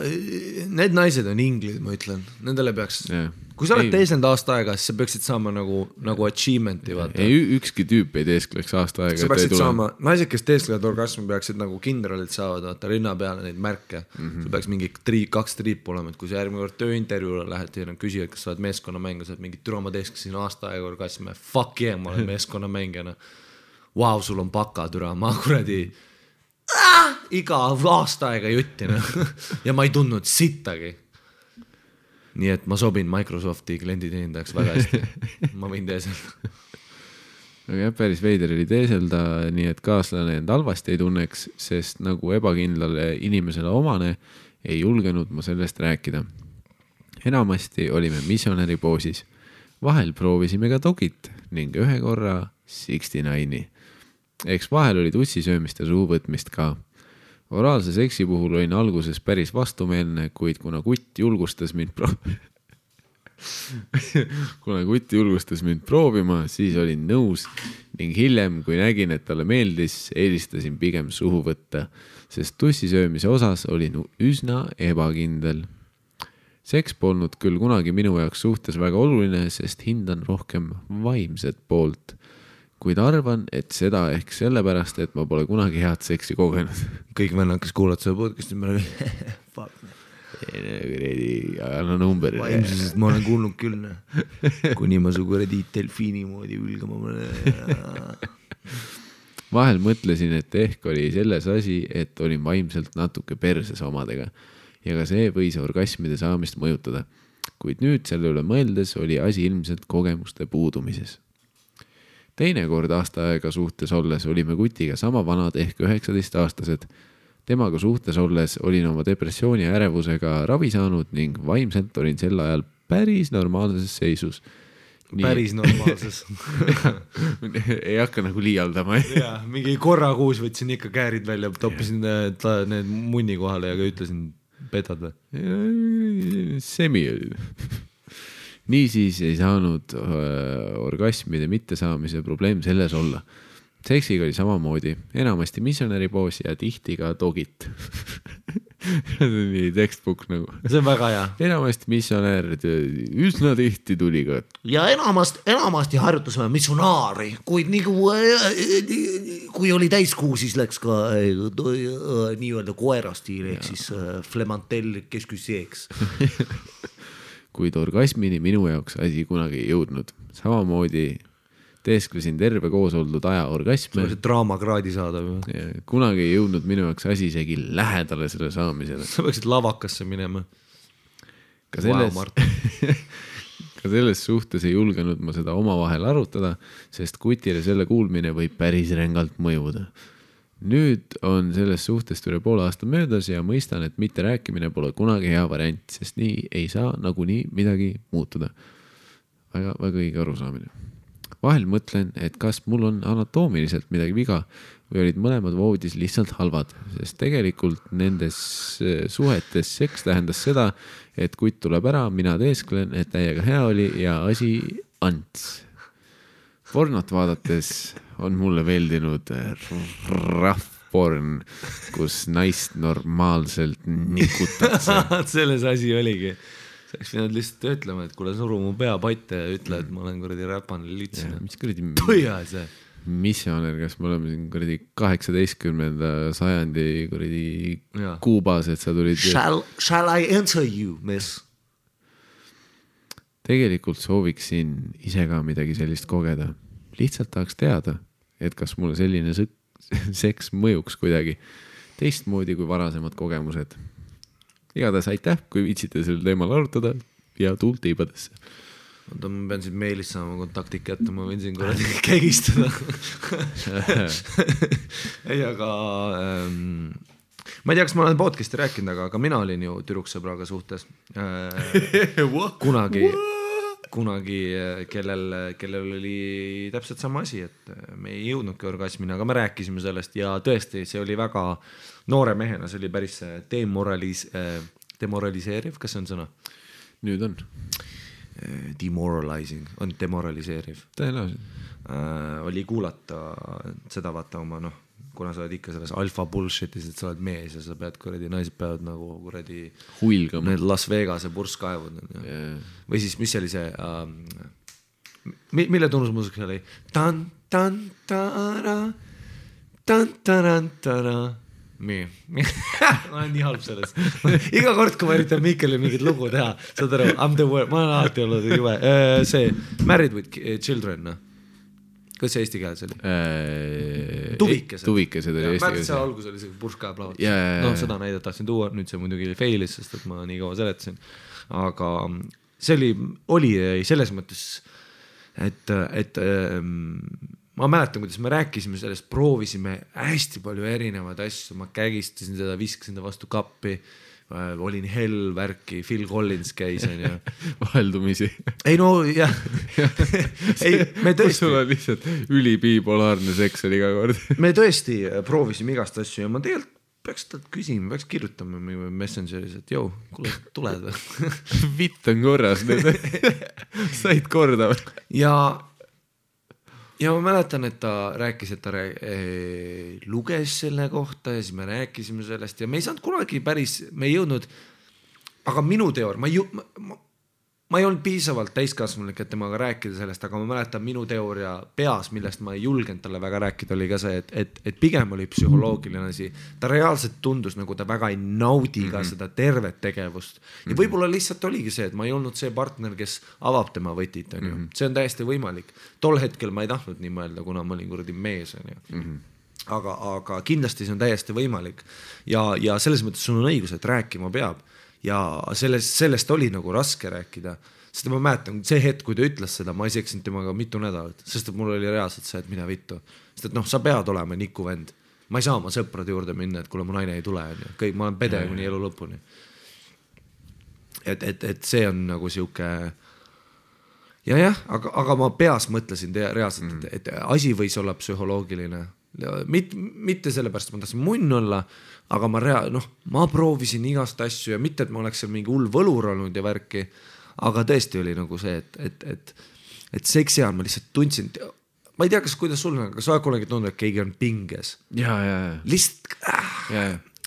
need naised on inglid, ma ütlen. Nendele peaks... Kui sa oled teesend aasta aega, siis sa peaksid saama nagu achievementi. Ükski tüüp ei teeskleks aasta aega. Sa peaksid saama, naised, kes teesklevad orgasmi, peaksid nagu kindralid saavad, vaata rinna peale neid märke. Sul peaks mingi 2 triipu olema, et kui sa järgmine kord tööintervjuule lähed ja küsivad, kas sa oled meeskonnamäng, sa oled mingi türa, ma teesklesin aasta aega orgasmi. Fuck yeah, ma olen meeskonnamängijana. Vau, sul on paka türa, ma kuradi iga aasta aega juttina ja ma ei tundnud sittagi. Nii et ma sobin Microsofti klienditeenindajaks väga hästi. Ma võin teeselda. Aga jah, päris veider oli teeselda, nii et kaaslane end halvasti ei tunneks, sest nagu ebakindlale inimesele omane, ei julgenud ma sellest rääkida. Enamasti olime missionäri poosis. Vahel proovisime ka dogit ning ühe korra 69. Eks vahel oli tussisöömist ja suuvõtmist ka. Oraalse seksi puhul olin alguses päris vastumeelne, kuid kuna kutt julgustas mind proovima, siis olin nõus ning hiljem, kui nägin, et talle meeldis, eelistasin pigem suhu võtta, sest tussisöömise osas olin üsna ebakindel. Seks polnud küll kunagi minu jaoks suhtes väga oluline, sest hindan rohkem vaimset poolt. Kuid arvan, et seda ehk sellepärast, et ma pole kunagi head seksi kogenud. Kõik vennad, kes kuulad seda podcasti, ma olen fuck. Anna number. Vaimsusest ma olen kuulnud küll. Kuni ma su kuradi delfiini moodi ülgama mõne. Vahel mõtlesin, et ehk oli selles asi, et olin vaimselt natuke perses omadega ja ka see võis orgasmide saamist mõjutada. Kuid nüüd selle üle mõeldes oli asi ilmselt kogemuste puudumises. Teine kord aasta aega suhtes olles olime kutiga sama vanad ehk 19-aastased. Temaga suhtes olles olin oma depressiooni ja ärevusega ravi saanud ning vaimselt olin sel ajal päris normaalses seisus. Päris normaalses. Ei hakka nagu liialdama. Ja, mingi korra kuus võtsin ikka käärid välja, toppisin need munni kohale ja ütlesin, petad või? Semi oli. Niisiis ei saanud orgasmide mittesaamise probleem selles olla. Seksiga oli samamoodi, enamasti missionäri poos ja tihti ka dogit. See on nii textbook nagu. See on väga hea. Enamasti missionär, üsna tihti tuli ka. Ja enamasti harjutasime missionaari, kuid kui oli täiskuu, siis läks ka nii-öelda koerastiil, ehk siis flemantell kesküseeks. Kuid orgasmini minu jaoks asi kunagi ei jõudnud. Samamoodi teesklesin terve koos oldud aja orgasme. See draamakraadi saada. Kunagi ei jõudnud minu jaoks asi isegi lähedale selle saamisele. Sa võiksid lavakasse minema. Ka selles suhtes ei julgenud ma seda omavahel arutada, sest kutile selle kuulmine võib päris rängalt mõjuda. Nüüd on sellest suhtest üle poole aasta möödas ja mõistan, et mitte rääkimine pole kunagi hea variant, sest nii ei saa nagunii midagi muutuda. Väga õige arusaamine. Vahel mõtlen, et kas mul on anatoomiliselt midagi viga või olid mõlemad voodis lihtsalt halvad, sest tegelikult nendes suhetes seks tähendas seda, et kutt tuleb ära, mina teesklen, et täiega hea oli ja asi ants. Pornot vaadates on mulle veeldinud rahvporn, kus naist normaalselt nikutakse. Selles asi oligi. Sa oleks pidanud lihtsalt ütlema, et kuule suru mu pea patte ja ütle, et ma olen kuradi räpane litsina. Mis kuradi Põia see? Missioner, kas me oleme siin kuradi 18. sajandi kuradi Kuubas, et sa tulid... Shall I answer you, miss? Tegelikult sooviksin ise ka midagi sellist kogeda. Lihtsalt tahaks teada, et kas mulle selline seks mõjuks kuidagi teistmoodi kui varasemad kogemused. Igatahes aitäh, kui viitsite sel teemal arutada ja tuult tiibadesse. Ma pean siin meilis saama kontakti kätte, ma võin siin kuradi kägistada. Ei, aga... Ma ei tea, kas ma olen podcasti rääkinud, aga mina olin ju tüdruksõbraga suhtes. Kunagi, kellel oli täpselt sama asi, et me ei jõudnudki orgasmini, aga me rääkisime sellest ja tõesti, see oli väga noore mehena, see oli päris demoraliseeriv, kas see on sõna? Nüüd on. Demoralizing, on demoraliseeriv. Tõenäoliselt. Oli kuulata seda vaata oma, kuna sa oled ikka selles alfa bullshitis, et sa oled mees ja sa pead kuradi, naised peavad nagu kuradi huilgama. Need Las Vegase purskkaevud. Või siis, mis oli see mille tunnusmuusika oli? Tan-tan-tara tan-taran-tara ma olen nii halb sellest. Iga kord, kui ma üritan Mikkelile mingit lugu teha, saad aru, I'm the word, ma olen alati olnud juve. See Married with Children, kas see eesti keeles oli? Tuvikesed oli eesti keeles. Märtsa see algus oli see purskkaev lavat. Seda näidet tahtsin tuua, nüüd see muidugi failis, sest et ma nii kaua seletasin. Aga see oli selles mõttes, et ma mäletan, kuidas me rääkisime sellest, proovisime hästi palju erinevaid asju, ma kägistasin seda, viskasin ta vastu kappi, olin hell värki, Phil Collins käis ja vaheldumisi. Ei no jah. Ei, me tõesti. Sul on lihtsalt ülibipolaarne seks oli iga kord. Me tõesti proovisime igast asju ja ma tegelikult peaks talt küsima, peaks kirjutama Messengeris, et jõu, kuule, tuled või? Vitt on korras nüüd. Said korda või? Ja ma mäletan, et ta rääkis, et ta luges selle kohta ja siis me rääkisime sellest ja me ei saanud kunagi päris, me ei jõudnud, aga minu teoor, ma ei olnud piisavalt täiskasvanulik, et temaga rääkida sellest, aga ma mäletan minu teooria peas, millest ma ei julgenud talle väga rääkida, oli ka see, et pigem oli psühholoogiline asi. Ta reaalselt tundus, nagu ta väga ei naudi ka seda tervet tegevust. Ja võib-olla lihtsalt oligi see, et ma ei olnud see partner, kes avab tema võtit. See on täiesti võimalik. Tol hetkel ma ei tahtnud nii mõelda, kuna ma olin kuradi mees. Aga kindlasti see on täiesti võimalik. Ja selles mõttes sul on õigus, et rääkima peab. Ja sellest oli nagu raske rääkida, sest ma mäletan, see hetk, kui ta ütles seda, ma ei seksinud temaga mitu nädalat, sest et mul oli reaalselt see, et mida vittu. Sest et sa pead olema niku vend. Ma ei saa oma sõprade juurde minna, et kuule mu naine ei tule. Kõik, ma olen pede kuni elu lõpuni. Et see on nagu siuke aga ma peas mõtlesin reaalselt, et asi võis olla psühholoogiline. Mitte sellepärast, et ma tahtsin munn olla, aga ma proovisin igast asju ja mitte, et ma oleks seal mingi hull võlur olnud ja värki, aga tõesti oli nagu see, et seksi ajal ma lihtsalt tundsin, ma ei tea, kuidas sul on, aga sa kunagi tundnud, et keegi on pinges. Ja. Lihtsalt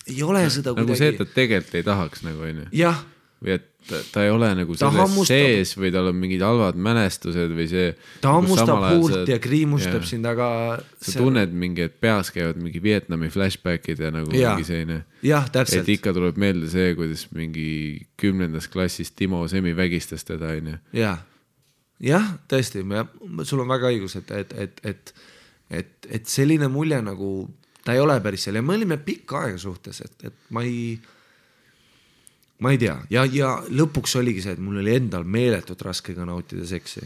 ei ole seda nagu see, et ta tegelikult ei tahaks nagu on ju. Jah. Või et ta ei ole nagu selles sees või tal on mingid halvad mälestused või see. Ta hammustab huult ja kriimustab sind, aga sa tunned mingi, et peas käivad mingi Vietnami flashbackid ja nagu mingi selline. Jah, täpselt. Et ikka tuleb meelde see, kuidas mingi 10. klassis Timo Semi vägistas teda. Jah, tõesti, sul on väga õigus, et selline mulje nagu ta ei ole päris seal ja me olime pikka aega suhtes, et ma ei tea. Ja lõpuks oligi see, et mul oli endal meeletult raske ka nautida seksi.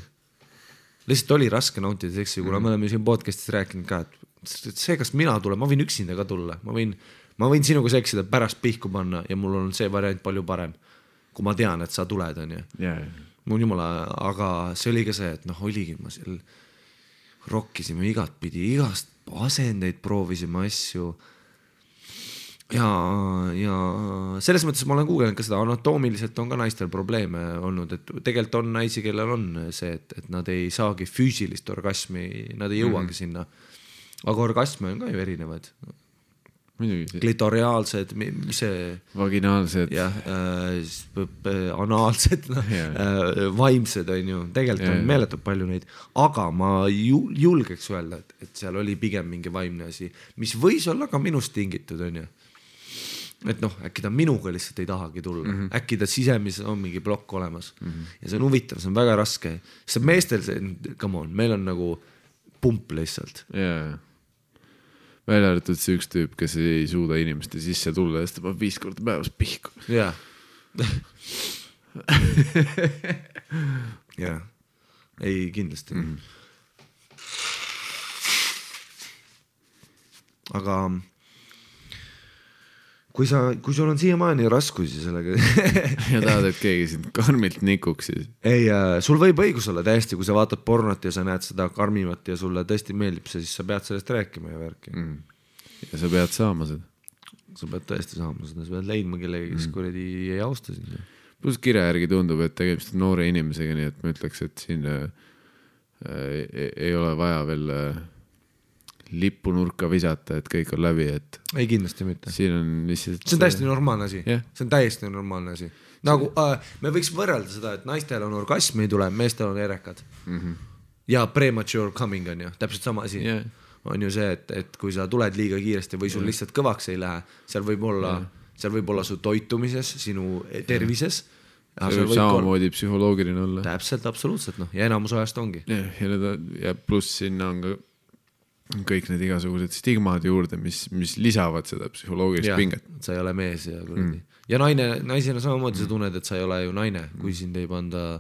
Lihtsalt oli raske nautida seksi, kuna me oleme siin podcastis rääkinud ka, et see, kas mina tulen, ma võin üksinda ka tulla. Ma võin sinuga seksida pärast pihku panna ja mul on see variant palju parem, kui ma tean, et sa tuled. Mul jumala, aga see oli ka see, et oligi ma seal rokkisime igat pidi, igast asendeid proovisime asju. Ja selles mõttes ma olen kuugenud ka seda, anatoomiliselt on ka naistel probleeme olnud, et tegelikult on naisi, kellel on see, et nad ei saagi füüsilist orgasmi, nad ei jõuagi sinna. Aga orgasme on ka ju erinevad. Klitoriaalsed, mis see... Vaginaalsed. Anaalsed, vaimsed on ju, tegelikult on meeletult palju neid, aga ma julgeks öelda, et seal oli pigem mingi vaimne asi, mis võis olla ka minust tingitud, on ju. Et äkki ta minuga lihtsalt ei tahagi tulla. Äkki ta sisemises on mingi plokk olemas. Ja see on huvitav, see on väga raske. Sest meestel see, come on, meil on nagu pump lihtsalt. Välja arvatud see üks tüüp, kes ei suuda inimeste sisse tulla, sest ta 5 korda päevas pihku. Ei, kindlasti. Aga kui sul on siiamaani raskusi sellega ja tahad, et keegi sind karmilt nikuks siis. Ei, sul võib õigus olla täiesti, kui sa vaatad pornot ja sa näed seda karmivat ja sulle tõesti meeldib see, siis sa pead sellest rääkima ja värki. Ja sa pead saama seda. Sa pead tõesti saama seda, sa pead leidma kellegi, kes kuradi ei austa sind. Plus kirja järgi tundub, et tegemist on noore inimesega, nii et ma ütleks, et siin ei ole vaja veel lippu nurka visata, et kõik on läbi, et ei kindlasti mitte. Siin on lihtsalt... See on täiesti normaalne asi. See on täiesti normaalne asi. Nagu me võiks võrrelda seda, et naistel on orgasm ei tule, meestel on erekad. Ja premature coming on ju, täpselt sama asi. On ju see, et kui sa tuled liiga kiiresti või sul lihtsalt kõvaks ei lähe, seal võib olla su toitumises, sinu tervises. See võib samamoodi psühholoogiline olla. Täpselt, absoluutselt. Ja enamus ajast ongi. Ja pluss sinna on ka kõik need igasugused stigmad juurde, mis lisavad seda psühholoogilist pinget. Sa ei ole mees ja naisena samamoodi sa tunned, et sa ei ole ju naine, kui sind ei panda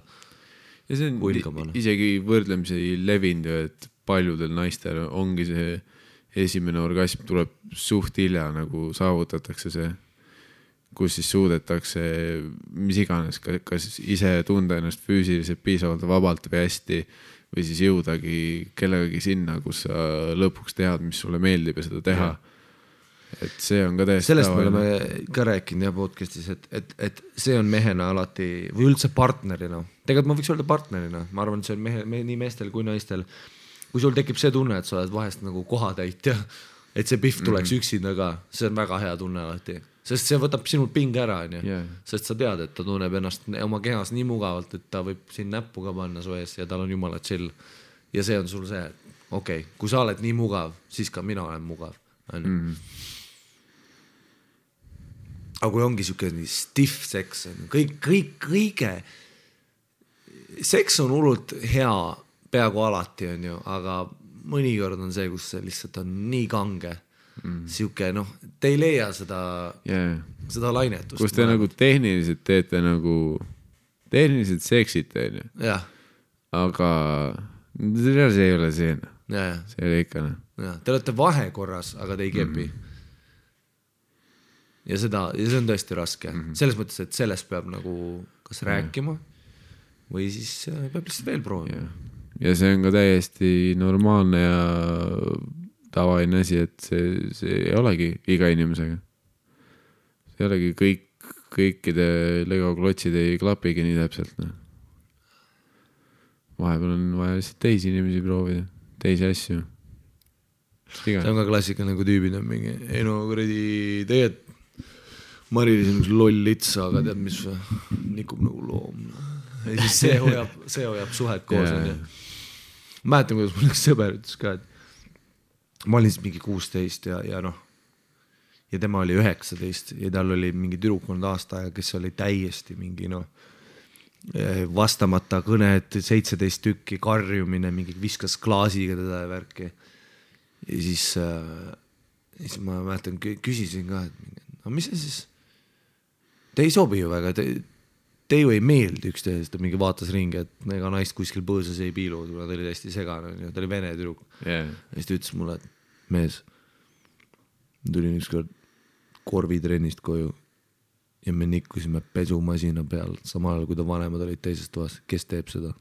huilgamana. Isegi võrdlemisi levinud, et paljudel naistel ongi see esimene orgasm tuleb suht hilja, nagu saavutatakse see kus siis suudetakse mis iganes, kas ise tunda ennast füüsiliselt piisavalt vabalt või hästi või siis jõudagi kellegagi sinna, kus sa lõpuks tead, mis sulle meeldib ja seda teha. Et see on ka täiesti sellest me oleme ka rääkinud ja podcastis, et see on mehena alati või üldse partnerina. Tegelikult ma võiks öelda partnerina. Ma arvan, et see on nii meestel kui naistel. Kui sul tekib see tunne, et sa oled vahest nagu kohatäitja, et see pihv tuleks üksinda ka, see on väga hea tunne alati. Sest see võtab sinult pinge ära, sest sa tead, et ta tunneb ennast oma kehas nii mugavalt, et ta võib siin näppu ka panna su ees ja tal on jumala chill. Ja see on sul see, et okei, kui sa oled nii mugav, siis ka mina olen mugav. Aga kui ongi siuke stiff seks, kõige seks on hullult hea peaaegu alati on ju, aga mõnikord on see, kus see lihtsalt on nii kange. Siuke, te ei leia seda lainetust. Kus te nagu tehniliselt teete nagu tehniliselt seksite, on ju. Jah. Aga see ei ole see. See ei ole ikka. Te olete vahekorras, aga te ei kepi. Ja see on tõesti raske. Selles mõttes, et sellest peab nagu kas rääkima või siis peab lihtsalt veel proovima. Ja see on ka täiesti normaalne ja tavaline asi, et see ei olegi iga inimesega. See ei olegi kõikide Lego klotsid ei klapigi nii täpselt. Vahepeal on vaja lihtsalt teisi inimesi proovida, teisi asju. See on ka klassika nagu tüübid on mingi, ei no kuradi tegelikult Marilis on üks loll litsa, aga tead mis nikub nagu loom. Ja siis see hoiab suhet koos. Mäletan, kuidas mul üks sõber ütles ka, et ma olin siis mingi 16 ja tema oli 19 ja tal oli mingi tüdruk olnud aasta aega, kes oli täiesti mingi vastamata kõned, 17 tükki, karjumine, mingi viskas klaasiga teda ja värki. Ja siis ma mäletan, küsisin ka, et mis see siis? Te ei sobi ju väga, te ju ei meeldi üksteisest, ta mingi vaatas ringi, et ega naist kuskil põõsas ei piilu, ta oli täiesti segane, ta oli vene tüdruk. Ja siis ta ütles mulle, et mees, tulin ükskord korvitrennist koju ja me nikkusime pesumasina peal, samal ajal kui ta vanemad olid teises toas, kes teeb seda?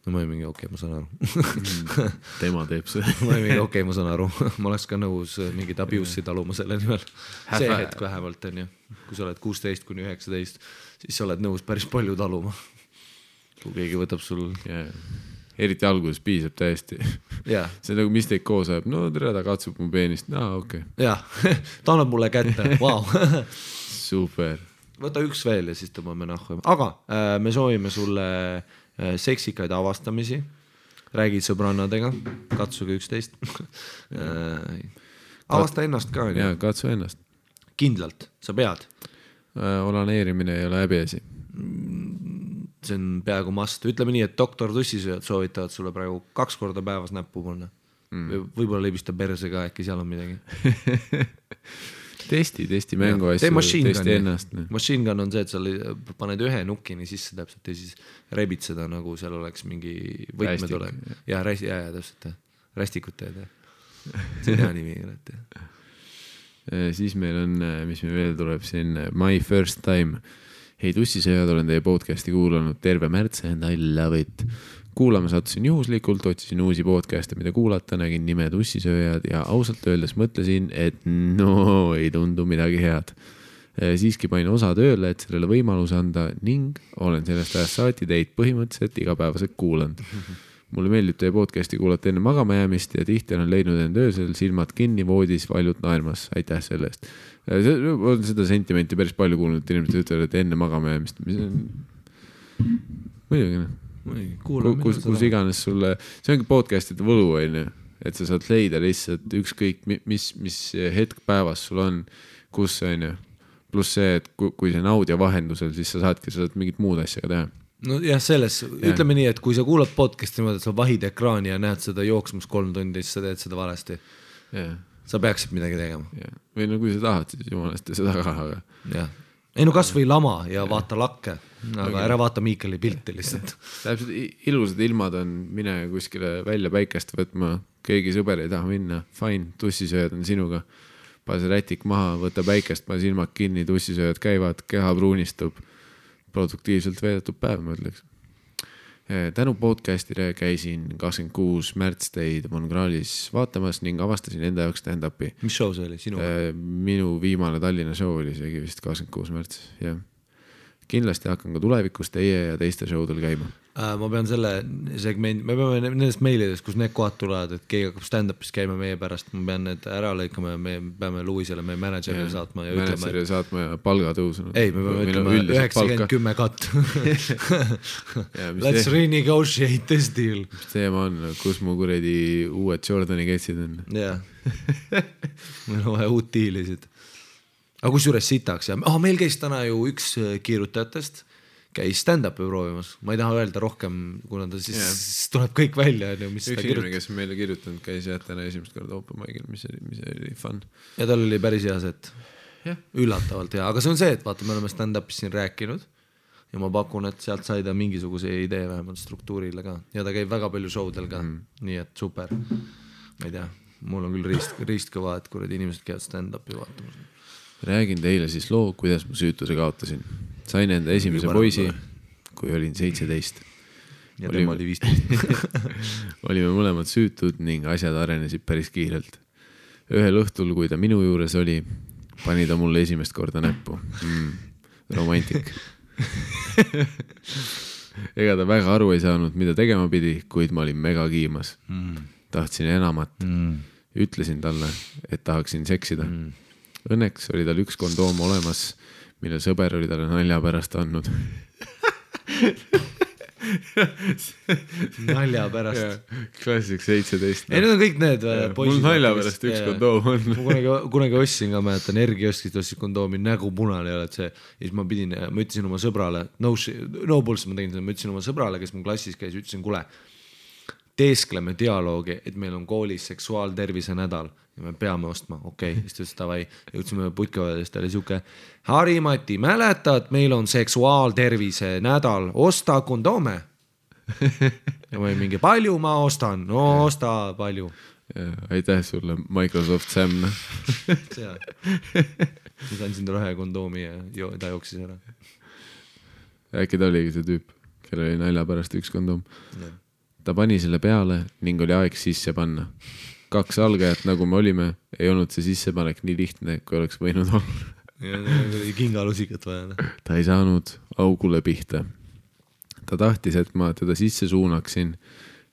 No ma olin mingi, okei, ma saan aru. Tema teeb seda. Ma olin mingi, okei, ma saan aru. Ma oleks ka nõus mingid abuse'i taluma selle nimel. See hetk vähemalt on ju. Kui sa oled 16 kuni 19, siis sa oled nõus päris palju taluma. Kui keegi võtab sul... Eriti alguses piisab täiesti. See on nagu mis teid koos ajab. No tere, ta katsub mu peenist. Okei. Ta annab mulle kätte. Vau. Super. Võta üks veel ja siis tõmbame nahku. Aga me soovime sulle seksikaid avastamisi. Räägid sõbrannadega. Katsuge 11. Avasta ennast ka. Katsu ennast. Kindlalt. Sa pead. Olaneerimine ei ole häbiasi. See on peaaegu must. Ütleme nii, et doktor tussisööjad soovitavad sulle praegu 2 korda päevas näppu panna. Võib-olla libista perse ka, äkki seal on midagi. Testi mängu asju, testi ennast. Machine gun on see, et sa paned ühe nukini sisse täpselt ja siis rebid seda, nagu seal oleks mingi võtmed olek. Ja täpselt. Rästikut teed. See on hea nimi. Siis meil on, mis meil veel tuleb siin, My First Time. Hei tussisööjad, olen teie podcasti kuulanud terve märtse and I love it. Kuulama sattusin juhuslikult, otsisin uusi podcast'e, mida kuulata, nägin nime tussisööjad ja ausalt öeldes mõtlesin, et ei tundu midagi head. Siiski panin osa tööle, et sellele võimaluse anda ning olen sellest ajast saati teid põhimõtteliselt igapäevaselt kuulanud. Mulle meeldib teie podcasti kuulata enne magama jäämist ja tihti olen leidnud end öösel silmad kinni voodis valjult naermas. Aitäh selle eest. On seda sentimenti päris palju kuulnud, inimesed ütlevad, et enne magama jäämist. Muidugi, kus iganes sulle, see ongi podcastide võlu, et sa saad leida lihtsalt ükskõik, mis hetk päevas sul on, kus on, pluss see, et kui see on audio vahendusel, siis sa saad mingit muud asja ka teha. No jah, ütleme nii, et kui sa kuulad podcasti niimoodi, et sa vahid ekraani ja näed seda jooksmus 3 tundi, siis sa teed seda valesti. Sa peaksid midagi tegema. Või no kui sa tahad, siis jumalast seda ka, aga... Jah. Ei no kas või lama ja vaata lakke, aga ära vaata Miikali pilti lihtsalt. Täpselt ilusad ilmad on, mine kuskile välja päikest võtma, keegi sõber ei taha minna, fine, tussisööjad on sinuga. paase rätik maha, võta päikest, pane silmad kinni, tussisööjad käivad, keha pruunistub, produktiivselt veedetud päev, ma ütleks. Tänu podcastile käisin 26. märts teid Mongraalis vaatamas ning avastasin enda jaoks stand-upi. Mis show see oli? Sinu? Minu viimane Tallinna show oli seegi vist 26. märts, jah. Kindlasti hakkan ka tulevikus teie ja teiste showdel käima. Ma pean selle segment, me peame nendest meilidest, kus need kohad tulevad, et keegi hakkab stand-upis käima meie pärast, ma pean need ära lõikama ja me peame Louisele, meie managerile saatma ja ütlema. Managerile saatma ja palgatõusu. Ei, me peame ütlema 90-10 cut. Let's renegotiate this deal. Mis teema on, kus mu kuredi uued Jordani ketsid on? Jah, meil on vaja uut diilisid. Aga kus juures sitaks ja meil käis täna ju üks kiirutajatest käis stand-upi proovimas, ma ei taha öelda rohkem, kuna ta siis tuleb kõik välja. Üks inimene, kes meile kirjutanud, käis täna esimest korda open mic'il, mis oli fun. Ja tal oli päris hea set. Üllatavalt hea, aga see on see, et vaata, me oleme stand-upis siin rääkinud ja ma pakun, et sealt sai ta mingisuguse idee vähemalt struktuurile ka ja ta käib väga palju showdel ka, nii et super. Ma ei tea, mul on küll riist kõva, et kuradi inimesed käivad stand-upi vaatamas. Räägin teile siis loo, kuidas ma süütuse kaotasin. Sain enda esimese poisi, kui olin 17. Ja tema oli 15. Olime mõlemad süütud ning asjad arenesid päris kiirelt. Ühel õhtul, kui ta minu juures oli, pani ta mulle esimest korda näppu. Romantik. Ega ta väga aru ei saanud, mida tegema pidi, kuid ma olin mega kiimas. Tahtsin enamat. Ütlesin talle, et tahaksin seksida. Õnneks oli tal üks kondoom olemas, mille sõber oli talle nalja pärast andnud. Nalja pärast. Klassik 17. Ei, need on kõik need poisid. Mul nalja pärast üks kondoom on. Ma kunagi ostsin ka, mäletan, Ergioskist ostsin kondoomi, nägu punane ei ole, et see. Ja siis ma ütlesin oma sõbrale, no bullshit, ma tegin seda, ma ütlesin oma sõbrale, kes mu klassis käis, ütlesin, kuule, teeskleme dialoogi, et meil on koolis seksuaaltervise nädal ja me peame ostma, okei, siis ta ütles davai, jõudsime putkavadest, ta oli siuke Harimati, mäletad, meil on seksuaaltervise nädal, osta kondoome ja ma mingi palju ma ostan, no osta palju ja, aitäh sulle Microsoft Sam siis andsin talle ühe kondoomi ja ta jooksis ära. Äkki ta oligi see tüüp, kellel oli nalja pärast üks kondoom ja. Ta pani selle peale ning oli aeg sisse panna. 2 algajat, nagu me olime, ei olnud see sissepanek nii lihtne, kui oleks võinud olla. Ja kingalusikat vaja. Ta ei saanud augule pihta. Ta tahtis, et ma teda sisse suunaksin,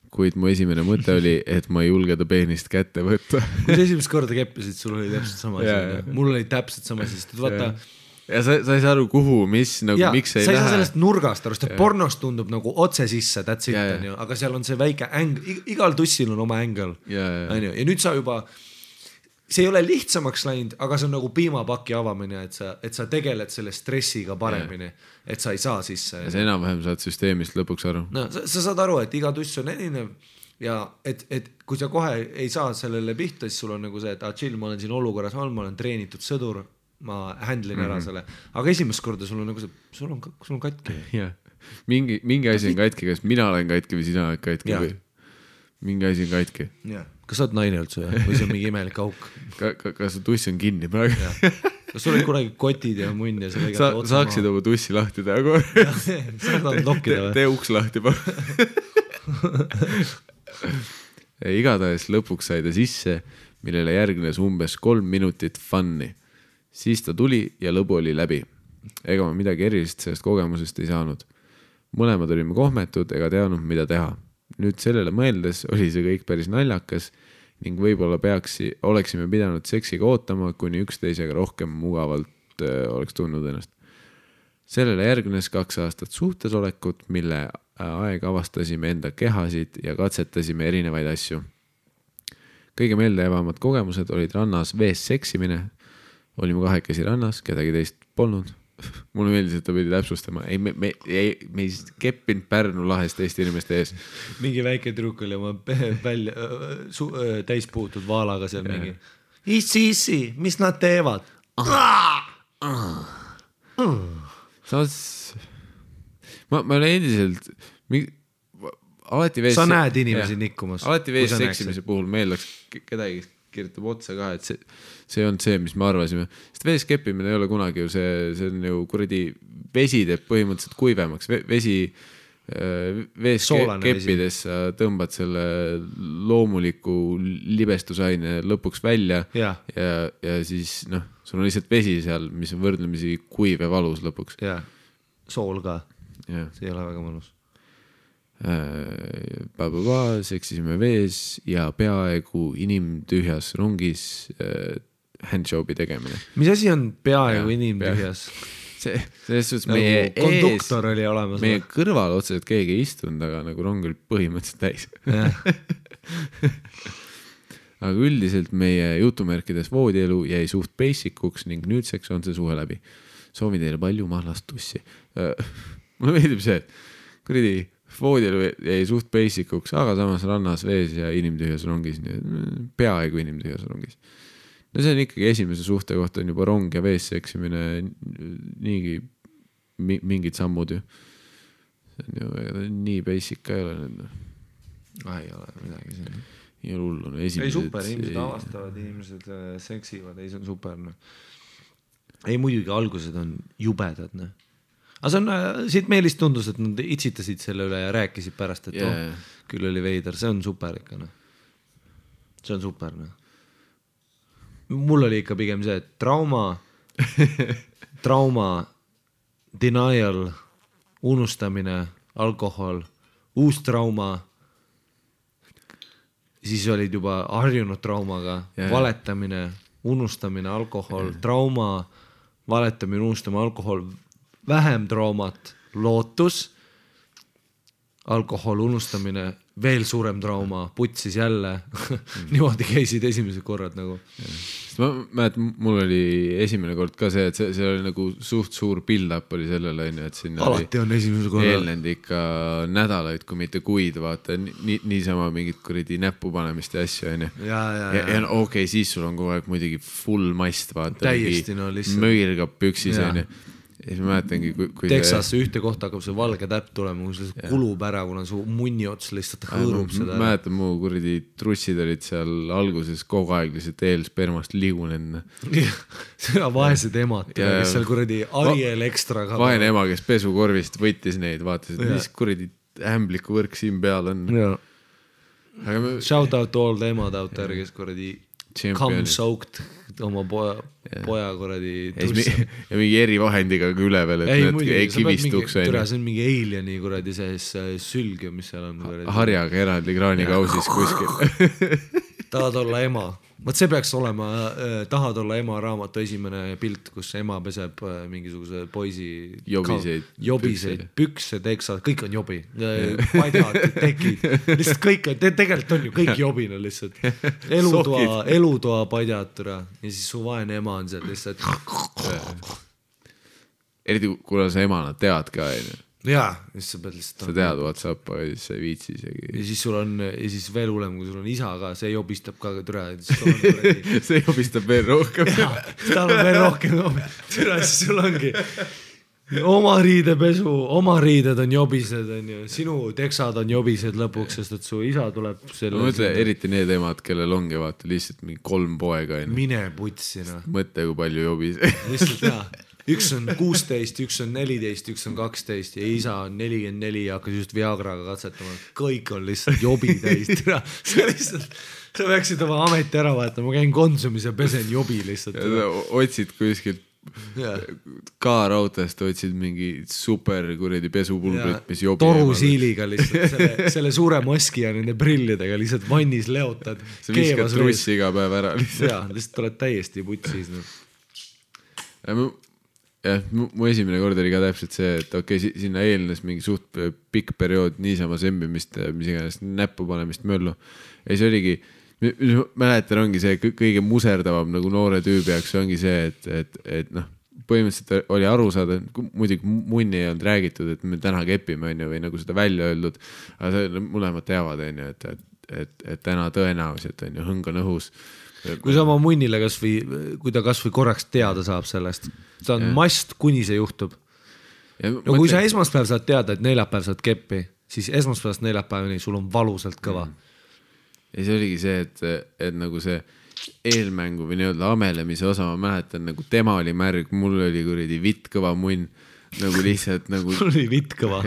kuid mu esimene mõte oli, et ma ei julge ta peenist kätte võtta. Kui sa esimest korda keppisid, sul oli täpselt sama asi. Mul oli täpselt sama asi, sest vaata... Ja sa ei saa aru kuhu, mis, nagu ja, miks ei lähe. Sa ei lähe. saa sellest nurgast aru, sest pornost tundub nagu otse sisse, that's it, aga seal on see väike igal tussil on oma ängel. Ja nüüd sa juba, see ei ole lihtsamaks läinud, aga see on nagu piimapaki avamine, et sa tegeled selle stressiga paremini, et sa ei saa sisse. Ja sa enam-vähem saad süsteemist lõpuks aru. No, sa saad aru, et iga tuss on erinev ja et kui sa kohe ei saa sellele pihta, siis sul on nagu see, et chill, ma olen siin olukorras, ma olen treenitud sõdur, ma handlin ära selle, aga esimest korda sul on nagu see, sul on katki. Ja. Mingi asi on katki, kas mina olen katki või sina oled katki või mingi asi on katki. Ja. Kas sa oled naine üldse või see on mingi imelik auk? Kas su tuss on kinni praegu? Kas sul olid kunagi kotid ja munn ja sa saaksid oma tussi lahti teha kohe? Sa tahad lokkida või? Tee uks lahti pa. Igatahes lõpuks sai ta sisse, millele järgnes umbes 3 minutit funni. Siis ta tuli ja lõbu oli läbi. Ega ma midagi erilist sellest kogemusest ei saanud. Mõlemad olime kohmetud ega teadnud, mida teha. Nüüd sellele mõeldes oli see kõik päris naljakas ning võib-olla oleksime pidanud seksiga ootama, kuni üksteisega rohkem mugavalt oleks tundnud ennast. Sellele järgnes 2 aastat suhtesolekut, mille aeg avastasime enda kehasid ja katsetasime erinevaid asju. Kõige meeldejäävamad kogemused olid rannas vees seksimine. Olime 2 rannas, kedagi teist polnud. Mulle meeldis, et ta pidi täpsustama. Me ei keppinud Pärnu lahest Eesti inimeste ees. Mingi väike trükk oli oma täis puutud vaalaga seal mingi. Issi, mis nad teevad? Ma olen endiselt alati vees... Sa näed inimesi nikkumas. Alati vees seksimise puhul meeldaks kedagi kirjutab otsa ka, et see on see, mis me arvasime. Sest vees keppimine ei ole kunagi ju see on ju kuradi vesi teeb põhimõtteliselt kuivemaks. Vesi vees keppides sa tõmbad selle loomuliku libestusaine lõpuks välja ja siis sul on lihtsalt vesi seal, mis on võrdlemisi kuiv ja valus lõpuks. Ja, sool ka. See ei ole väga mõnus. Seksisime vees ja peaaegu inimtühjas rongis handjobi tegemine. Mis asi on peaaegu inimtühjas? Selles suhtes nagu meie konduktor oli olemas. Meie kõrval otseselt keegi ei istunud, aga nagu rong oli põhimõtteliselt täis. Aga üldiselt meie jutumärkides voodielu jäi suht basic'uks ning nüüdseks on see suhe läbi. Soovin teile palju mahlast tussi. Mulle meeldib see, et kuradi voodielu jäi suht basic'uks, aga samas rannas vees ja inimtühjas rongis, peaaegu inimtühjas rongis. No see on ikkagi esimese suhte kohta on juba rong ja vees seksimine niigi mingid sammud ju. See on ju nii basic ka ei ole nüüd. Ei ole midagi siin. Ei ole hullu. Ei super, inimesed avastavad, inimesed seksivad, ei see on super. Ei muidugi algused on jubedad. Aga see on, siit Meelist tundus, et nad itsitasid selle üle ja rääkisid pärast, et küll oli veider, see on super ikka. See on super. Mul oli ikka pigem see, et trauma, denial, unustamine, alkohol, uus trauma, siis olid juba harjunud traumaga, valetamine, unustamine, alkohol, trauma, valetamine, unustamine, alkohol, vähem traumat, lootus, alkohol, unustamine, veel suurem trauma, putsis jälle, niimoodi käisid esimesed korrad nagu. Ma mäletan, mul oli esimene kord ka see, et see oli nagu suht suur build-up oli sellele, et siin alati on esimese korra eelnenud ikka nädalaid, kui mitte kuid, vaata, niisama mingit kuradi näppu panemist ja asju, ja okei, siis sul on kogu aeg muidugi full mast, vaata, täiesti möirgab püksis, ja siis ma mäletangi, kui Texas ühte kohta hakkab see valge täpp tulema, kui see kulub ära, kuna su munni ots lihtsalt hõõrub seda. Mäletan, mu kuradi trussid olid seal alguses kogu aeg lihtsalt eelspermast liigunenud. Seda vaesed emad, kes seal kuradi Ariel Extra ka. Vaene ema, kes pesukorvist võttis neid, vaatas, et mis kuradi ämbliku võrk siin peal on. Shout out to all the emad out there, kes kuradi come soaked oma poja kuradi tussa. Ja mingi erivahendiga üle veel, et need ei kivistuks. See on mingi alieni kuradi sees sülg, mis seal on. Harjaga eraldi kraanikausis kuskil. Tahad olla ema. Võt see peaks olema Tahad olla ema raamatu esimene pilt, kus ema peseb mingisuguse poisi jobiseid pükse, teksad, kõik on jobi. Padjad, tekid, lihtsalt kõik on, tegelikult on ju kõik jobina lihtsalt. Elutoa padjad ja siis su vaene ema on seal lihtsalt. Eriti kuna sa emana tead ka, jaa, siis sa pead lihtsalt sa tead WhatsApp, aga siis sa ei viitsi isegi. Ja siis sul on, ja siis veel hullem, kui sul on isa ka, see jobistab ka türa. See jobistab veel rohkem. Jaa, tal on veel rohkem türa, siis sul ongi oma riidepesu, oma riided on jobised, sinu teksad on jobised lõpuks, sest et su isa tuleb selle... Ma mõtle, eriti need emad, kellel ongi vaata lihtsalt mingi 3 poega. Mine putsina. Mõtle, kui palju jobised. Lihtsalt jaa. Üks on 16, üks on 14, üks on 12 ja isa on 44 ja hakkas just Viagraga katsetama. Kõik on lihtsalt jobi täis. Sa peaksid oma ameti ära vaatama, ma käin Konsumis ja pesen jobi lihtsalt. Otsid kuskilt K-rautast, otsid mingi super kuredi pesupulbrit, mis jobi. Torusiiliga lihtsalt, selle suure maski ja nende prillidega lihtsalt vannis leotad. Sa viskad trussi iga päev ära lihtsalt. Jaa, lihtsalt oled täiesti putsis. Jah, mu esimene kord oli ka täpselt see, et okei, sinna eelnes mingi suht pikk periood niisama sembimist, mis iganes näppu panemist möllu. Ja see oligi, mäletan ongi see kõige muserdavam nagu noore tüübi jaoks ongi see, et põhimõtteliselt oli aru saada, muidugi munni ei olnud räägitud, et me täna kepime või nagu seda välja öeldud, aga mõlemad teavad, et täna tõenäoliselt hõng on õhus. Kui sa oma munnile kui ta kas või korraks teada saab sellest, ta on mast, kuni see juhtub. No kui sa esmaspäev saad teada, et neljapäev saad keppi, siis esmaspäevast neljapäevani sul on valusalt kõva. Ja see oligi see, et nagu see eelmängu või nii-öelda amelemise osa, ma mäletan, nagu tema oli märg, mul oli kuradi vitt kõva munn, nagu lihtsalt nagu mul oli vitt kõva.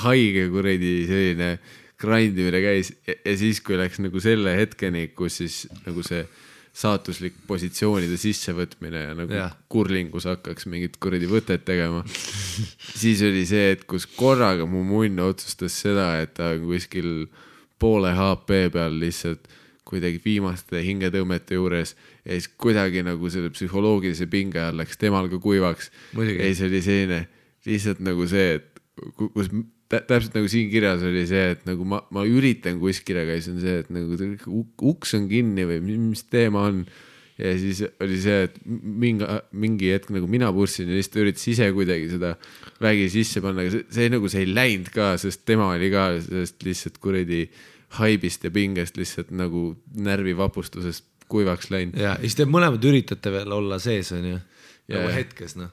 Haige kuradi selline grindimine käis ja siis, kui läks nagu selle hetkeni, kus siis nagu see saatuslik positsioonide sissevõtmine ja nagu kurlingus hakkaks mingit kuradi võtet tegema, siis oli see, et kus korraga mu munn otsustas seda, et ta kuskil poole HP peal lihtsalt kuidagi viimaste hingetõmmete juures ja siis kuidagi nagu selle psühholoogilise pinge all läks temal ka kuivaks. Ja siis oli selline lihtsalt nagu see, et kus täpselt nagu siin kirjas oli see, et nagu ma üritan kuskile, aga siis on see, et nagu uks on kinni või mis teema on. Ja siis oli see, et mingi hetk nagu mina pussin ja lihtsalt üritas ise kuidagi seda vägi sisse panna, aga see nagu see ei läinud ka, sest tema oli ka sellest lihtsalt kuradi haibist ja pingest lihtsalt nagu närvivapustusest kuivaks läinud. Ja siis te mõlemad üritate veel olla sees, on ju, nagu hetkes, noh.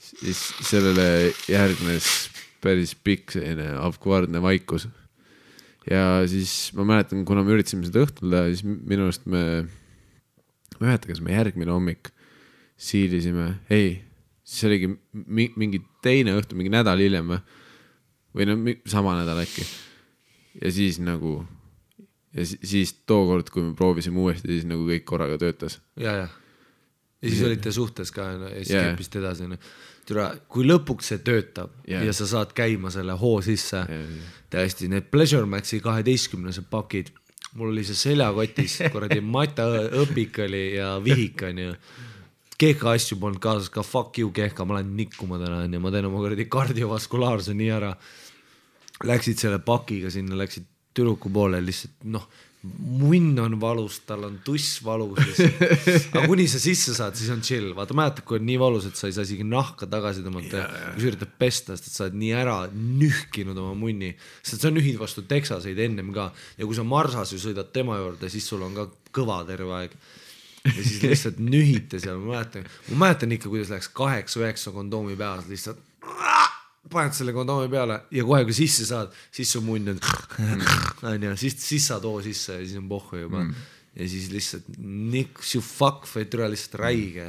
Siis sellele järgnes päris pikk selline avkvardne vaikus. Ja siis ma mäletan, kuna me üritasime seda õhtul teha, siis minu arust ma mäletan, kas me järgmine hommik siilisime, siis oligi mingi teine õhtu, mingi nädal hiljem või no sama nädal äkki. Ja siis nagu, ja siis tookord, kui me proovisime uuesti, siis nagu kõik korraga töötas. Ja siis olite suhtes ka ja siis keppist edasi. Kui lõpuks see töötab ja sa saad käima selle hoo sisse, täiesti need Pleasure Maxi 12 pakid, mul oli see seljakotis, kuradi Mata õpik oli ja vihik on ju. Kehka asju polnud kaasas, ka fuck you Kehka, ma lähen nikkuma täna ja ma teen oma kuradi kardiovaskulaarse nii ära. Läksid selle pakiga sinna, läksid tüdruku poole lihtsalt, noh, munn on valus, tal on tuss valus. Aga kuni sa sisse saad, siis on chill. Vaata, mäletad, kui on nii valus, et sa ei saa isegi nahka tagasi tõmmata, kui sa üritad pesta, sest sa oled nii ära nühkinud oma munni. Sest sa nühid vastu teksaseid ennem ka. Ja kui sa marsas ju sõidad tema juurde, siis sul on ka kõva terve aeg. Ja siis lihtsalt nühite seal. Ma mäletan ikka, kuidas läks 8-9 kondoomi peas lihtsalt paned selle kondoomi peale ja kohe kui sisse saad, siis su munn on siis saad oo sisse ja siis on pohhu juba ja siis lihtsalt niks ju fuck või türa lihtsalt räige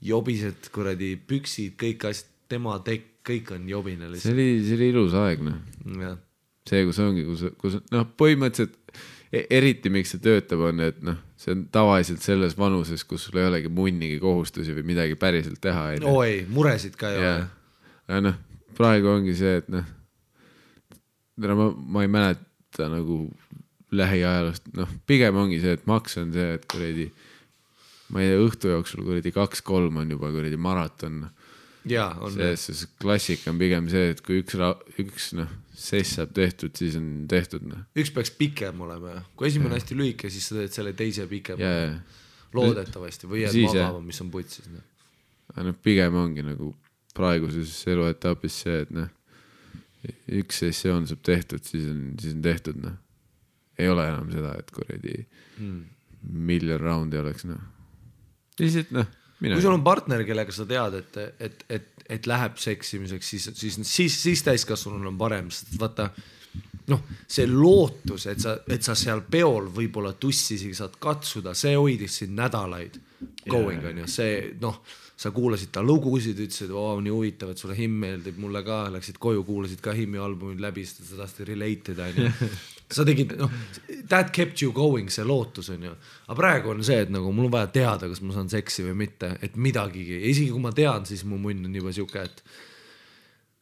jobised kuradi püksid, kõik asjad, tema tekk, kõik on jobine lihtsalt. See oli ilus aeg, noh. See, kus ongi, kus noh, põhimõtteliselt eriti miks see töötab on, et noh, see on tavaliselt selles vanuses, kus sul ei olegi munnigi kohustusi või midagi päriselt teha. Ei, muresid ka ei ole. Ja noh, praegu ongi see, et noh, ma ei mäleta nagu lähiajalust, noh, pigem ongi see, et maks on see, et kuradi, ma ei tea, õhtu jooksul kuradi 2-3 on juba kuradi maraton. Jaa, on. See klassik on pigem see, et kui üks noh, sess saab tehtud, siis on tehtud. Noh. Üks peaks pikem olema. Kui esimene hästi lühike, siis sa teed selle teise pikem. Loodetavasti või jääd magama, mis on putsis. No, pigem ongi nagu praeguses eluetapis see, et noh, üks sessioon saab tehtud, siis on tehtud, noh. Ei ole enam seda, et kuradi miljon raundi oleks, noh. Lihtsalt, noh, kui sul on partner, kellega sa tead, et läheb seksimiseks, siis täiskasvanul on parem, sest vaata, noh, see lootus, et sa seal peol võib-olla tussisigi saad katsuda, see hoidis siin nädalaid going on ju, see, noh, sa kuulasid ta lugusid, ütlesid, nii huvitav, et sulle Him meeldib, mulle ka, läksid koju, kuulasid ka Himi albumid läbi, sest sa tahtsid related, sa tegid, noh, that kept you going, see lootus on ju, aga praegu on see, et nagu mul on vaja teada, kas ma saan seksi või mitte, et midagigi, isegi kui ma tean, siis mu munn on juba siuke, et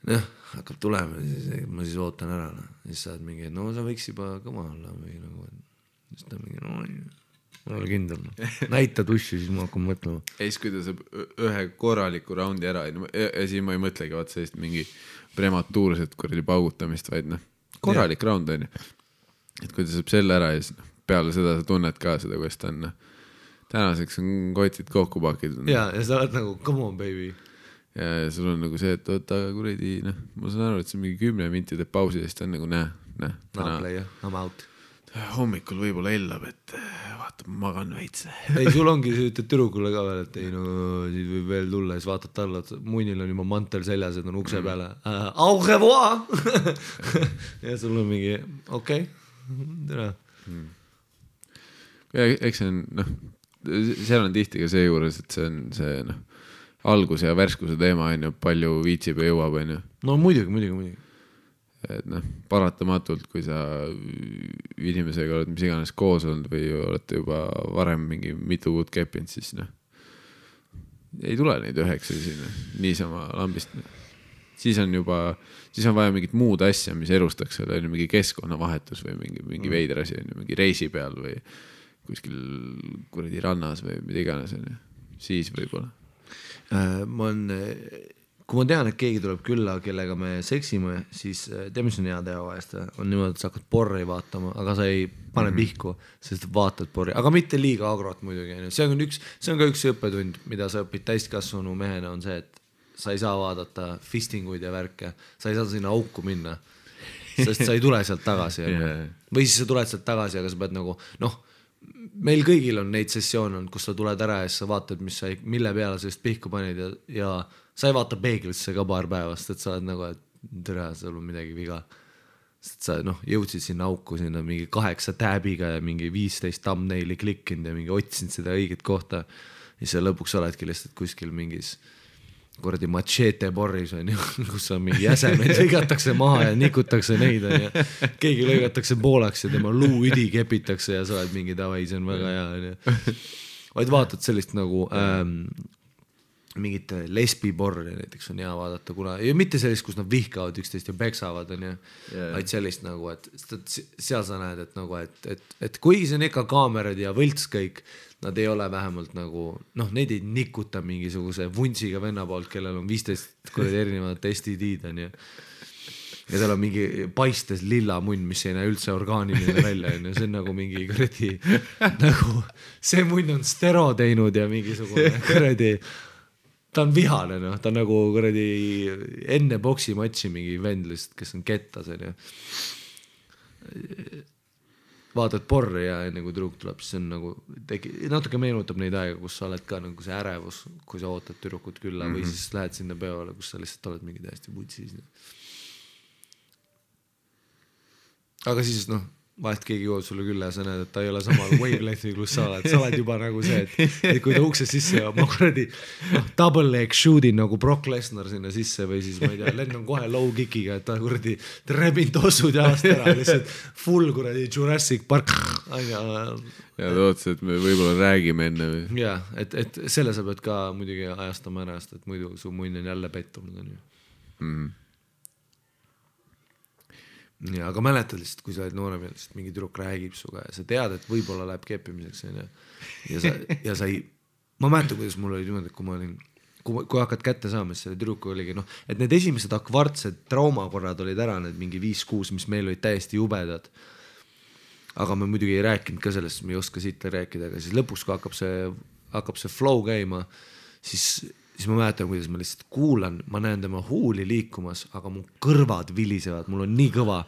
noh, hakkab tulema, ma siis ootan ära, siis saad mingi, no sa võiks juba kõma olla või nagu, siis ta mingi, no ma olen kindel. Näita tussi, siis ma hakkan mõtlema. Ja siis, kui ta saab ühe korraliku raundi ära, ja siis ma ei mõtlegi vaat sellist mingi prematuurset kuradi paugutamist, vaid noh, korralik raund on ju. Et kui ta saab selle ära ja siis peale seda sa tunned ka seda, kuidas ta on. Tänaseks on kotid kokku pakitud. Ja sa oled nagu, come on baby. Ja sul on nagu see, et oota kuradi, noh, ma saan aru, et see on mingi 10 mintide pausi ja siis ta on nagu I'm out. Hommikul võib-olla ellab, et vaata, magan veits. Ei, sul ongi see ütled tüdrukule ka veel, et ei no, siis võib veel tulla, siis vaatad talle, muinil on juba mantel seljas, et on ukse peale. Au revoir! Ja sul on mingi, okei, tere. ja eks see on, noh, seal on tihti ka see juures, et see on see, noh, algus ja värskuse teema on ju, palju viitsib ja jõuab, on ju. No muidugi. Et noh, paratamatult, kui sa inimesega oled mis iganes koos olnud või olete juba varem mingi mitu kuud keppinud, siis noh, ei tule neid 9 sinna niisama lambist. Siis on vaja mingit muud asja, mis elustaks selle, mingi keskkonnavahetus või mingi veider asi, mingi reisi peal või kuskil kuradi rannas või mida iganes. Siis võib-olla. Kui ma tean, et keegi tuleb külla, kellega me seksime, siis teeme see on hea teha vahest. On niimoodi, et sa hakkad porri vaatama, aga sa ei pane pihku, sest vaatad porri. Aga mitte liiga agrot muidugi. See on ka üks õppetund, mida sa õpid täiskasvanu mehena, on see, et sa ei saa vaadata fistinguid ja värke. Sa ei saa sinna auku minna, sest sa ei tule sealt tagasi. Või siis sa tuled sealt tagasi, aga sa pead nagu, noh, meil kõigil on neid sessioone, kus sa tuled ära ja sa vaatad, mille peale sa just pihku panid ja sa ei vaata peeglisse ka paar päevast, et sa oled nagu, et tere, seal on midagi viga. Sest sa jõudsid sinna auku sinna mingi 8 tääbiga ja mingi 15 thumbnaili klikkinud ja mingi otsinud seda õiget kohta. Ja sa lõpuks oledki lihtsalt kuskil mingis kuradi machete porris, kus on mingi jäsemed, lõigatakse maha ja nikutakse neid. Ja keegi lõigatakse poolaks ja tema luuüdi kepitakse ja sa oled mingi davai, see on väga hea. Vaid vaatad sellist nagu mingit lesbiporri näiteks on hea vaadata, kuna ja mitte sellist, kus nad vihkavad üksteist ja peksavad, vaid sellist nagu, et seal sa näed, et nagu, et kuigi see on ikka kaamerad ja võlts kõik, nad ei ole vähemalt nagu, noh, neid ei nikuta mingisuguse vunsiga venna poolt, kellel on 15 erinevad STD-d, ja tal on mingi paistes lilla munn, mis ei näe üldse orgaaniline välja, see on nagu mingi kuradi, nagu see munn on stero teinud ja mingisugune kuradi ta on vihane, no. Ta on nagu kuradi enne boksimatši mingi vendlist, kes on kettas. Vaatad porri ja enne kui tüdruk tuleb, siis on nagu natuke meenutab neid aega, kus sa oled ka nagu see ärevus, kui sa ootad tüdrukut külla või siis lähed sinna peole, kus sa lihtsalt oled mingi täiesti putsis. Aga siis noh, vahest keegi jõuab sulle külla ja sa näed, et ta ei ole samal wavelength'i, kus sa oled juba nagu see, et kui ta ukse sisse ja ma kuradi double leg shoot'in nagu Brock Lesnar sinna sisse või siis ma ei tea, lennan kohe low kickiga, et ta kuradi rebin tossud jalast ära, lihtsalt full kuradi Jurassic Park. Ja ta ootas, et me võib-olla räägime enne või? Ja, et selle sa pead ka muidugi ajastama ära, et muidu su munn on jälle pettunud. Ja, aga mäletad lihtsalt, kui sa oled noorem ja lihtsalt mingi tüdruk räägib suga ja sa tead, et võib-olla läheb keppimiseks ja sa ei, ma mäletan, kuidas mul oli niimoodi, kui hakkad kätte saama, siis selle tüdruku oligi, noh, et need esimesed akvartsed traumakorrad olid ära, need mingi 5-6, mis meil olid täiesti jubedad. Aga me muidugi ei rääkinud ka sellest, me ei oska siit rääkida, aga siis lõpuks, kui hakkab see flow käima, siis ma mäletan, kuidas ma lihtsalt kuulan, ma näen tema huuli liikumas, aga mu kõrvad vilisevad, mul on nii kõva,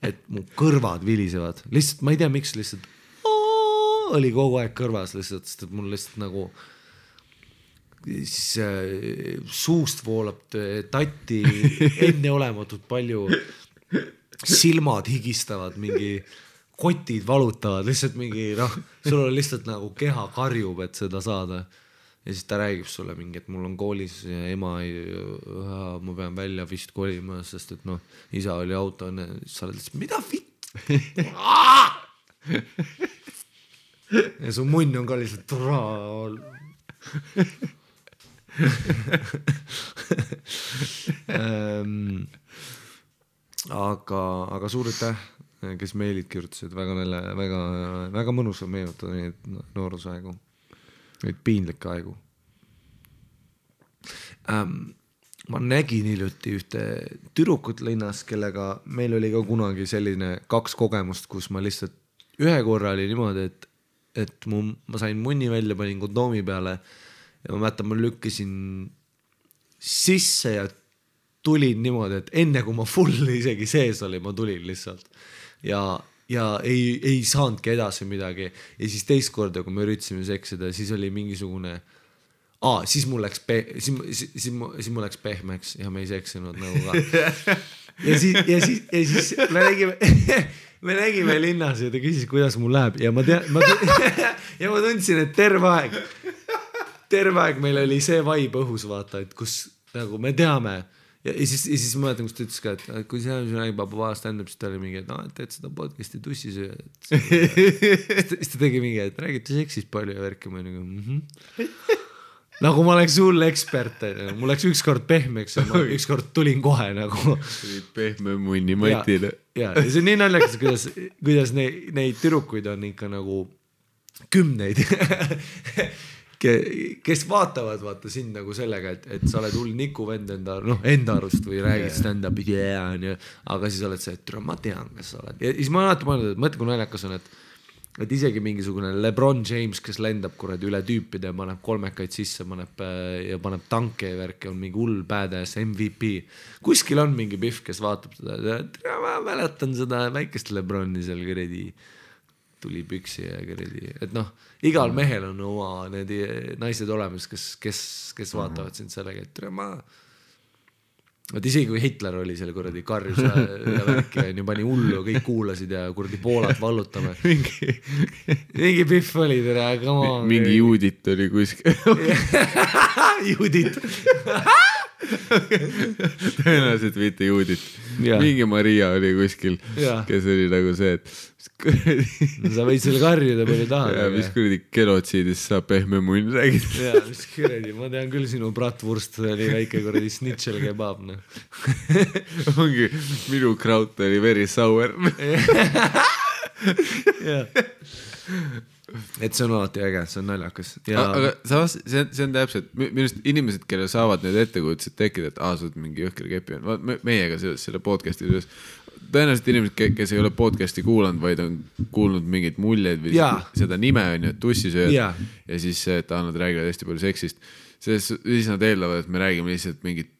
et mu kõrvad vilisevad. Lihtsalt, ma ei tea, miks lihtsalt oli kogu aeg kõrvas lihtsalt, sest et mul lihtsalt nagu suust voolab tatti enneolematult palju, silmad higistavad, mingi kotid valutavad, lihtsalt mingi, noh, sul on lihtsalt nagu keha karjub, et seda saada. Ja siis ta räägib sulle mingi, et mul on koolis ja ema ma pean välja vist kolima, sest et noh, isa oli auto, sa oled lihtsalt, mida vitt? Ja su munn on ka lihtsalt aga suur aitäh, kes meilid kirjutasid, väga mõnus on meenutada neid noorusaegu. Neid piinlikke aegu. Ma nägin hiljuti ühte tüdrukut linnas, kellega meil oli ka kunagi selline 2 kogemust, kus ma lihtsalt ühe korra oli niimoodi, et ma sain munni välja, panin kondoomi peale ja ma mäletan, ma lükkasin sisse ja tulin niimoodi, et enne kui ma full isegi sees oli, ma tulin lihtsalt ja ei saanudki edasi midagi. Ja siis teist korda, kui me üritasime seksida, siis oli mingisugune siis mul läks pehmeks ja me ei seksinud nagu ka. siis me nägime linnas ja ta küsis, kuidas mul läheb ja ma tundsin, et terve aeg meil oli see vibe õhus, vaata, et kus nagu me teame ja siis ma mäletan, kus ta ütles ka, et kui see räägib stand-up, siis ta oli mingi, et teed seda podcast'i tussisöö. Siis ta tegi mingi, et räägite seksist palju ja värki, ma nagu nagu ma oleks hull ekspert, mul läks ükskord pehmeks ja ma ükskord tulin kohe nagu pehme munni matile. Ja see on nii naljakas, kuidas neid tüdrukuid on ikka nagu kümneid, kes vaatavad vaata sind nagu sellega, et sa oled hull nikuvend enda arust või räägid stand-up'i, aga siis oled see, et ma tean, kes sa oled. Ja siis ma alati mõelnud, et mõtle, kui naljakas on, et isegi mingisugune LeBron James, kes lendab kuradi üle tüüpide ja paneb kolmekaid sisse, paneb tanke ja värki, on mingi hull badass MVP. Kuskil on mingi pihv, kes vaatab seda, ma mäletan seda väikest LeBroni seal kuradi tuli püksi ja kuradi, et igal mehel on oma need naised olemas, kes vaatavad sind sellega, et et isegi kui Hitler oli seal kuradi karjus ja värki ja pani hullu, kõik kuulasid ja kuradi Poolat vallutame. Mingi pihv oli tere, aga mingi Judit oli kuskil. Judit. Tõenäoliselt mitte Judit. Mingi Maria oli kuskil, kes oli nagu see, et sa võid selle karjuda palju tahad. Ja mis kuradi genotsiidist saab pehme munn räägida. Ja mis kuradi, ma tean küll sinu bratwurst oli väike kuradi snitšel kebab. Ongi, minu kraut oli very sour. Et see on alati äge, see on naljakas. Aga samas, see on täpselt, minust inimesed, kelle saavad need ettekujutused tekkida, et sa oled mingi jõhker kepi on. Meiega selle podcasti üles. Tõenäoliselt inimesed, kes ei ole podcasti kuulanud, vaid on kuulnud mingeid muljeid või seda nime on ju, tussisööd ja siis nad räägivad hästi palju seksist. Siis nad eeldavad, et me räägime lihtsalt mingit,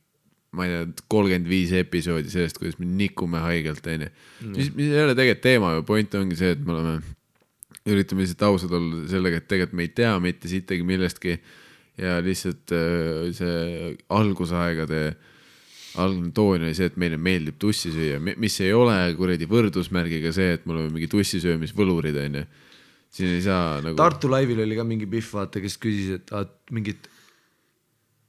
ma ei tea, 35 episoodi sellest, kuidas me nikume haigelt, on ju. Mis ei ole tegelikult teema ja point ongi see, et me üritame lihtsalt ausad olla sellega, et tegelikult me ei tea mitte sittagi millestki ja lihtsalt see algusaegade algne toon oli see, et meile meeldib tussi süüa, mis ei ole kuradi võrdusmärgiga see, et mul on mingi tussisöömisvõlurid, on ju. Siin ei saa nagu... Tartu laivil oli ka mingi pihv, vaata, kes küsis, et mingit...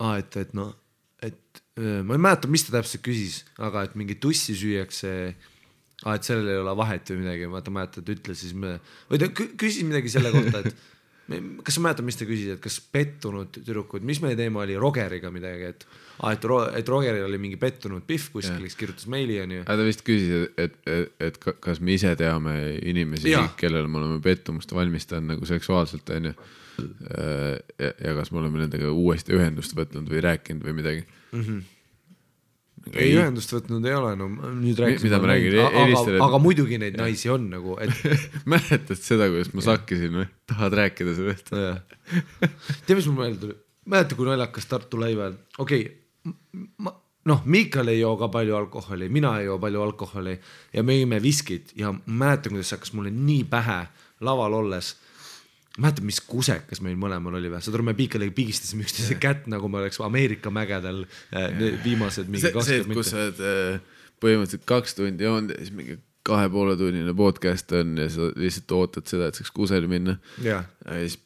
ma ei mäleta, mis ta täpselt küsis, aga et mingi tussi süüakse, et sellel ei ole vahet või midagi, vaata mäletad, ütles siis või ta küsis midagi selle kohta, et kas sa mäletad, mis ta küsis, et kas pettunud tüdrukud, mis meie teema oli Rogeriga midagi, et Rogeril oli mingi pettunud pihv kuskil, kes kirjutas meili on ju. Ta vist küsis, et kas me ise teame inimesi, kellele me oleme pettumust valmistanud nagu seksuaalselt on ju. Ja kas me oleme nendega uuesti ühendust võtnud või rääkinud või midagi. Ei ühendust võtnud ei ole, no nüüd mida ma räägin, aga muidugi neid naisi on nagu, et mäletad seda, kuidas ma sakkisin või? Tahad rääkida sellest? Tea, mis mul meelde tuli? Mäleta, kui naljakas Tartu laival. Miikal ei joo ka palju alkoholi, mina ei joo palju alkoholi ja me jõime viskid ja mäletan, kuidas hakkas mulle nii pähe laval olles. Mäletan, mis kusekas meil mõlemal oli või? Saad aru, me Piikaliga pigistasime üksteise kätt, nagu me oleks Ameerika mägedel viimased mingi 20 see, kus sa oled põhimõtteliselt 2 tundi joonud ja siis mingi 2,5 tunnine podcast on ja sa lihtsalt ootad seda, et saaks kuseli minna. Ja siis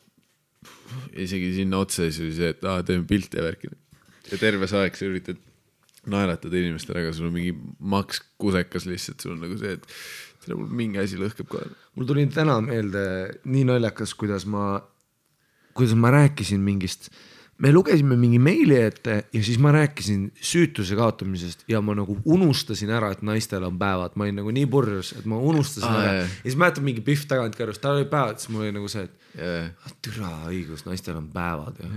isegi sinna otsa siis oli see, et teeme pilti ja värkida. Ja terve aeg sa üritad naeratada inimestele, aga sul on mingi maks kusekas lihtsalt, sul on nagu see, et mul mingi asi lõhkeb kohe. Mul tuli täna meelde nii naljakas, kuidas ma rääkisin mingist, me lugesime mingi meili ette ja siis ma rääkisin süütuse kaotamisest ja ma nagu unustasin ära, et naistel on päevad. Ma olin nagu nii purjus, et ma unustasin ära. Ja siis mäletan mingi pihv tagant kõrvust, tal oli päevad, siis mul oli nagu see, et türa õigus, naistel on päevad ja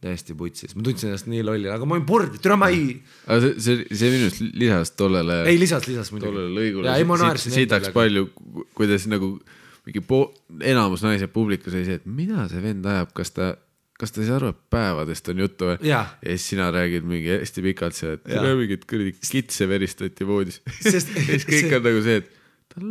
täiesti putsis. Ma tundsin ennast nii lolli, aga ma olin purdi, türa ma ei... See minust lisas tollele... Ei, lisas muidugi. Tollele lõigule. Siitaks palju, kuidas nagu mingi enamus naised publikus oli see, et mida see vend ajab, kas ta ei saa aru, et päevadest on juttu või? Ja siis sina räägid mingi hästi pikalt see, et mingid kitse veristati voodis. Siis kõik on nagu see, et tal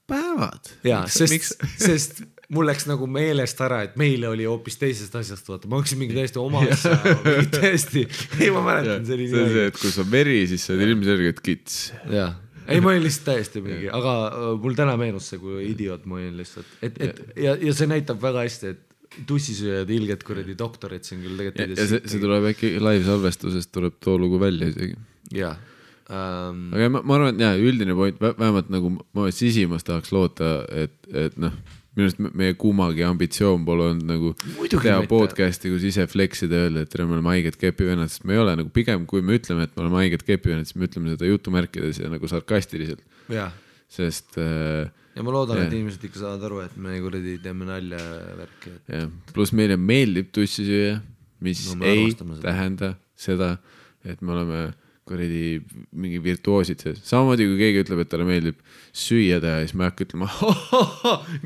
päevad. Ja, sest mul läks nagu meelest ära, et meile oli hoopis teisest asjast, vaata, ma hakkasin mingi täiesti oma asja, mingi täiesti, ei ma mäletan, see oli see on see, et kui sa veri, siis sa oled ilmselgelt kits. jah, ei ma olin lihtsalt täiesti mingi, aga mul täna meenus see, kui idioot ma olin lihtsalt, ja see näitab väga hästi, et tussisööjad ilged kuradi doktorid siin küll tegelikult ja see tuleb äkki live salvestusest tuleb too lugu välja isegi. jah. Aga ma arvan, et üldine point, vähemalt nagu ma sisimas tahaks loota, et noh, minu arust meie kumagi ambitsioon pole olnud nagu teha podcasti, kus ise flexida öelda, et me oleme haiged kepivennad, sest me ei ole nagu pigem, kui me ütleme, et me oleme haiged kepivennad, siis me ütleme seda jutumärkides ja nagu sarkastiliselt. Sest ja ma loodan, et inimesed ikka saavad aru, et me kuradi teeme nalja värki. Pluss meile meeldib tussisüüa, mis ei tähenda seda, et me oleme kuradi mingi virtuoosid sees. Samamoodi kui keegi ütleb, et talle meeldib süüa teha, siis ma hakka ütlema,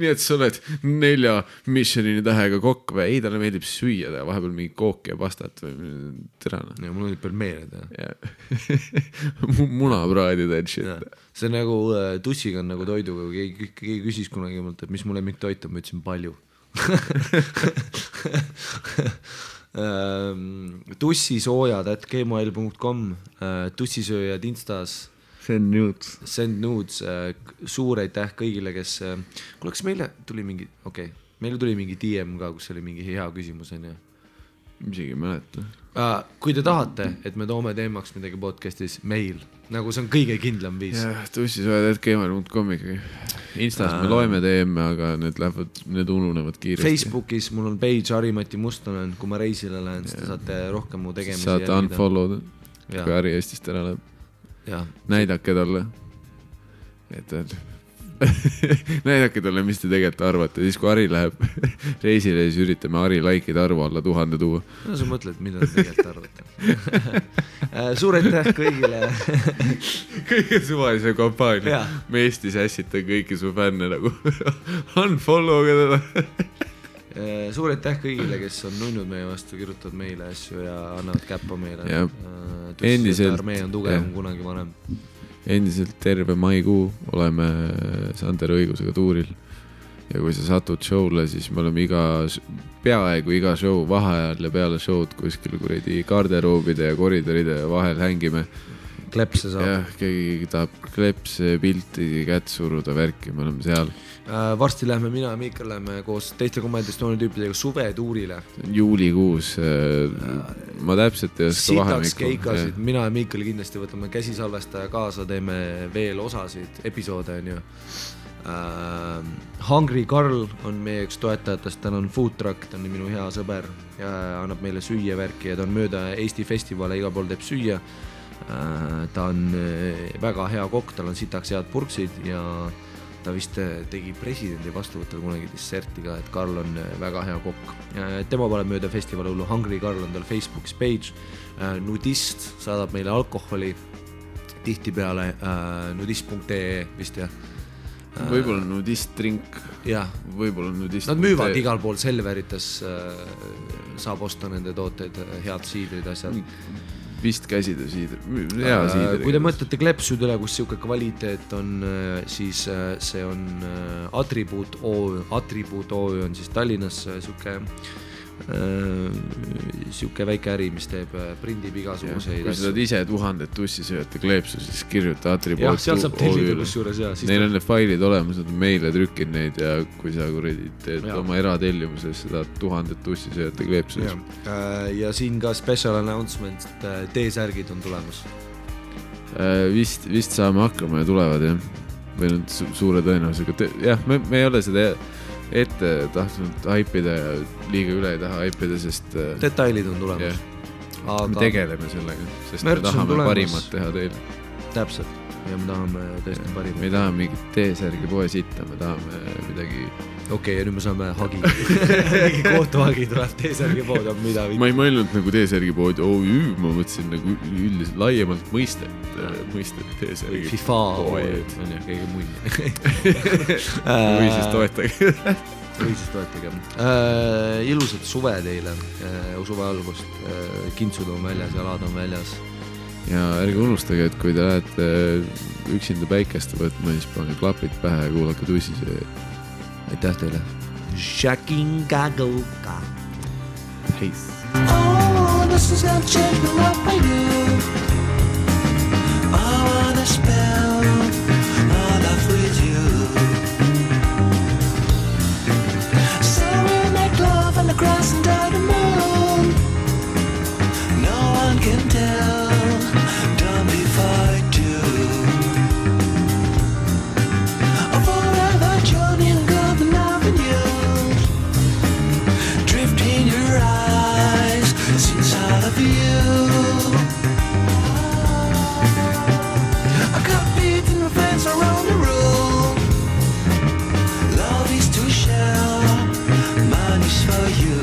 nii et sa oled 4 Michelini tähega kokk või? Ei, talle meeldib süüa teha, vahepeal mingi kooki ja pastat või terana. Ja mul meeldib veel meele teha. Munapraadid and shit. See nagu tussiga on nagu toiduga, kui keegi küsis kunagi mult, et mis mu lemmiktoit on, ma ütlesin palju. tussisoojad@gmail.com tussisööjad Instas send nudes suur aitäh kõigile, kes kas meile tuli mingi meile tuli mingi DM ka, kus oli mingi hea küsimus on ju isegi mäleta. Kui te tahate, et me toome teemaks midagi podcastis, meil nagu see on kõige kindlam viis. tussisööjad@gmail.com ikkagi. Instas me loeme teeme, aga need ununevad kiiresti. Facebookis mul on page Harimati Mustonen, kui ma reisile lähen, siis te saate rohkem mu tegemisi saate unfollow'd, kui Hari Eestist ära läheb. Näidake talle, näidake talle, mis te tegelikult arvate. Siis kui Hari läheb reisile, siis üritame Hari like'ide arvu alla 1000 tuua. No sa mõtled, mida te tegelikult arvate. Suur aitäh kõigile. Kõige suvalise kampaania. Me Eestis ässita kõiki su fänne nagu unfollow'ga teda. Suur aitäh kõigile, kes on nunnud meie vastu, kirjutavad meile asju ja annavad käppa meile. Endiselt armee on tugevam kunagi vanem. Endiselt terve maikuu oleme Sander õigusega tuuril ja kui sa satud show'le, siis me oleme peaaegu iga show vaheajal ja peale show'd kuskil kuradi garderoobide ja koridoride vahel hängime. Klepse saab. Jah, keegi tahab klepse, pilti, kätt suruda, värki, me oleme seal. Varsti lähme mina ja Miikal lähme koos teiste komandistooни tüüpidega suvetuurile. Juulikuus. Ma täpselt ei oska vahemikku. Sitaks keikasid. Mina ja Miikal kindlasti võtame käsisalvestaja kaasa, teeme veel osasid, episoode on ju. Hungry Carl on meie üks toetajatest, ta on food truck, ta on minu hea sõber ja annab meile süüa värki ja ta on mööda Eesti festivale, iga pool teeb süüa. Ta on väga hea kokk, tal on sitaks head purksid ja ta vist tegi presidendi vastuvõttel kunagi disserti ka, et Karl on väga hea kokk. Tema paneb mööda festivali hullu, Hungry Carl on tal Facebookis page. Nudist saadab meile alkoholi tihtipeale nudist.ee vist jah. Võib-olla nudist drink. Võib-olla nudist. Nad müüvad igal pool Selverites, saab osta nende tooteid, head siidrid, asjad. Vist käsida siidri, hea siidri. Kui te mõtlete klepsud üle, kus siuke kvaliteet on, siis see on Attribuut OÜ on siis Tallinnas siuke väike äri, mis teeb prindib igasuguseid. Kui sa saad ise 1000 tussisööjate kleepsu, siis kirjuta Attribuut OÜ. Seal saab tellida kusjuures. Neil on need failid olemas, nad on meile trükkinud neid ja kui sa teed oma eratellimuses, sa saad 1000 tussisööjate kleepsu. Ja siin ka special announcement, T-särgid on tulemas. Vist saame hakkama ja tulevad jah. Või nüüd suure tõenäosusega. Jah, me ei ole seda ette tahtnud haipida ja liiga üle ei taha haipida, sest detailid on tulemas. Me tegeleme sellega, sest me tahame parimat teha teile. Täpselt, ja me tahame tõesti parimat. Me ei taha mingit T-särgi poe sitta, me tahame midagi. Ja nüüd me saame hagi. Mingi kohtuhagi tuleb T-särgi pood, on mida. Ma ei mõelnud nagu T-särgi pood OÜ, ma mõtlesin nagu üldiselt laiemalt mõistet T-särgi FIFA pood. On jah, keegi muid. Või siis toetage. Ilusat suve teile, suve algust, kintsud on väljas, jalad on väljas. Ja ärge unustage, et kui te lähete üksinda päikest võtma, siis pange klapid pähe ja kuulake tussisööjad. Aitäh teile! Shakingagoka. Peace. Oh, this is gonna change me what I do. I wanna spend my life with you. So we'll make love on the grass under the moon. No one can tell, don't be fight too. A forever journey and golden avenue. Drift in your eyes, inside of you. I got beat in my friends around the room. Love is to share, mine is for you.